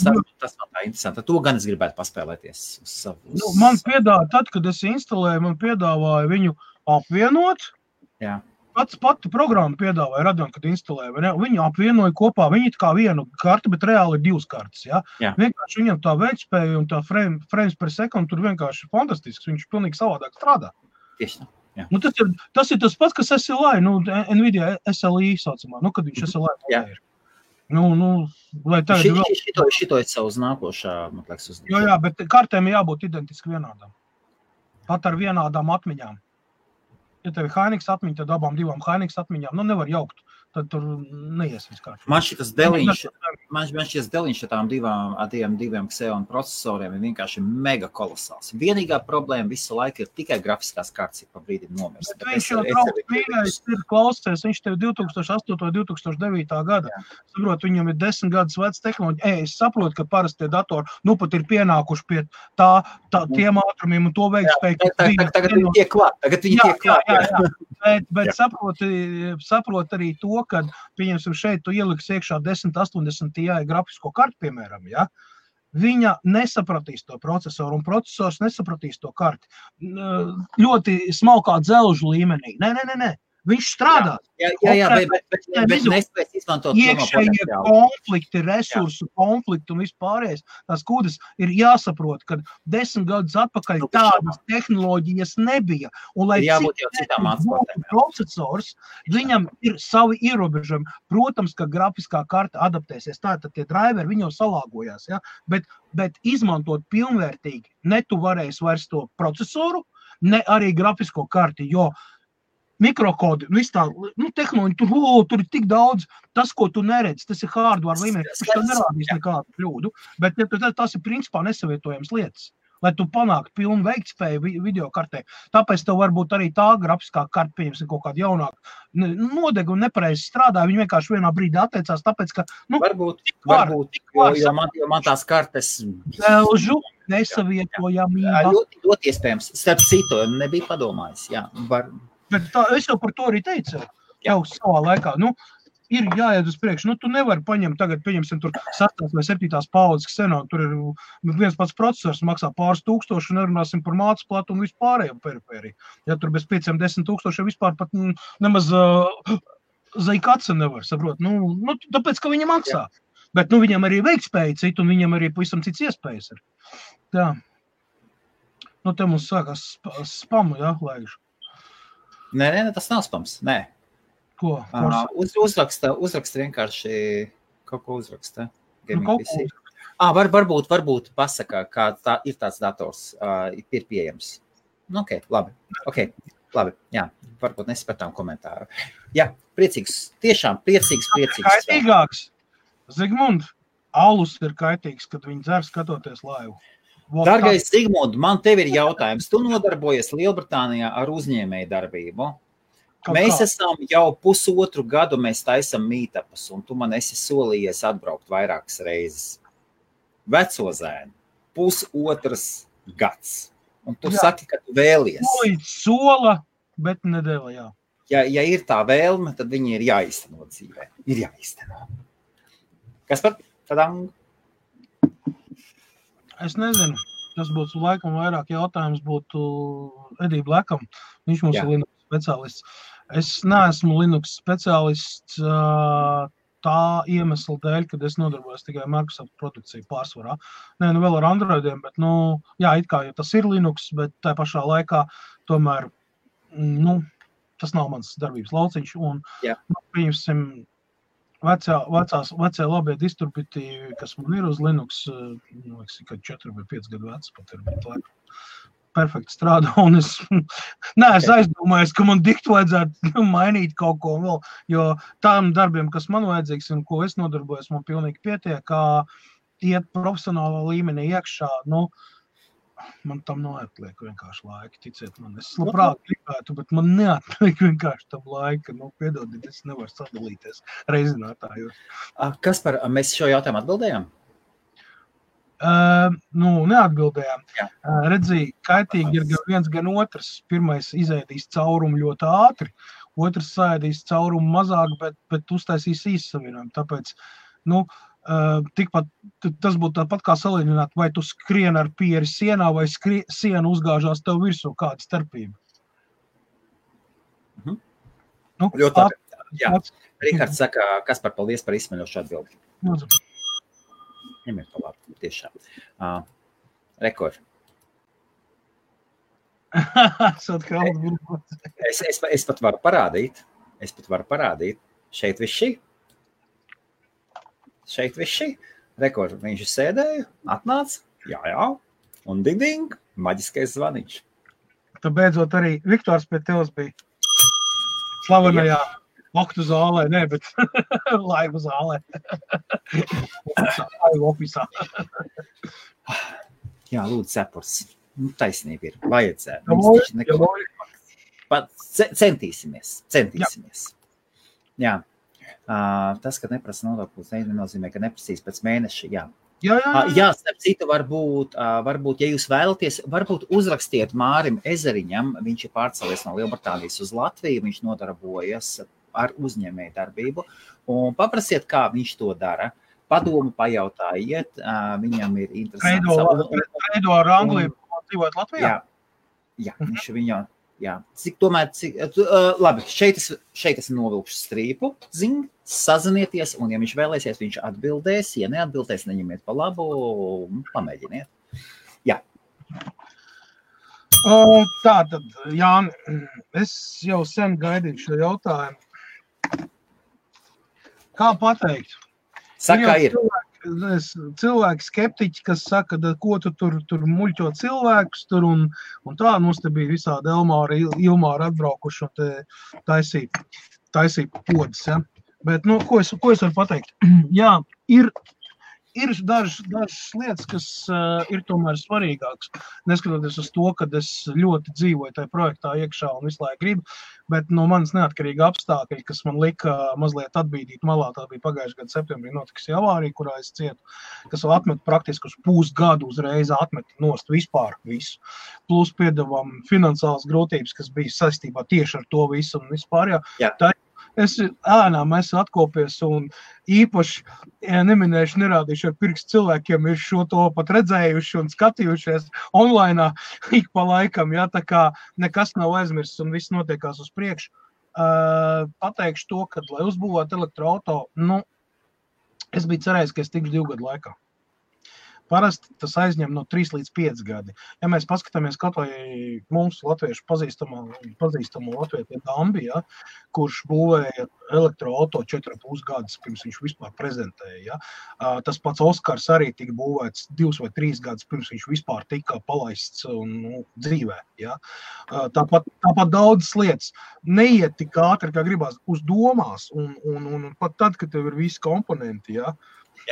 man tā interesanti. To gan es gribētu paspēlēties uz savu. Man piedāvāja, tad, kad es instalēju, man piedāvāja viņu apvienot. Jā. Pati programma piedāvāja Radeon, kad instalēja. Viņu apvienoja kopā, viņi kā vienu karti, bet reāli ir 2 kartas. Ja? Vienkārši viņam tā veiktspēja un tā frames per second tur vienkārši fantastisks. Viņš pilnīgi savādāk strādā. Tieši tā. Nu, tas ir tas pats, kas SLI, Nvidia SLI saucamā, kad viņš SLI modē ir. Lai tagad šito ir savus nākošā, man liekas, uz. Jā, bet kartēm jābūt identiski vienādām. Pat ar vienādām atmiņām. Ja tev ir Hynix atmiņa, tad abām 2 Hynix atmiņām, nevar jaukt. Tad tur neies viss kārtībā. Man šis deliņš ar tām 2 Xeon procesoriem ir vienkārši mega kolosāls. Vienīgā problēma visu laiku ir tikai grafiskās kartas, ir pa brīdim nomirst. Bet viņš jau trauc mīļais ir klausies, viņš tev 2008. 2009. gada. Saprot, viņam ir 10 gadus vecs tehnoloģija. Es saprotu, ka parasti tie datori, pat ir pienākuši pie tiem ātrumiem un to veikspēju. Tagad viņi tiek klāt. Bet saprot arī to, kad, pieņemsim, šeit tu ieliks iekšā 1080 Ti grafisko kartu, piemēram, ja? Viņa nesapratīs to procesoru, un procesors nesapratīs to karti. Ļoti smalkā dzelžu līmenī. Nē. Viņš strādā. Jā, bet nespēs izmantot iekšējie konflikti, resursu konflikti un vispārējais. Tās kūdas ir jāsaprot, ka 10 gadus atpakaļ tādas tehnoloģijas nebija. Un lai cik procesors, viņam ir savi ierobežojumi. Protams, ka grafiskā karta adaptēsies. Tātad tie driveri, viņi jau salāgojās. Ja? Bet izmantot pilnvērtīgi ne tu varēsi vairs to procesoru, ne arī grafisko karti, jo mikrokodi, tehnoloģi, tur ir tik daudz, tas, ko tu neredzi, tas ir hardware līmenī, viņš to nerādīs nekādu kļūdu, bet tas ir principā nesavietojams lietas, lai tu panāktu pilnu veiktspēju videokartē. Tāpēc tev varbūt arī tā grafiskā karta, pieņemsim, kaut kādu jaunāku nodegu un nepareizi strādā, viņi vienkārši vienā brīdī atteicās, tāpēc, ka, varbūt, jo man tās kartes nesavietojamība. Ļoti iespējams, starp citu, nebija padomājis, jā, Bet es jau par to arī teicu, jau savā laikā, ir jāiet uz priekšu, tu nevari paņemt tagad, pieņemsim, tur 6. vai 7. paudzes Xenon, tur ir viens pats procesors, maksā pāris tūkstoši, un nerunāsim par mācplatu un vispārējo perifēriju. Ja tur bez 5-10 tūkstoši vispār pat nemaz Zaikatsa nevar, saprot. Nu, tāpēc, ka viņa maksā. Jā. Bet, viņam arī veiktspēja cita, un viņam arī pavisam cits iespējas ir. Tā. Te mums sākās spamu, jā, laižu. Nē, tas nav spams, nē. Ko? Uzraksta vienkārši kaut ko uzraksta. Kaut ko. Varbūt pasaka, kā ir tāds dators, ir pieejams. Labi, jā, varbūt nespētām komentāru. Jā, priecīgs, tiešām priecīgs. Kaitīgāks. Zigmund, alus ir kaitīgs, kad viņi dzer skatoties laivu. Dargais Zigmund, man tev ir jautājums. Tu nodarbojies Lielbritānijā ar uzņēmēju darbību. Mēs esam jau 1,5 gadu, mēs taisam meetupus, un tu man esi solījies atbraukt vairākas reizes. Veco zēnu, 1,5 gads. Un tu saki, ka tu vēlies. Sola, bet nedēļa, jā. Ja ir tā vēlme, tad viņi ir jāizteno dzīvē. Ir jāizteno. Kas par tādām? Es nezinu. Tas būtu laikam vairāk jautājums būtu Edī Blekam. Viņš mums ir Linux speciālists. Es neesmu Linux speciālists tā iemesla dēļ, kad es nodarbojos tikai Microsoft produkciju pārsvarā. Nē, vēl ar Androidiem, bet, jā, it kā, ja tas ir Linux, bet tā pašā laikā tomēr, tas nav mans darbības lauciņš. Un, pieņemsim, vecie labie distributīvi, kas man ir uz Linux, kad 4 vai 5 gadu vecs pat ir, bet laikam perfekti strādā, un es neesmu aizdomājies, ka man diktu vajadzētu mainīt kaut ko vēl, jo tām darbiem, kas man vajadzīgs un ko es nodarbojos, man pilnīgi pietiek, kā iet profesionālā līmenī iekšā, man tam neatliek vienkārši laika, ticiet man. Es labprāt gribētu, bet man neatliek vienkārši tam laika, piedodiet, es nevaru sadalīties reizinātājos. Mēs šo jautājumu atbildējām? Neatbildējām. Redzēju, kaitīgi ir gan viens, gan otrs. Pirmais izēdīs caurumu ļoti ātri, otrs sēdīs caurumu mazāk, bet uztaisīs īssavienojumu. Tāpēc, tikpat, tas būtu tāpat kā salīdzināt, vai tu skrien ar pieri sienā, vai siena uzgāžās tev virsū, kāda starpība. Ļoti labi. Jā. Rihards saka, Kaspar, paldies par izsmeļošu atbildi. Ņemiet pa labi, tiešām. Rekord. Es pat varu parādīt. Šeit viss šī. Rekord, viņš sēdēja, atnāca, jā, un ding, maģiskais zvaniņš. Tu beidzot arī Viktors pie tevis bija slavenajā Oktu zālē, ne, bet laivu zālē. Laivu ofisā. Jā, lūdzu, cepurs. Taisnība ir. Vajadzētu. Centīsimies. Jā. Tas, ka neprasa nodokļus, nenozīmē, ka neprasīs pēc mēneša. Jā. Jā, starp citu, varbūt, ja jūs vēlaties, varbūt uzrakstiet Mārim Ezeriņam, viņš ir pārcēlies no Lielbritānijas uz Latviju, viņš nodarbojas ar uzņēmēju darbību, un paprasiet, kā viņš to dara. Padomu pajautājiet, viņam ir interesants. Reido ar Angliju dzīvot Latvijā? Jā, viņš viņā, jā. Labi, šeit es novilkšu strīpu, sazinieties, un ja viņš vēlēsies, viņš atbildēs, ja neatbildēs, neņemiet pa labu, pamēģiniet. Jā. Tātad, Jāni, es jau sen gaidīju šo jautājumu. Kā pateikt? Saka, ir. Cilvēki skeptiķi, kas saka, ko tu tur muļķo cilvēkus tur un tā, mums te bija visādi Elmāri, Ilmāri atbraukuši un te taisīja podas, ja. Bet, ko es varu pateikt? Jā, ir dažas lietas, kas ir tomēr svarīgākas, neskatoties uz to, kad es ļoti dzīvoju tajā projektā iekšā un visu laiku gribu, bet no manas neatkarīga apstākļi, kas man lika mazliet atbīdīt malā, tā bija pagājušajā gada septembrī notikusi avārija, kurā es cietu, kas atmet praktiski uz pusgadu uzreiz atmet nost vispār visu. Plus piedevām finansiālas grūtības, kas bija saistībā tieši ar to visu un vispār, jā. Es ēnām esmu atkopies un īpaši, neminējuši, nerādīšu ar pirkstu cilvēkiem, ir šo to pat redzējuši un skatījušies online ik pa laikam, jā, tā kā nekas nav aizmirsts un viss notiekās uz priekšu. pateikšu to, ka, lai uzbūvētu elektroauto, es biju cerējis, ka es tikšu 2 gadu laikā. Parasti tas aizņem no 3 līdz 5 gadi. Ja mēs paskatāmies kaut vai mums latviešu pazīstamo latviešu Dambi, ja, kurš būvēja elektroauto 4,5 gadus, pirms viņš vispār prezentēja. Ja. Tas pats Oskars arī tika būvēts 2 vai 3 gadus, pirms viņš vispār tika palaists dzīvē. Ja. Tāpat daudzas lietas neiet tik ātri, kā gribās uz domās, un pat tad, kad tev ir visi komponenti, ja,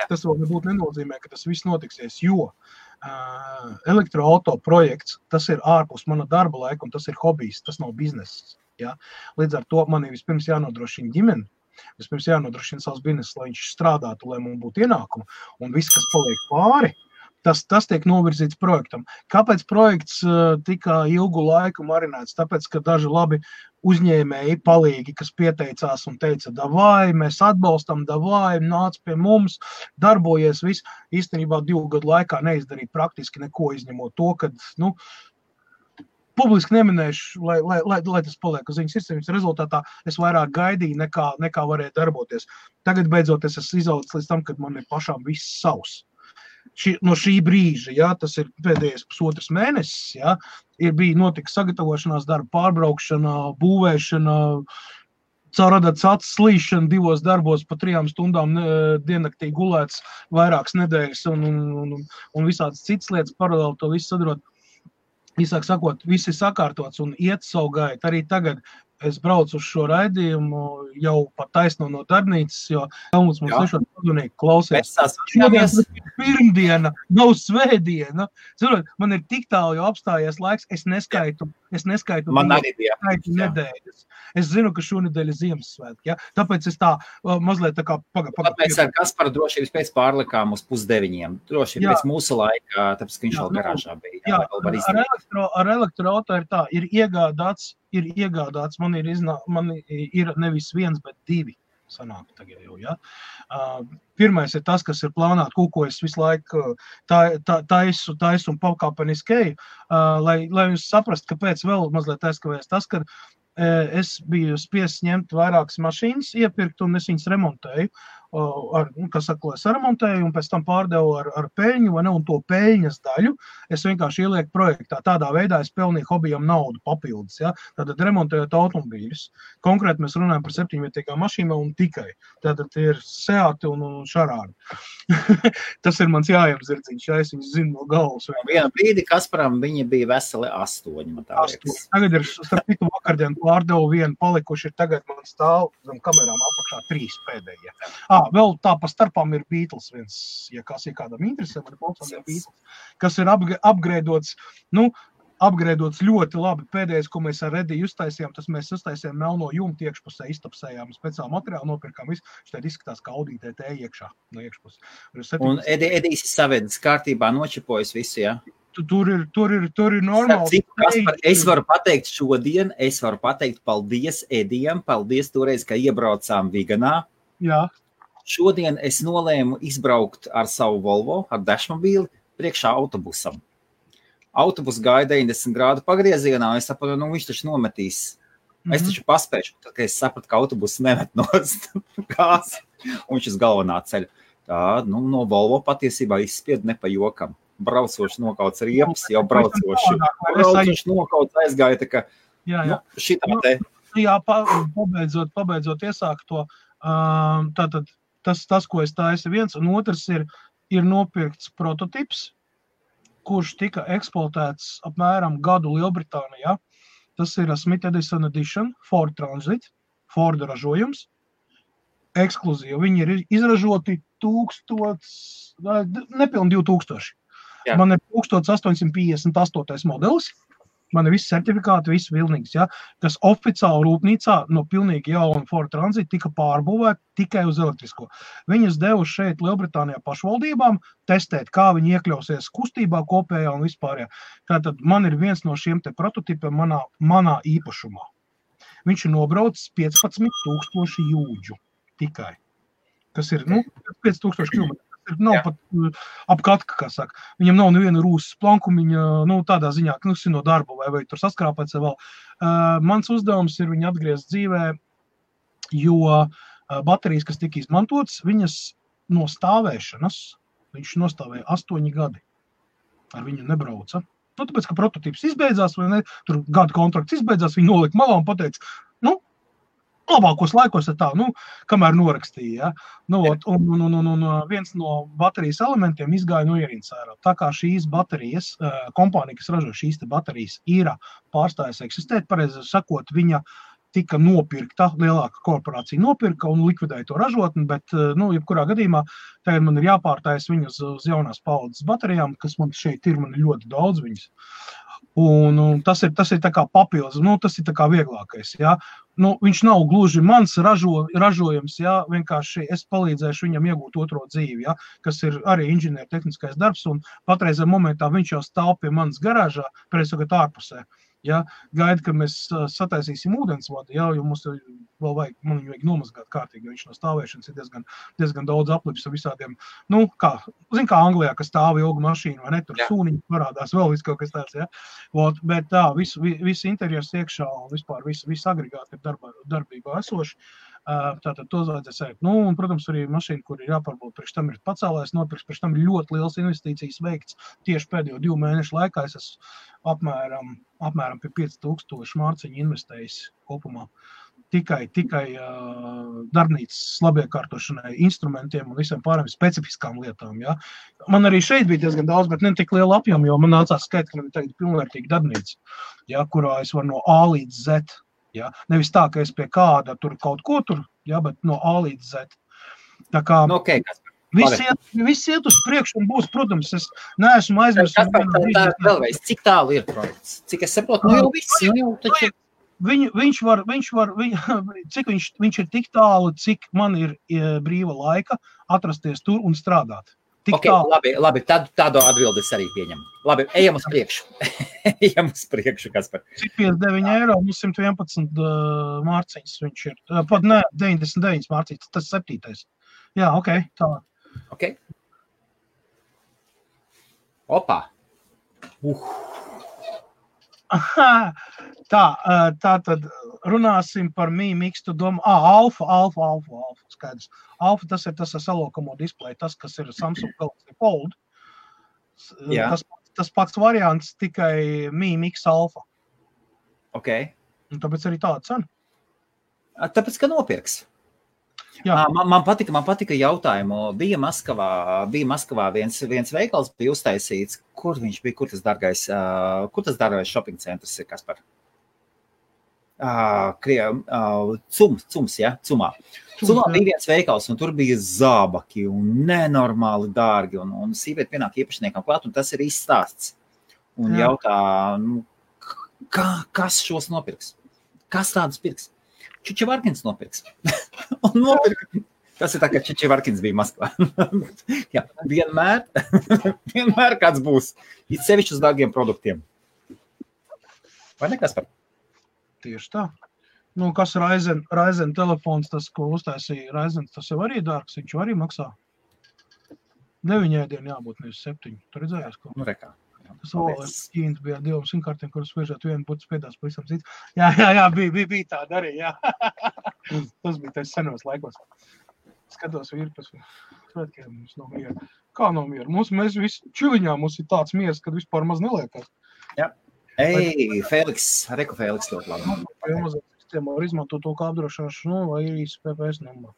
tas vēl nebūtu nenozīmē, ka tas viss notiksies, jo elektroauto projekts, tas ir ārpus mana darba laika, un tas ir hobijs, tas nav bizness. Ja? Līdz ar to man ir vispirms jānodrošina ģimeni, vispirms jānodrošina savs bizness, lai viņš strādātu, lai man būtu ienākumi, un viss, kas paliek pāri, tas tiek novirzīts projektam. Kāpēc projekts tika ilgu laiku marinēts? Tāpēc, ka daži labi uzņēmēji palīgi, kas pieteicās un teica, davai, mēs atbalstam, davai, nāc pie mums, darbojies viss. Īstenībā 2 gadu laikā neizdarīja praktiski neko, izņemot to, kad, publiski neminēšu, lai tas paliek uz viņas sirdsapziņas. Rezultātā es vairāk gaidīju, nekā varēja darboties. Tagad beidzot es esmu izaudzis līdz tam, kad man ir pašām viss savs. No šī brīža, ja, tas ir pēdējais 1,5 mēnesis, ja, bija notika sagatavošanās darba, pārbraukšana, būvēšana, caur radats acis slīšana 2 darbos pa 3 stundām diennaktī gulēts vairākas nedēļas un visādas citas lietas paralēli to visu sadarot. Īsāk sakot, viss ir sakārtots un iet savu gaitu. Arī tagad es braucu uz šo raidījumu jau pat taisno no darbnīcas, jo Helmuts mums nešot padunīgi klausies. Šodien pirmdiena, nav svētdiena. Zinot, man ir tik tālu jau apstājies laiks, es neskaitu nedēļas. Es zinu, ka šonedēļ ir Ziemassvētki, ja? Tāpēc es tā mazliet tā kā Mēs ar Kasparu drošības pēc pārlikām uz 8:30. Drošība pēc mūsu laika, tāpēc, ka viņš vēl garāžā bija. Ar elektroauto ir tā, ir iegādāts, man ir nevis 1, bet 2 sanāk tagad jau, ja. Pirmais ir tas, kas ir plānāt, ko es visu laiku taisu un pakāpeniskēju, lai jūs saprast, kāpēc vēl mazliet aizkavēs tas, ka es biju spiests ņemt vairākas mašīnas, iepirkt un es viņas remontēju. Saremontēju un pēc tam pārdevu ar peļņu, vai ne, un to peļņas daļu es vienkārši ielieku projektā. Tādā veidā es pelnīju hobijam naudu papildus, ja? Tātad remontējot automobīļus. Konkrēti mēs runājam par 7-vietīgām mašīnām un tikai. Tātad ir Seati un Šarāni. Tas ir mans jājamzirdziņš, ja es viņus zinu no galvas. Vienu brīdi Kasparam viņa bija veseli 8, man tā liekas. Tagad ir, starp citu, vakardien pārdevu vienu palikuši, ir tagad man stāv zem kamerām apakšā 3 pēdējie. Vēl tā pa starpām ir Beatles viens, ja kādam interesē, man ir Beatles, kas ir upgradeots, upgradeots ļoti labi. Pēdējais, ko mēs ar Rediju uztaisījām, tas mēs uztaisījām melno jumtu iekšpusē, iztapsējām, speciāli materiālu nopirkām visu, šeit izskatās kā Audi TT iekšā, no iekšpus. Un Edijs savedis kārtībā, nočipojas visu, ja? Tur ir normāli. Kaspar, es varu pateikt paldies Edijam, paldies toreiz, ka iebraucām Viganā. Jā. Šodien es nolēmu izbraukt ar savu Volvo, ar dašmobīli, priekšā autobusam. Autobus gāja 90 grādu pagriezienā, un es sapratu, viņš taču nometīs. Es taču paspēšu, tad, kad es sapratu, ka autobus nemet nost gāzi, un viņš uz galvenā ceļa. Tā, no Volvo patiesībā izspied ne pa jokam. Braucoši nokauts riepas, jau braucoši nokauts aizgāja, tā ka, šitā te. Jā, pabeidzot iesākt to, tātad tas, ko es taisu viens, un otrs ir nopirkts prototips, kurš tika eksploatēts apmēram gadu Lielbritānijā. Tas ir Smith Edison Edition, Ford Transit, Ford ražojums, ekskluzīvi. Viņi ir izražoti nepilni 2000. Jā. Man ir 1858. modelis. Man ir visi certifikāti, visi vilnīgs, ja, kas oficiāli rūpnīcā no pilnīgi jauna Ford Transit tika pārbūvēta tikai uz elektrisko. Viņas devuši šeit Lielbritānijā pašvaldībām testēt, kā viņi iekļausies kustībā kopējā un vispārējā. Tātad man ir viens no šiem te prototipiem manā īpašumā. Viņš ir nobraucis 15,000 jūdžu tikai, kas ir 5,000 km. Nav pat apkatka, kā saka. Viņam nav neviena rūsas plankumiņa, tādā ziņā, ka no darba vai tur saskrāpēts vai vēl. Mans uzdevums ir viņu atgriezt dzīvē, jo baterijas, kas tika izmantotas, viņas no stāvēšanas, viņš nostāvēja 8 gadi. Ar viņu nebrauca. Tāpēc, ka prototīps izbeidzās, vai ne, tur gada kontrakts izbeidzās, viņi nolika malā un pateica, labākos laikos tā, kamēr norakstīja. Ja? Un viens no baterijas elementiem izgāja no ierīnas ārā. Tā kā šīs baterijas, kompānija, kas ražo šīs te baterijas, ir pārstājusi eksistēt, pareizi sakot, viņa tika nopirkta, lielāka korporācija nopirka un likvidēja to ražotni, bet, jebkurā gadījumā, tagad man ir jāpārtājas viņas uz jaunās paudzes baterijām, kas man šeit ir, man ir ļoti daudz viņas. Un tas ir tā kā papildus, tas ir tā kā vieglākais, ja. Viņš nav gluži mans ražojums, ja, vienkārši es palīdzēšu viņam iegūt otro dzīvi, ja, kas ir arī inženieru tehniskais darbs, un patreizē momentā viņš jau stāv pie manas garāžā, pēc ārpusē. Ja, gaida, ka mēs sataisīsim ūdensvadu, ja, jo mums vēl man viņu vajag nomazgāt kārtīgi, jo viņš no stāvēšanas ir diezgan daudz aplips ar visādiem, kā Anglijā, kas stāv ilgu mašīnu, vai ne, tur sūniņi parādās, vēl viss kaut kas tāds, ja. Bet tā, viss interjers iekšā un vispār viss agregāti ir darbībā esoši. Tātad to vajadzēs sēkt. Un, protams, arī mašīna, kur ir jāpārbauda, priekš tam ir pacēlājs nopirks, priekš tam ir ļoti liels investīcijas veikts. Tieši pēdējo 2 mēnešu laikā es esmu apmēram pie 5000 mārciņu investējis kopumā. Tikai darbnīcas labiekārtošanai, instrumentiem un visiem pārējiem specifiskām lietām. Ja. Man arī šeit bija diezgan daudz, bet ne tik liela apjoma, jo man nācās skait, ka man ir tagad pilnvērtīga darbnīca, ja, kurā es varu no A līdz Z. Ja? Nevis tā, ka es pie kāda tur kaut ko tur, ja, bet no A līdz Z. Tā kā viss iet uz priekšu un būs, protams, es neesmu aizmirst. Vēlreiz, cik tālu ir projekts? Cik es saprotu, jau viss, taču... Viņš ir tik tālu, cik man ir brīva laika atrasties tur un strādāt. Labi, tādu atbildi es arī pieņemu. Labi, ejam uz priekšu. Kaspar. Cik 59 eiro, 111 mārciņas viņš ir. Pat ne, 99 mārciņas, tas 7. Jā, tā. Ok. Opa. Tā tad runāsim par Mi Mix to Dom. Alfa, skaidrs. Alfa, tas ir tas ar salokamo displeju, tas, kas ir Samsung Galaxy Fold. Tas pats variants, tikai Mi Mix Alfa. Ok. Un tāpēc arī tāda cena. Tāpēc, ka nopirks. Man patika jautājumu. Bija Maskavā viens veikals bija uztaisīts. Kur viņš bija? Kur tas dārgais shopping centrs ir, Kaspar? Cums, ja? Cumā bija viens veikals, un tur bija zābaki un nenormāli dārgi, un sīvieti pienāk īpašniekam klāt, un tas ir izstāsts. Un jautā, kas šos nopirks? Kas tādus pirks? Čučevarkins nopirks. Un nopirka. Tas ir tā, ka Čučevarkins bija Maskvā. Jā, vienmēr kāds būs. It sevišķi uz dārgiem produktiem. Vai ne, Kaspar? Tieši tā. Kas Ryzen telefons, tas, ko uztaisīja Ryzen, tas jau arī dārgs, viņš arī maksā. 9 ēdienu jābūt, nevis 7. Tu redzējies, ko? Rekā. Tas vēl Ķīnas bija ar 2 simkartiem, kuras sviežot vienu būtu spiedās pavisam cits. Jā, bija tāda arī, jā. Tas bija tais senos laikos. Skatos virpas, svētkiem mums nav miera. Kā nav miera? Mēs visi čiliņā mums ir tāds miers, kad vispār maz neliekās. Jā. Fēliks, Reku Fēliks ļoti labi. Amazon sistēmā var izmantot to kā apdrošināšanu, vai ir īsi PPS numā.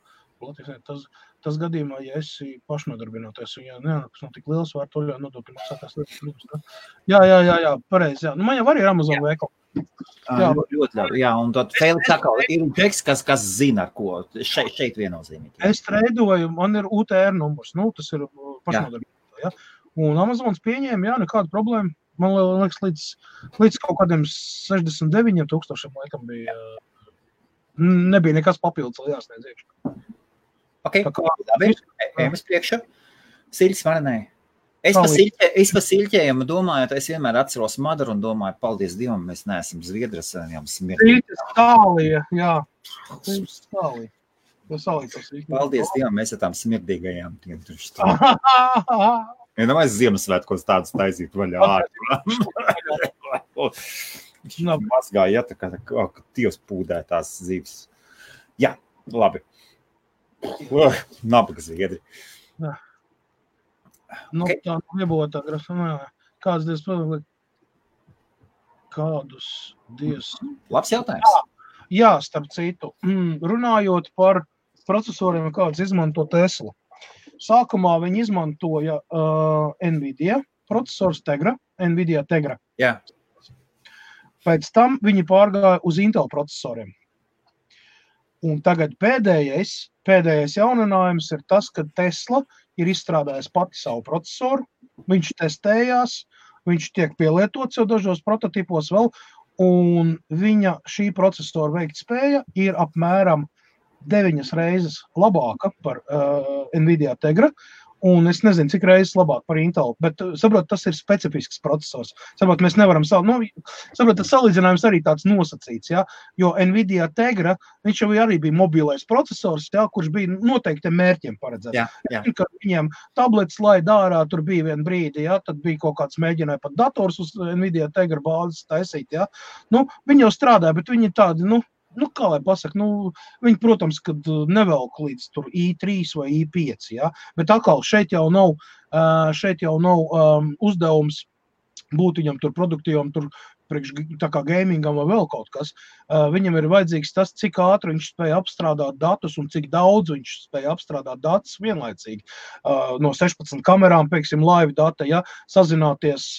Tas gadījumā, ja esi pašnodarbinātais, un ja neanākas nav tik liels, var to ļoti nodokļu maksātās lietas. Jā, pareizi, jā. Man jau arī ir Amazon veikali. Ļoti labi, jā, un tad Fēliks atkal ir teksts, kas zina, ar ko šeit viennozīmīgi. Es treidoju, man ir UTR numurs, tas ir pašnodarbinātā, ja. Un Amazons pieņēma, jā, nekāda problēma. Man liekas, līdz kaut kādiem 69,000 laikam bija, nebija nekas papildus, lai jāsniedz iekšā. Ok, labi, ejam uz priekšu. Siļķis varanē. Es pa siļķējumu domājot, es vienmēr atceros Madaru un domāju, paldies Dievam, mēs neesam Zviedras, jau smirdīgi. Stālija, jā. Stālija. Paldies Dievam, mēs ar tām smirdīgajām. Ja nemaz Ziemassvētkos tādus taisīt vaļā ārā. mazgāja, ja, tā kā Dievs pūdē tās zivis. Jā, labi. Nabaga zviedri. Jā. Nu, okay. Tā nebūtu tā grafamā. Kāds Dievs pavēlē? Kādus Dievs? Labs jautājums. Jā, starp citu. Runājot par procesoriem, kāds izmanto Tesla. Sākumā viņi izmantoja NVIDIA procesors Tegra, NVIDIA Tegra. Jā. Pēc tam viņi pārgāja uz Intel procesoriem. Un tagad pēdējais jauninājums ir tas, ka Tesla ir izstrādājis pati savu procesoru, viņš testējās, viņš tiek pielietots jau dažos prototipos vēl, un viņa šī procesora veiktspēja ir apmēram 9 reizes labāka par NVIDIA Tegra, un es nezinu, cik reizes labāk par Intel, bet, saprot, tas ir specifisks procesors. Saprot, mēs nevaram saprot, tas salīdzinājums arī tāds nosacīts, ja? Jo NVIDIA Tegra, viņš jau arī bija mobilais procesors, ja? Kurš bija noteikti mērķiem paredzēts. Jā. Kad viņiem tablets laida ārā, tur bija vien brīdi, ja? Tad bija kaut kāds mēģināja pat dators uz NVIDIA Tegra bāzes taisīt, ja? Viņi jau strādāja, bet viņi tādi, kā lai pasaka, viņi, protams, kad nevelk līdz tur I3 vai I5, ja? Bet atkal šeit jau nav uzdevums būt viņam tur produktīvam, tur priekš tā kā gamingam vai vēl kaut kas. Viņam ir vajadzīgs tas, cik ātri viņš spēja apstrādāt datus un cik daudz viņš spēja apstrādāt datus vienlaicīgi. No 16 kamerām, pieksim, live data, ja, sazināties,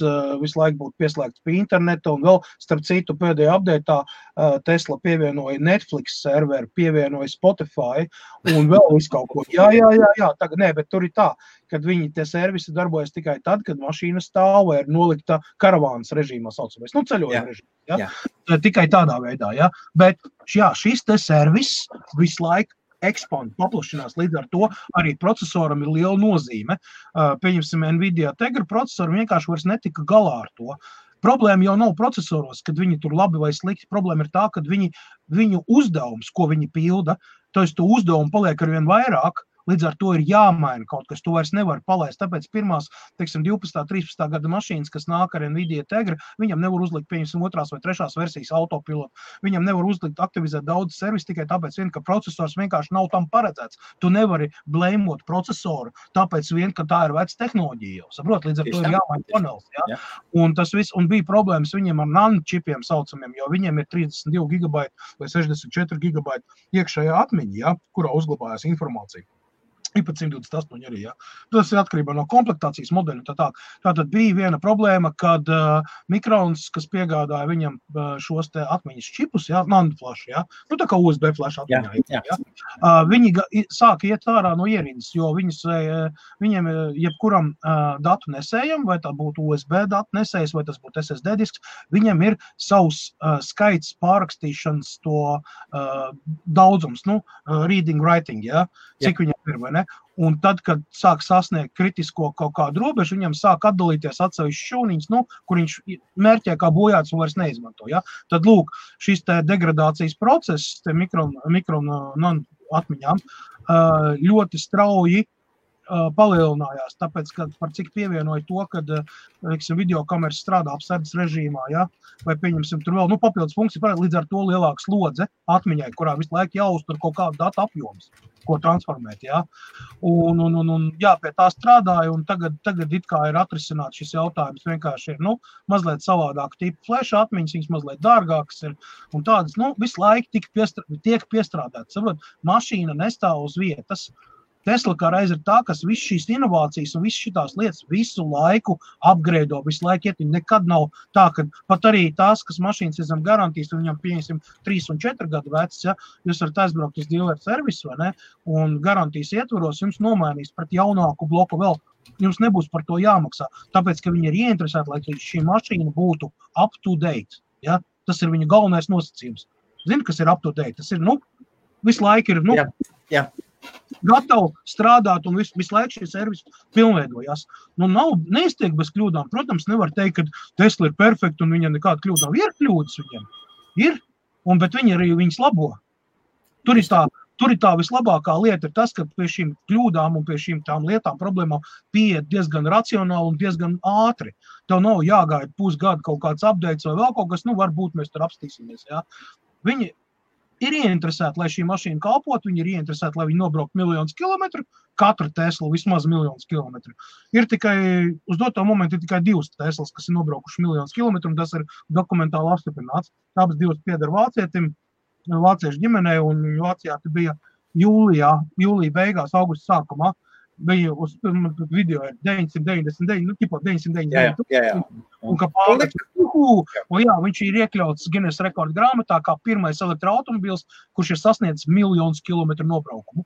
visu laiku būt pieslēgts pie interneta un vēl, starp citu, pēdējā updatā Tesla pievienoja Netflix serveri, pievienoja Spotify un vēl visu kaut ko. Jā, tagad nē, bet tur ir tā, kad viņi tie servisi darbojas tikai tad, kad mašīna stāv vai ir nolikta karavānas režīmā saucamais. Ceļojuma režīmā, ja? Tikai tādā veidā, ja? Bet šis te servis visu laiku ekspand, paplašinās, līdz ar to arī procesoram ir liela nozīme. Pieņemsim, NVIDIA Tegra procesori vienkārši vairs netika galā ar to. Problēma jau nav procesoros, kad viņi tur labi vai slikti. Problēma ir tā, kad viņu uzdevums, ko viņi pilda, to uzdevumu paliek arvien vairāk, līdz ar to ir jāmaina kaut kas, tu vairs nevar palaist. Tāpēc pirmās, 12. 13. gada mašīnas, kas nāk ar NVIDIA Tegra, viņam nevar uzlikt, pieņemsim, 2. vai 3. versijas autopilotu. Viņam nevar uzlikt, aktivizēt daudz servisu tikai tāpēc ka procesors vienkārši nav tam paredzēts. Tu nevari blēmot procesoru, tāpēc ka tā ir veca tehnoloģija jau. Saprot, līdz ar to ir jāmaina panels. Ja? Un tas viss, un bija problēmas viņiem ar nanočipiem saucamiem, jo viņiem ir 32 GB vai 64 GB iekšējā atmiņa, ja? Kurā uzglabājās informācija. Pat 128 arī, ja. Tas ir atkarībā no komplektācijas modeļu. Tātad bija viena problēma, kad Mikrons, kas piegādāja viņam šos te atmiņas čipus, ja, nanoflash, ja, tā kā USB flash atmiņā, ja, viņi sāka iet ārā no ierindas, jo viņiem jebkuram datu nesējam, vai tā būtu USB datu nesējs, vai tas būtu SSD disks, viņam ir savs skaits pārrakstīšanas to daudzums, reading, writing, ja, cik viņam ir, vai ne? Un tad, kad sāk sasniegt kritisko kaut kādu robežu, viņam sāk atdalīties atsevišķi šūniņas, kur viņš mērķē kā bojāts un vairs neizmanto. Ja? Tad, lūk, šis te degradācijas process, te mikron atmiņām, ļoti strauji palielinājās, tāpēc, ka par cik pievienoja to, kad videokameras strādā apsardzes režīmā, ja? Vai pieņemsim tur vēl papildus funkciju, līdz ar to lielāka slodze atmiņai, kurā visu laiku jāuztur kaut kādu datu apjomus, ko transformēt. Ja? Un pie tā strādāja, un tagad it kā ir atrisināts šis jautājums, vienkārši ir mazliet savādāk tipu flash atmiņas, viņas mazliet dārgākas ir, un tādas visu laiku tiek piestrādātas. Saprot, mašīna nestāv uz vietas. Tesla kā reiz ir tā, kas visu šīs inovācijas un visu šitās lietas visu laiku upgrado, visu laiku iet. Nekad nav tā, ka pat arī tās, kas mašīnas ir zem garantijas, un viņam pieņemsim 3 un 4 gadu vecs, ja, jūs varat aizbraukt uz dealer servisu, vai ne, un garantijas ietvaros jums nomainīs pret jaunāku bloku vēl. Jums nebūs par to jāmaksā, tāpēc, ka viņi ir ieinteresēti, lai šī mašīna būtu up to date. Ja? Tas ir viņa galvenais nosacījums. Zini, kas ir up to date? Tas ir, visu laiku ir, Jā. Gatavi strādāt un visu laiku šie servisi pilnveidojās. Neiztiek bez kļūdām. Protams, nevar teikt, ka Tesla ir perfekta un viņam nekāda kļūda nav. Ir kļūdas viņam. Ir, bet viņi arī viņas labo. Tur ir tā tur ir tā vislabākā lieta ir tas, ka pie šīm kļūdām un pie šīm tām lietām problēmām pieiet diezgan racionāli un diezgan ātri. Tev nav jāgaida pusgadu kaut kāds updates vai vēl kaut kas, varbūt mēs tur apstīsimies, jā. Viņi ir ieinteresēti, lai šī mašīna kalpot, viņi ir ieinteresēti, lai viņi nobraukt 1 000 000 kilometru, katru Teslu vismaz 1 000 000 kilometru. Ir tikai, uz doto momentu ir tikai 2 Teslas, kas ir nobraukuši 1 000 000 kilometru, un tas ir dokumentāli apstiprināts. Abas 2 pieder vācietim, vāciešu ģimenei, un Vācijā bija jūlija beigās, augusta sākumā. Bija uz video ir 999, tipā 999. Jā. Un kā pārēc, viņš ir iekļauts Guinness rekordu grāmatā kā pirmais elektroautomobils, kurš ir sasniedzis 1 000 000 kilometru nobraukumu.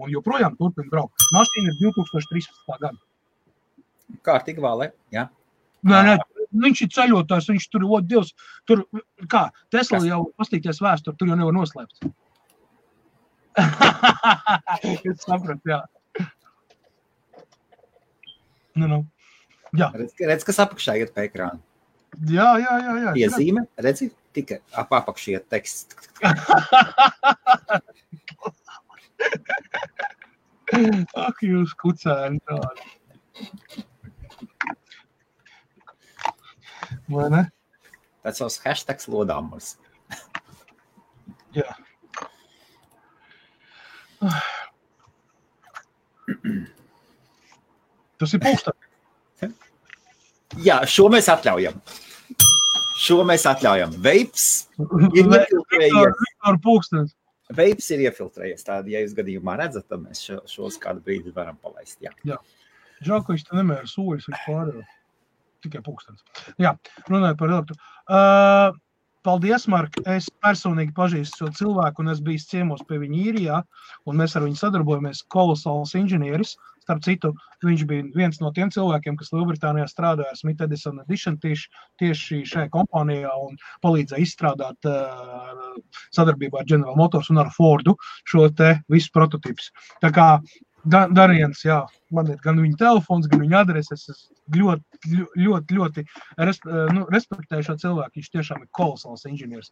Un joprojām turpina braukt. Mašīna ir 2013. gada. Kārtīgi vālē, jā. Nē, viņš ir ceļotājs, viņš tur, Dievs, tur, kā, Tesla jau pastīties vēsturi, tur jau nevar noslēpt. Es sapratu, jā. Jā. Redz, kas apakšā iet pa ekrānu. Jā. Piezīme, redzi, tikai apakšā iet teksts. Ak, jūs kucēni tādi. Vai ne? Tas savs hashtags lodāmurs. Jā. Tas ir pulksteni. Jā, šo mēs atļaujam. Veips ir iefiltrējies. Pulkstenis. Veips ir iefiltrējies. Tādi, ja jūs gadījumā redzat, tad mēs šos kādu brīdi varam palaist. Jā. Žēl, ka viņš te nemēra soļus, viņš pārējo. Tikai pulkstenis. Jā, runāju par elektru. Paldies, Mark. Es personīgi pažīstu šo cilvēku, un es biju ciemos pie viņa īrijā, un mēs ar viņu sadarbojamies. Kolosāls inženieris. Starp citu, viņš bija viens no tiem cilvēkiem, kas Lielbritānijā strādāja Smith Edison Edition tieši šajā kompānijā un palīdzēja izstrādāt sadarbībā ar General Motors un ar Fordu šo te visu prototīpus. Tā kā Dariens, jā, man ir gan viņa telefons, gan viņa adreses. Es ļoti respektēju šo cilvēku. Viņš tiešām ir kolosāls inženieris.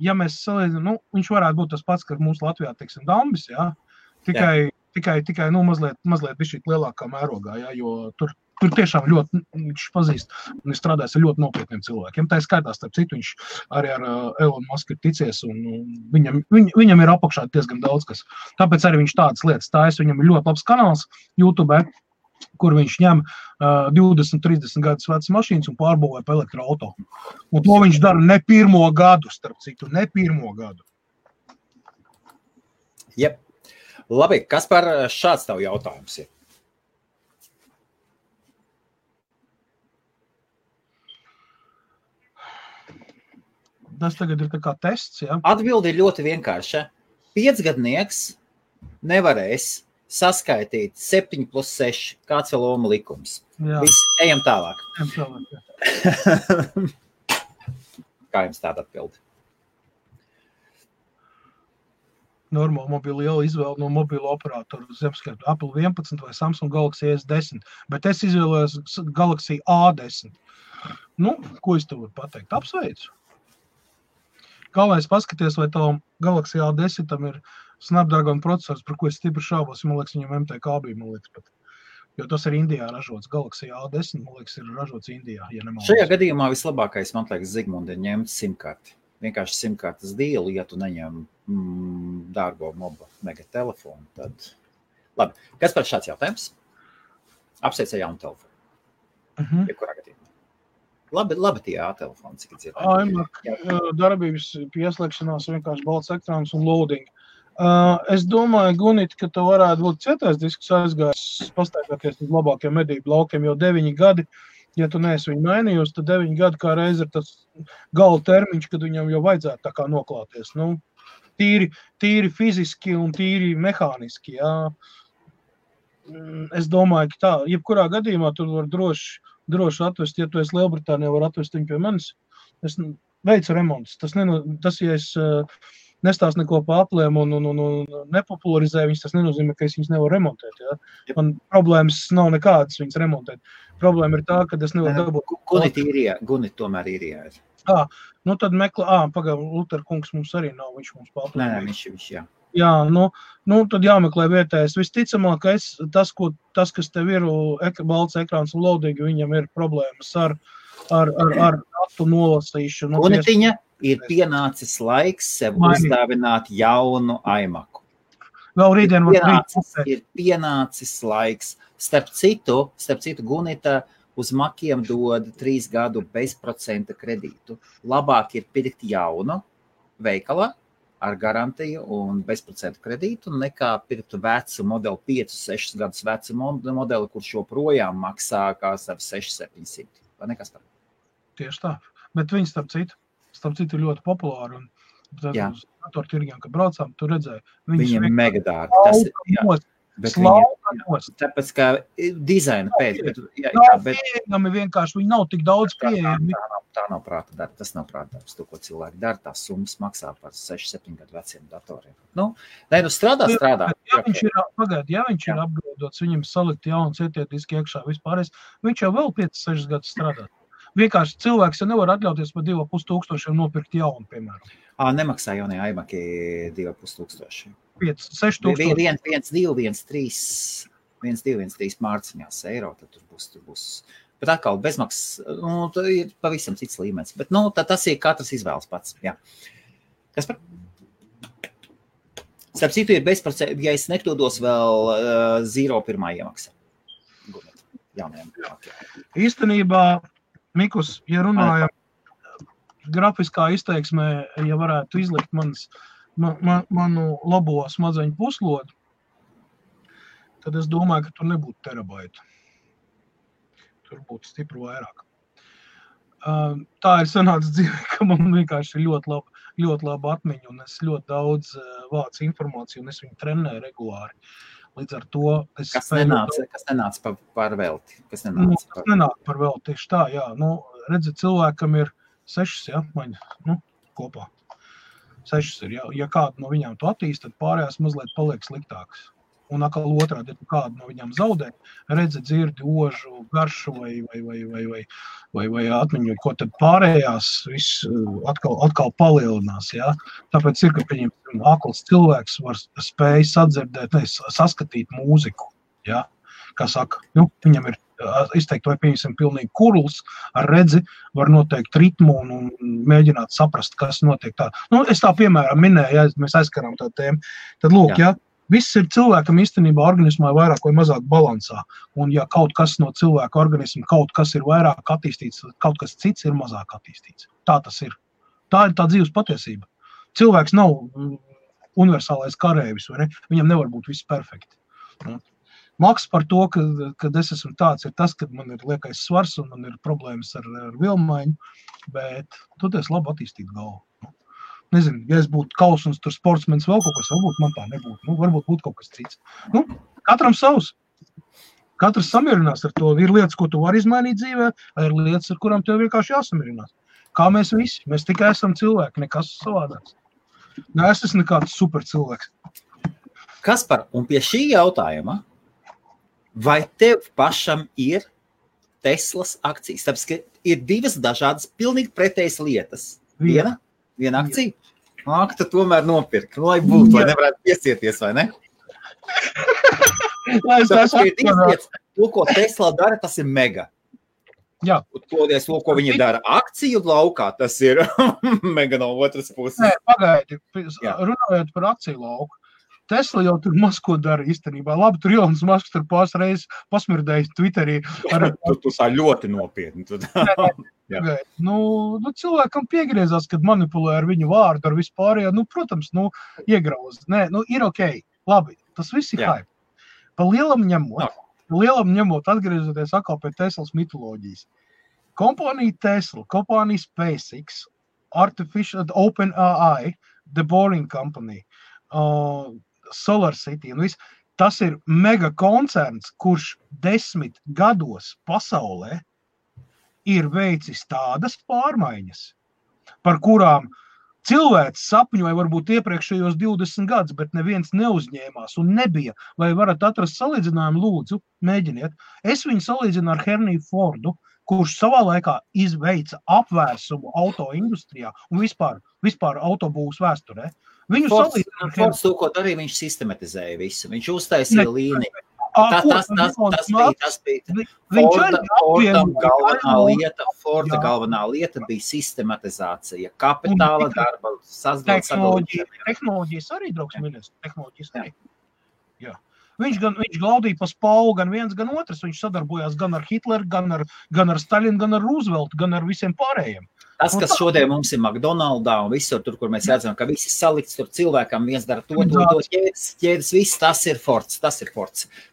Ja mēs salīdzinām, viņš varētu būt tas pats, ka mums Latvijā, teiksim, Dambis, jā, tikai mazliet bišķīt lielākā mērogā, jā, jo tur tiešām ļoti viņš pazīst un strādājas ar ļoti nopietniem cilvēkiem. Tā ir skaitā, starp citu, viņš arī ar Elon Musk ir ticies, un viņam ir apakšā diezgan daudz kas. Tāpēc arī viņš tādas lietas tājas, viņam ir ļoti labs kanāls YouTube, kur viņš ņem 20-30 gadus vecas mašīnas un pārbūvē pa elektroauto. Un to viņš dara ne 1. gadu, starp citu, ne 1. gadu. Jep. Labi, kas par šāds tavu jautājums ir? Tas tagad ir tā kā tests, jā? Atbildi ir ļoti vienkārša. 5-gadnieks nevarēs saskaitīt 7 + 6, kāds vēl Ohma likums. Viss, ejam tālāk. Kā jums tāda atbildi? Normāli mobili liela izvēle no mobilo operatoru zemskaitu Apple 11 vai Samsung Galaxy S10, bet es izvēlējos Galaxy A10. Ko es tev varu pateikt? Apsveicu. Galvenais paskaties, vai tavam Galaxy A10 tam ir Snapdragon procesors, par ko es stipri šaubos, man liekas, viņam MTK bija, man liekas, pat. Jo tas ir Indijā ražots. Galaxy A10, man liekas, ir ražots Indijā, ja nemaldos. Šajā gadījumā vislabākais, man liekas, Zigmundi ir ņemt simkarti. Vienkārši simkartas dīlu, ja tu neņem dārgo mobu mega telefonu, tad... Labi, kas par šāds jautājums? Apsveic ar jaunu telefonu. Jebkurā gadījumā. Labi tie telefoni, cik dzirdēt. Darbības pieslēgšanās vienkārši balts ekrāns un loading. Es domāju, Gunit, ka tev varētu būt cietais disks aizgājis pastaigāties uz labākiem medību laukiem, jo 9 gadi, ja tu neesi viņu mainījusi, tad 9 gadi kā reiz ir tas gala termiņš, kad viņam jau vajadzētu tā kā noklāties. Tīri fiziski un tīri mehāniski, jā. Es domāju, ka tā, jebkurā gadījumā tur var droši atvest, ja tu esi Lielbritānijā, var atvest viņu pie manis. Es veicu remontus. Tas, ja es nestāstu neko pa aplēm un nepopularizēju viņas, tas nenozīmē, ka es viņas nevaru remontēt. Ja? Man problēmas nav nekādas viņas remontēt. Problēma ir tā, ka es nevaru dabūt. Gunit tomēr īrijā ir. Tad meklē, Luther kungs mums arī nav, viņš mums pa aplēm. Nē, viņš, jā. Jā, tad jāmeklē vietējais. Visticamākais, tas, kas tev ir balts ekrāns un lodīgi, viņam ir problēmas ar datu nolasīšanu. Gunitiņa, ir pienācis laiks sev uzdāvināt jaunu iMacu. Vēl rītdien ir pienācis laiks. Starp citu, Gunita uz Makiem dod 3 gadu bezprocenta kredītu. Labāk ir pirkt jaunu veikalā ar garantiju un bezprocentu kredītu, nekā pirkt vecu modeli, 5-6 gadus vecu modeli, kurš joprojām maksā kā ar 600-700. Vai nekas par? Tieši tā. Bet viņi starp citu ir ļoti populāri. Un uz datortirgiem, kad braucām, tu redzēji. Viņiem ir mega dārgi. Tas ir, tāpēc, kā dizaina pēc. Pieejami vienkārši, viņi nav tik daudz pieejami. Tā nav prāta darba, tas nav prāta darbs. To, ko cilvēki dara, tās summas maksā par 6-7 gadu veciem datoriem. Strādā. Ja viņš ir apgraudots, viņam salikt jauns ietietiski iekšā vispārējais, viņš jau vēl 5-6 gadus strādā. Vienkārši cilvēks jau nevar atļauties par 2,5 nopirkt jaunu, piemēram. Nemaksā jaunie iMaki 2,5. 5-6 1,213 mārciņās eiro, tad tur būs. Bet atkal bezmaksas, ir pavisam cits līmenis. Bet, tas ir katrs izvēles pats. Jā. Kas par? Starp citu ir bezprocenta, ja es nekļūdos vēl 0,1 iemaksa. Īstenībā, Mikus, ja runājam grafiskā izteiksmē, ja varētu izlikt manu labo smadzeņu puslodu, tad es domāju, ka tur nebūtu terabaitu. Tur būtu stipri vairāk. Tā ir sanāca dzīvē, ka man vienkārši ir ļoti laba atmiņa, un es ļoti daudz vācu informāciju, un es viņu trenēju regulāri. Līdz ar to es Kas nenāca par velti? Kas nenāca par velti, tieši tā, jā. Redzi, cilvēkam ir 6, maņa, kopā. 6 ir, ja kādu no viņām tu attīsti, tad pārējās mazliet paliek sliktāks. Un atkal otrādi, ja kādu no viņām zaudē, redzi, dzirdi, ožu, garšu vai atmiņu, ko tad pārējās viss atkal palielinās, jā. Tāpēc ir, ka viņam akls cilvēks var spēj saskatīt mūziku, jā. Kā saka, viņam ir izteikt, vai pieņemsim pilnīgi kurls ar redzi, var noteikt ritmu un mēģināt saprast, kas notiek tā. Es tā piemēram minēju, ja mēs aizskarām tā tēmu, tad lūk, jā. Viss ir cilvēkam īstenībā organismā vairāk vai mazāk balansā. Un ja kaut kas no cilvēka organisma, kaut kas ir vairāk attīstīts, kaut kas cits ir mazāk attīstīts. Tā tas ir. Tā ir tā dzīves patiesība. Cilvēks nav universālais karēvis, vai ne? Viņam nevar būt viss perfekti. Maks par to, kad es esmu tāds, ir tas, kad man ir liekais svars un man ir problēmas ar vilmaiņu, bet tu esi labi attīstīt galvu. Nezinu, ja es būtu kausuns, tur sportsmenis vēl kaut kas, varbūt man tā nebūtu. Varbūt būtu kaut kas cits. Katram savs. Katrs samierinās ar to. Ir lietas, ko tu vari izmainīt dzīvē, vai ir lietas, ar kurām tev vienkārši jāsamierinās. Kā mēs visi. Mēs tikai esam cilvēki, nekas savādāks. Es esmu nekāds super cilvēks. Kaspar, un pie šī jautājuma, vai tev pašam ir Teslas akcijas? Tāpēc, ka ir 2 dažādas, pilnīgi pretējas lietas. Viena akcija? Tu tomēr nopirki, lai būtu, lai nevarētu piesieties, vai ne? To, ko Tesla dara, tas ir mega. Jā. To, ko viņi dara akciju laukā, tas ir mega no otras puses. Nē, pagaidi, runājot par akciju lauku. Tesla jau tur maz ko dara īstenībā. Labi, tur Ilons Masks tur pāris reizes pasmirdējis Twitterī. Tu tā ļoti nopietni. Cilvēkam piegriezās, kad manipulē ar viņu vārdu, ar vispārējo, protams, iegrauz. Nē, ir okei. Labi, tas viss ir hype. Pa lielam ņemot, atgriezoties atkal pie Teslas mitoloģijas. Kompānija Tesla, kompānija SpaceX, OpenAI, The Boring Company, Solar City un viss. Tas ir mega koncerns, kurš 10 gados pasaulē ir veicis tādas pārmaiņas, par kurām cilvēks sapņoja varbūt iepriekšējos 20 gadus, bet neviens neuzņēmās un nebija. Vai varat atrast salīdzinājumu, lūdzu, mēģiniet. Es viņu salīdzinu ar Henriju Fordu, kurš savā laikā izveica apvērsumu auto industrijā un vispār autobūvas vēsturē. Viņu salīdzināt. Fords to, ko darīja, viņš sistematizēja visu. Viņš uztaisīja līniju. Tas bija Forda galvenā lieta bija sistematizācija, kapitāla darba, tehnoloģijas arī, draugs ministrs, tehnoloģijas arī. Jā. Viņš glaudīja pa spālu gan viens, gan otrs. Viņš sadarbojās gan ar Hitleru, gan ar Stalinu, gan ar Rooseveltu, gan ar visiem pārējiem. Tas, kas šodien mums ir McDonaldā un visur tur, kur mēs redzam, ka visi salikts tur cilvēkam, viens dara to ķēdes, viss, tas ir Fords.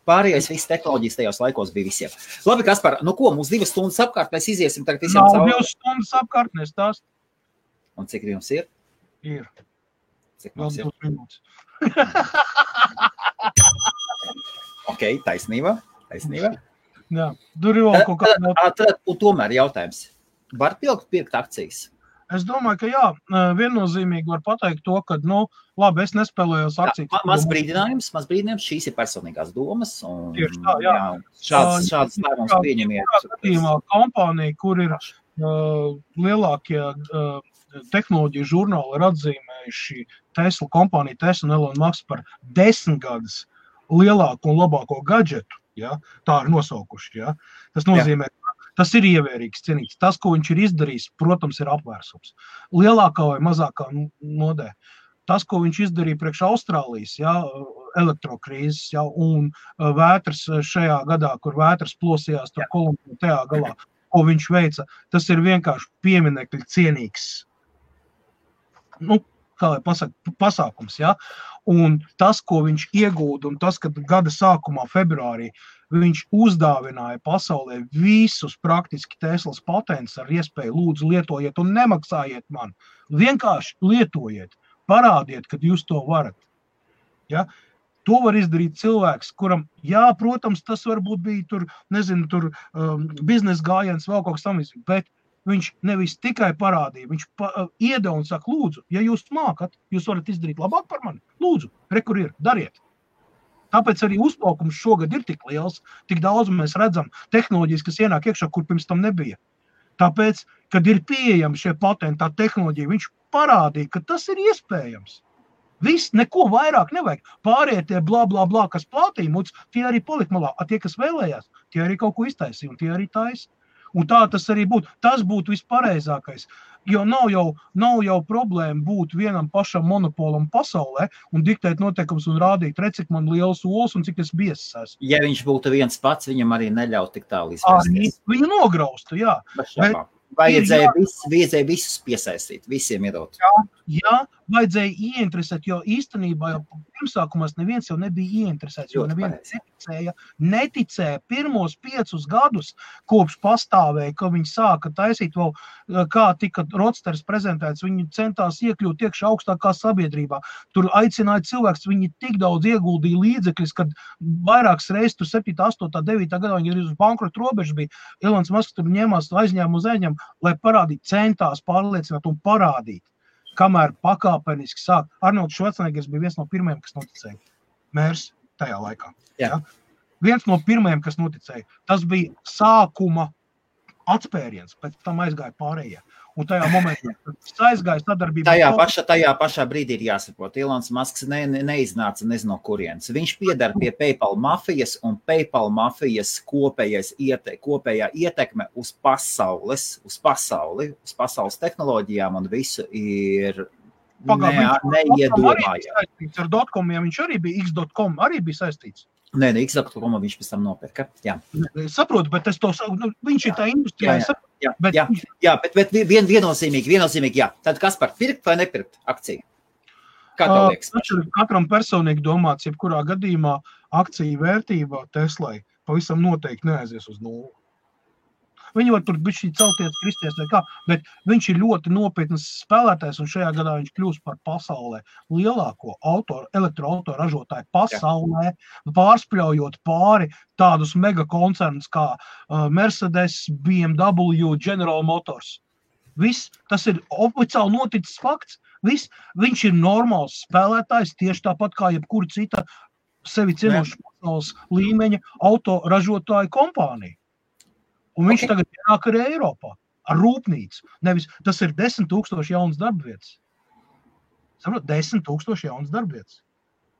Pārējais viss tehnoloģijas tajos laikos bija visiem. Labi, Kaspar, nu ko, mums 2 stundas apkārt, mēs iziesim tagad visiem cauri. Nav 2 stundas apkārt, nestāst. Un cik jums ir? Ir. Cik mums ir? 2 minūtes. Ok, taisnība. Jā, tur ir vēl kaut kādā. Un tomēr jautājums. Var pirkt akcijas? Es domāju, ka jā, viennozīmīgi var pateikt to, ka, labi, es nespēlējos akcijas. Maz brīdinājums, šīs ir personīgās domas. Un, tieši tā, jā. Šāds lēmums pieņemiet. Gadījumā kompānija, kur ir lielākie tehnoloģiju žurnāli ir atzīmējuši Tesla kompāniju, Tesla un Elon Musk par 10 gadus lielāko un labāko gadžetu, ja? Tā ir nosaukuši. Ja? Tas nozīmē, tas ir ievērīgs, cienīgs. Tas, ko viņš ir izdarījis, protams, ir apvērsums. Lielākā vai mazākā nodē. Tas, ko viņš izdarīja priekš Austrālijas, ja, elektrokrīzes, ja, un vētras šajā gadā, kur vētras plosījās tur Kolumbijā tajā galā, ko viņš veica, tas ir vienkārši pieminekļi cienīgs. Kā lai pasaka, pasākums, ja? Un tas, ko viņš iegūda, un tas, kad gada sākumā, februārī, viņš uzdāvināja pasaulē visus praktiski Teslas patentus ar iespēju lūdzu lietojiet un nemaksājiet man. Vienkārši lietojiet, parādiet, kad jūs to varat. Ja? To var izdarīt cilvēks, kuram, jā, protams, tas varbūt bija tur, biznesa gājiens, vēl kaut kas tam, bet viņš nevis tikai parādīja, viņš iedeva un saka, lūdzu, ja jūs mākat, jūs varat izdarīt labāk par mani, lūdzu, kur ir, dariet. Tāpēc arī uzplaukums šogad ir tik liels, tik daudz mēs redzam tehnoloģijas, kas ienāk iekšā, kur pirms tam nebija. Tāpēc, kad ir pieejami šie patenti, tā tehnoloģija, viņš parādīja, ka tas ir iespējams. Viss, neko vairāk nevajag. Pārējie tie blā, kas plātīja muts, tie arī palika malā. A tie, kas vēlējās, tie arī kaut ko iztaisīja, un tie arī taisa. Un tā tas arī būtu. Tas būtu vispareizākais. Jo nav jau problēma būt vienam pašam monopolam pasaulē un diktēt noteikums un rādīt, cik man liels ols un cik es biesas esmu. Ja viņš būtu viens pats, viņam arī neļaut tik tālu izvērsties. Viņu nograustu, jā. Vajadzēja visus piesaistīt, visiem iedot. Jā, vajadzēja ieinteresēt, jo īstenībā jau pirmsākumās neviens jau nebija ieinteresēts, jo neviens neticēja pirmos 5 gadus, kopš pastāvēja, ka viņi sāka taisīt vēl, kā tika Rodsters prezentēts, viņi centās iekļūt iekšā augstākā sabiedrībā. Tur aicināja cilvēks, viņi tik daudz ieguldīja līdzekļus, kad vairākas reizes tur 7, 8, 9 gadā viņi arī uz bankrotu robežu bija. Elons Musk tur ņēmās aizņēmu uz aizņēmu, lai parādītu, centās pārliecināt un parādīt, kamēr pakāpeniski sāk. Arnolds Švarcneggers bija viens no pirmajiem, kas noticēja. Mērs tajā laikā. Ja? Viens no pirmajiem, kas noticēja. Tas bija sākuma atspēriens, pēc tam aizgāja pārējie. Un tajā momentā aizgāja sadarbībā. Tajā pašā brīdī ir jāsaprot. Elons Musks neiznāca nezinu no kurienes. Viņš piedara pie PayPal mafijas, un PayPal mafijas kopējā ietekme uz pasauli, uz pasaules tehnoloģijām un visu ir neiedomājama. Ar dotcomiem viņš arī bija, X.com arī bija saistīts. Nē, X.com viņš pēc tam nopirka. Jā. Es saprotu, bet es to saku, viņš ir tā industrijā. Bet viennozīmīgi, jā. Tad kas par pirkt vai nepirkt akciju? Kā tev liekas? Katram personīgi domāts, jebkurā gadījumā akciju vērtība Teslai pavisam noteikti neaizies uz nulli. Viņi var tur bišķi celties, kristies vai kā, bet viņš ir ļoti nopietnas spēlētājs, un šajā gadā viņš kļūst par pasaulē lielāko elektroauto ražotāju pasaulē, pārspļaujot pāri tādus megakoncernus kā Mercedes, BMW, General Motors. Viss, tas ir oficiāli noticis fakts. Viss, viņš ir normāls spēlētājs, tieši tāpat kā jebkura cita sevi cienoša pasaules līmeņa auto ražotāju kompānija. Un viņš tagad ienāk arī Eiropā ar rūpnīcu. Nevis, tas ir 10 000 jaunas darba vietas. saprot, 10,000 jaunas darbvietas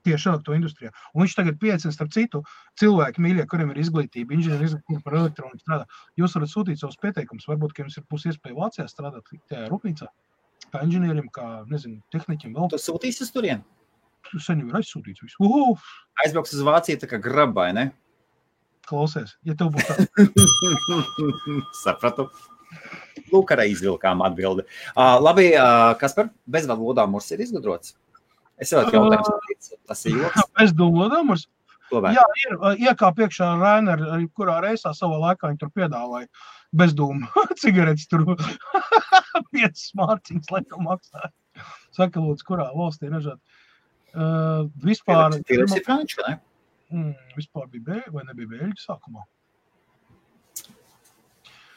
tieši elektroindustrijā. Un viņš tagad pieaicina starp citu cilvēki mīļie, kuriem ir izglītība, inženieri izglītība par elektroniku strādā. Jūs varat sūtīt savus pieteikumus, varbūt, ka jums ir būs iespēja Vācijā strādāt tajā rūpnīcā, kā inženierim, kā, nezinu, tehniķim vēl. Tu sūtīsi uz turien? Tu sen jau ir aizsūtīts visu. Aizbrauks uz Vāciju tā kā grabai, ne? Klausies, ja tev būs tā. Sapratu. Lūk, arī izvilkām atbildi. Labi, Kaspar, bezvadu lodāmurs ir izgudrots? Es vēl jautājums, tas ir joks. Bezdomu lodāmurs? Jā, ir iekā priekšā Rainer, kurā reisā savā laikā viņi tur piedāvāja bezdomu cigaretes tur 5 mārciņas laikam maksāja. Saka, lūdzu, kurā valstī ražāt. Vispār... Filips ir franču, ne? Vispār bija vai nebija Bēļģi sākumā?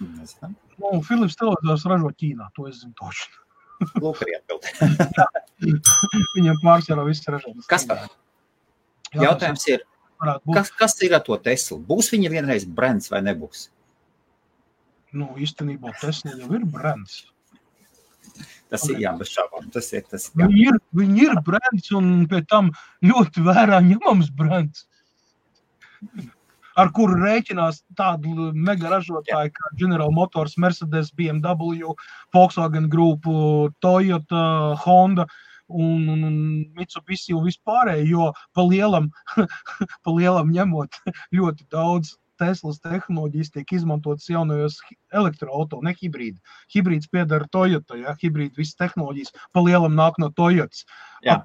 Nezinām. Filips televizors ražo Ķīnā, to es zinu toši. Lūk, arī atbildi. Viņam pārsvarā viss ražotas. Kaspar, jautājums ir, kas ir ar to Teslu? Būs viņa vienreiz brands vai nebūs? Nu, īstenībā Tesla jau ir brands. Tas ir, jā, bez šābām. Tas ir. Viņi ir brands un pie tam ļoti vērā ņemams brands. Ar kuru rēķinās tādu mega ražotāju kā General Motors, Mercedes, BMW, Volkswagen Group, Toyota, Honda un Mitsubishi un vispārēji, jo pa lielam ņemot ļoti daudz Teslas tehnoloģijas tiek izmantotas jaunajos elektroauto, ne hibrīdi. Hibrīds piedara Toyota, ja, hibrīdi visas tehnoloģijas pa lielam nāk no Toyotas,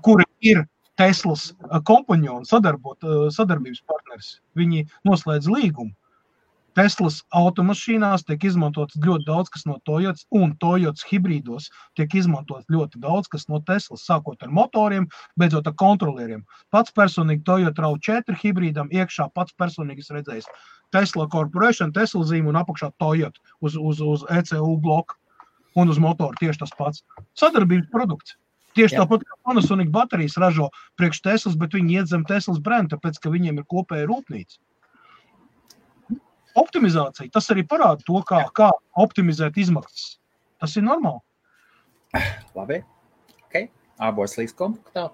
kuri ir Teslas kompanjoni, sadarbības partneris. Viņi noslēdz līgumu. Teslas automašīnās tiek izmantots ļoti daudz, kas no Toyotas, un Toyotas hibrīdos tiek izmantots ļoti daudz, kas no Teslas, sākot ar motoriem, beidzot ar kontrolieriem. Pats personīgi Toyota RAV4 hibrīdam iekšā pats personīgas redzējis Tesla Corporation, Tesla zīme un apakšā Toyota uz ECU bloku un uz motoru tieši tas pats. Sadarbības produkts. Tieši tāpat kā Panasonic baterijas ražo priekš Teslas, bet viņi iet zem Teslas brenda, tāpēc, ka viņiem ir kopēja rūpnīca. Optimizācija, tas arī parāda to, kā optimizēt izmaksas. Tas ir normāli. Labi, ok. Abos līdz kompaktā.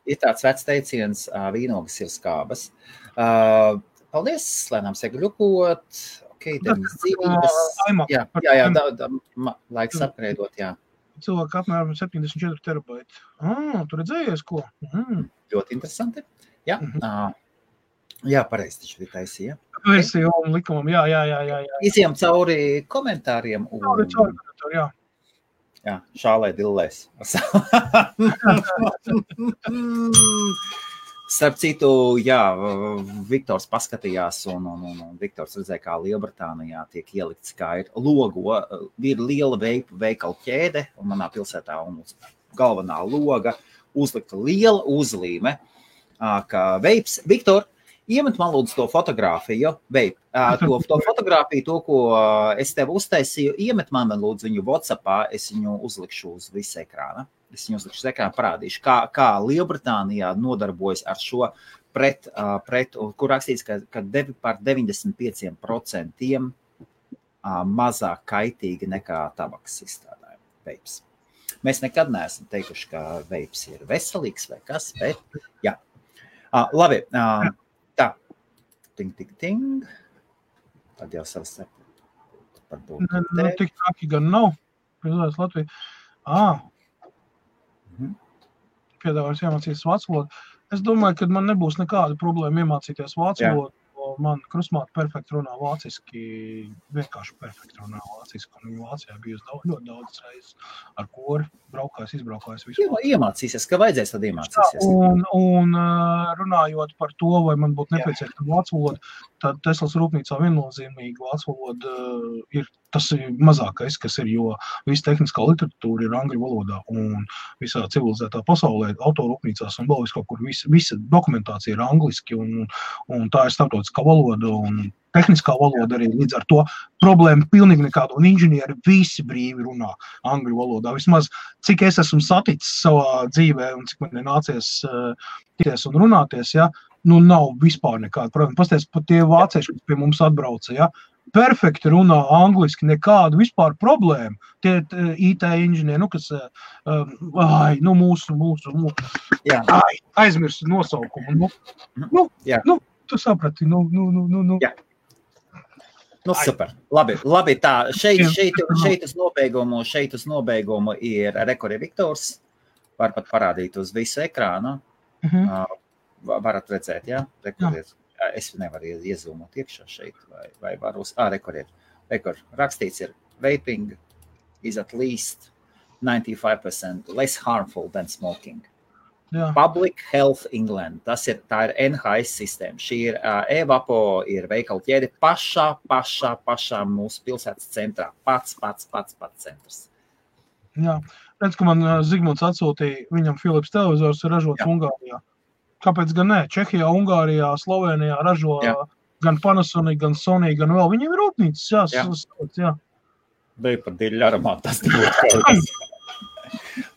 Ir tāds vecs teiciens, vīnogas ir skābas. Paldies, lēnām segļukot. Ok, deviņas dzīvības. Jā, laiks apgrēdot, jā. Cilvēki apmēram 74 terabaiti. Tu redzējies, ko? Ļoti interesanti. Jā, jā, pareizi taču ir taisīja. Versija un likumam, jā. Iziem cauri komentāriem. Cauri komentāri, jā. Jā, šālē dillēs. Starp citu, jā, Viktors paskatījās un Viktors redzēja, kā Lielbritānijā tiek ielikts, kā ir logo, ir liela veikalu ķēde, un manā pilsētā un galvenā loga uzlikta liela uzlīme, ka veips. Viktor, iemet man lūdzu to fotogrāfiju, to fotogrāfiju, to, ko es tev uztaisīju, iemet man lūdzu viņu WhatsAppā, es viņu uzlikšu uz visu ekrāna. Es viņu uzlikšu uz ekrāna, parādīšu, kā Lielbritānijā nodarbojas ar šo pret kur rakstīts, ka par 95% mazāk kaitīgi nekā tabaks izstrādājumi veips. Mēs nekad neesam teikuši, ka veips ir veselīgs vai kas, bet jā. Labi, tā. Ting. Tad jau savas tik traki gan nav. Pilsētas Latvija. Piedāvājums iemācīties vācu valodu. Es domāju, ka man nebūs nekāda problēma iemācīties vācu valodu. Man krusmāte perfekti runā vāciski, vienkārši perfekti runā vāciski. Un viņa Vācijā bijusi ļoti daudz reizes ar kori, izbraukājis visu. Iemācīsies, ka vajadzēs, tad iemācīsies. Un runājot par to, vai man būtu nepieciešama vācu valoda, tad Teslas rūpnīcā viennozīmīgi vācu valoda ir tas mazākais, kas ir, jo visa tehniskā literatūra ir angļu valodā un visā civilizētā pasaulē, autorūpnīcās un vēl viskaut kur visa dokumentācija ir angliski un tā ir starptautiskā valoda un tehniskā valoda arī līdz ar to problēma pilnīgi nekāda un inženieri visi brīvi runā angļu valodā. Vismaz cik es esmu saticis savā dzīvē un cik man ir nācies tikties un runāties, ja, nav vispār nekāda. Protams, pasties, pat tie vācieši, kas pie mums atbrauca, ja, perfekti runā angliski, nekādu vispār problēmu. Tie IT inženieri, kas, aizmirst nosaukumu. Tu saprati, Jā. Super. Labi, tā. Šeit uz nobeigumu ir Rekord Viktors. Var pat parādīt uz visu ekrānu. Varat redzēt, jā? Rekordiet. Es nevaru iezūmot iekšā šeit, vai varu uz... Rekord. Rakstīts ir vaping is at least 95% less harmful than smoking. Jā. Public Health England. Tā ir NHS sistēma. Šī ir e-vapo, ir veikalu ķēde pašā mūsu pilsētas centrā. Pats centrs. Jā. Redz, ka man Zigmunds atsūtīja, viņam Philips televizors ir ražots Ungārijā. Kāpēc gan ne? Čehijā, Ungārijā, Slovenijā ražo gan Panasonic, gan Sony, gan vēl. Viņiem ir rūpnīcas, jā. Bija par diļu aromātu, tas nebūtu.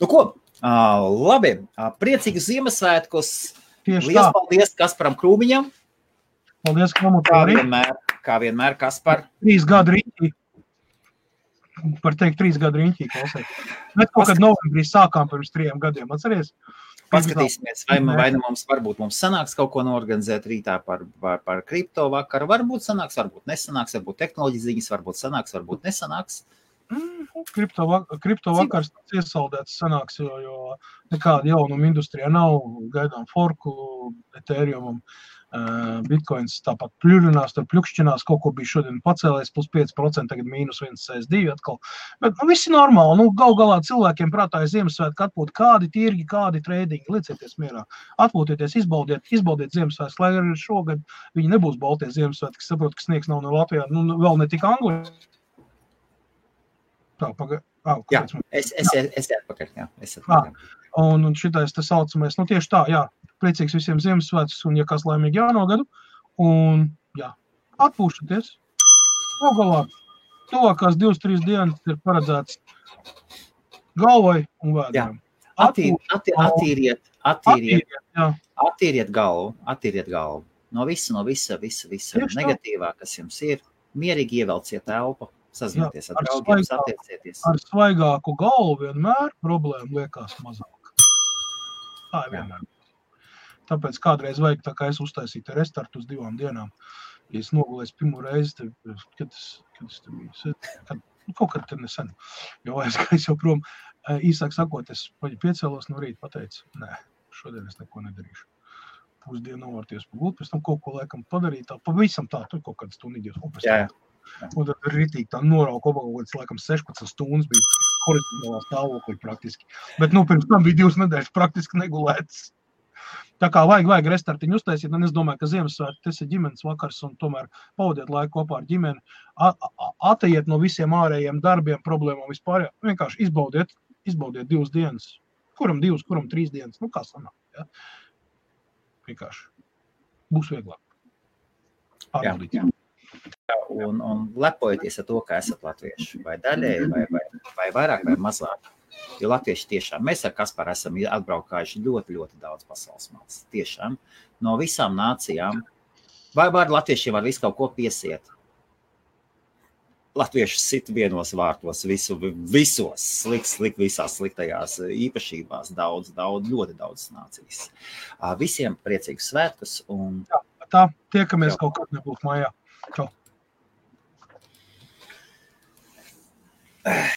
Nu ko, labi, priecīgus Ziemassvētkus. Liels paldies Kasparam Krūmiņam. Paldies, kā vienmēr, Kaspar. 3 gadu riņķī. Par teikt 3 gadu riņķī, klausēt. Bet kaut kad novembrī sākām pirms 3 gadiem, atceries? Paskatīsimies, vai mums sanāks kaut ko norganizēt rītā par kripto vakaru. Varbūt sanāks, varbūt nesanāks, varbūt tehnoloģijas ziņas, varbūt sanāks, varbūt nesanāks. Kripto vakars iesaldēts sanāks, jo nekāda jaunuma industrijā nav, gaidām forku, Ethereumam, Bitcoins tāpat pļurinās, tur pļukšķinās, kaut ko bija šodien pacēlēs, plus 5%, tagad mīnus 1,62 atkal. Bet viss ir normāli, gal galā cilvēkiem prātā ir Ziemassvētku atpūt, kādi tirgi, kādi tradingi, liecieties mierā. Atpūtieties, izbaudiet Ziemassvētku, lai arī šogad viņi nebūs baltie Ziemassvētki, saprot, ka sniegs nav no Latvijā, vēl ne tik Anglijā. Jā, es atpakaļ, jā. Un šitais tas saucamais, tieši tā, jā, priecīgs visiem Ziemassvētkus, un ja kas laimīgi jauno gadu, un jā, atpūšaties. Galvā, tuvākās 2-3 dienas ir paredzēts galvai un vēdām. Attīriet galvu. No visa negatīvā, kas jums ir, mierīgi ievelciet elpu. Sazināties ar draugiem, satiecieties. Ar svaigāku galvu vienmēr problēma liekas mazāk. Tā ir vienmēr. Tāpēc kādreiz vajag, tā kā es uztaisītu restartu uz 2 dienām. Ja es nogulēju pirmo reizi, kad es te biju, kaut kad te nesen, jo aizgājis jau prom, īsāk sakot, es piecēlos no rīta, pateicu, nē, šodien es neko nedarīšu. Pusdienu novārties pagūt, pēc tam kaut ko laikam padarīt, tā pavisam tā, tur kaut kāds stunīdies, un pēc tam. Un tad ritīgi tā norauka obagūtas, laikam 16 stundas bija horizontālā stāvoklī praktiski. Bet, pirms tam bija 2 nedēļas praktiski negulētas. Tā kā vajag restartiņu uztaisīt, un es domāju, ka Ziemassvētki, tas ir ģimenes vakars, un tomēr pavadiet laiku kopā ar ģimeni, ateiet no visiem ārējiem darbiem, problēmām vispār, vienkārši izbaudiet 2 dienas. Kuram 2, kuram 3 dienas, kā sanāk, ja? Vienkārši. Būs vieglāk. Pārbaudīt. Un lepojieties ar to, ka esat latvieši, vai daļēji, vai vairāk, vai mazāk. Jo latvieši tiešām, mēs ar Kasparu esam atbraukājuši ļoti, ļoti daudz pasaules malas. Tiešām, no visām nācijām, vai latviešiem var visu kaut ko piesiet. Latvieši sit vienos vārtos, visos visās sliktajās īpašībās, ļoti daudz nācijas. Visiem priecīgus svētkus. Jā, tā, tiekamies kaut kad nebūs mājā. Čau.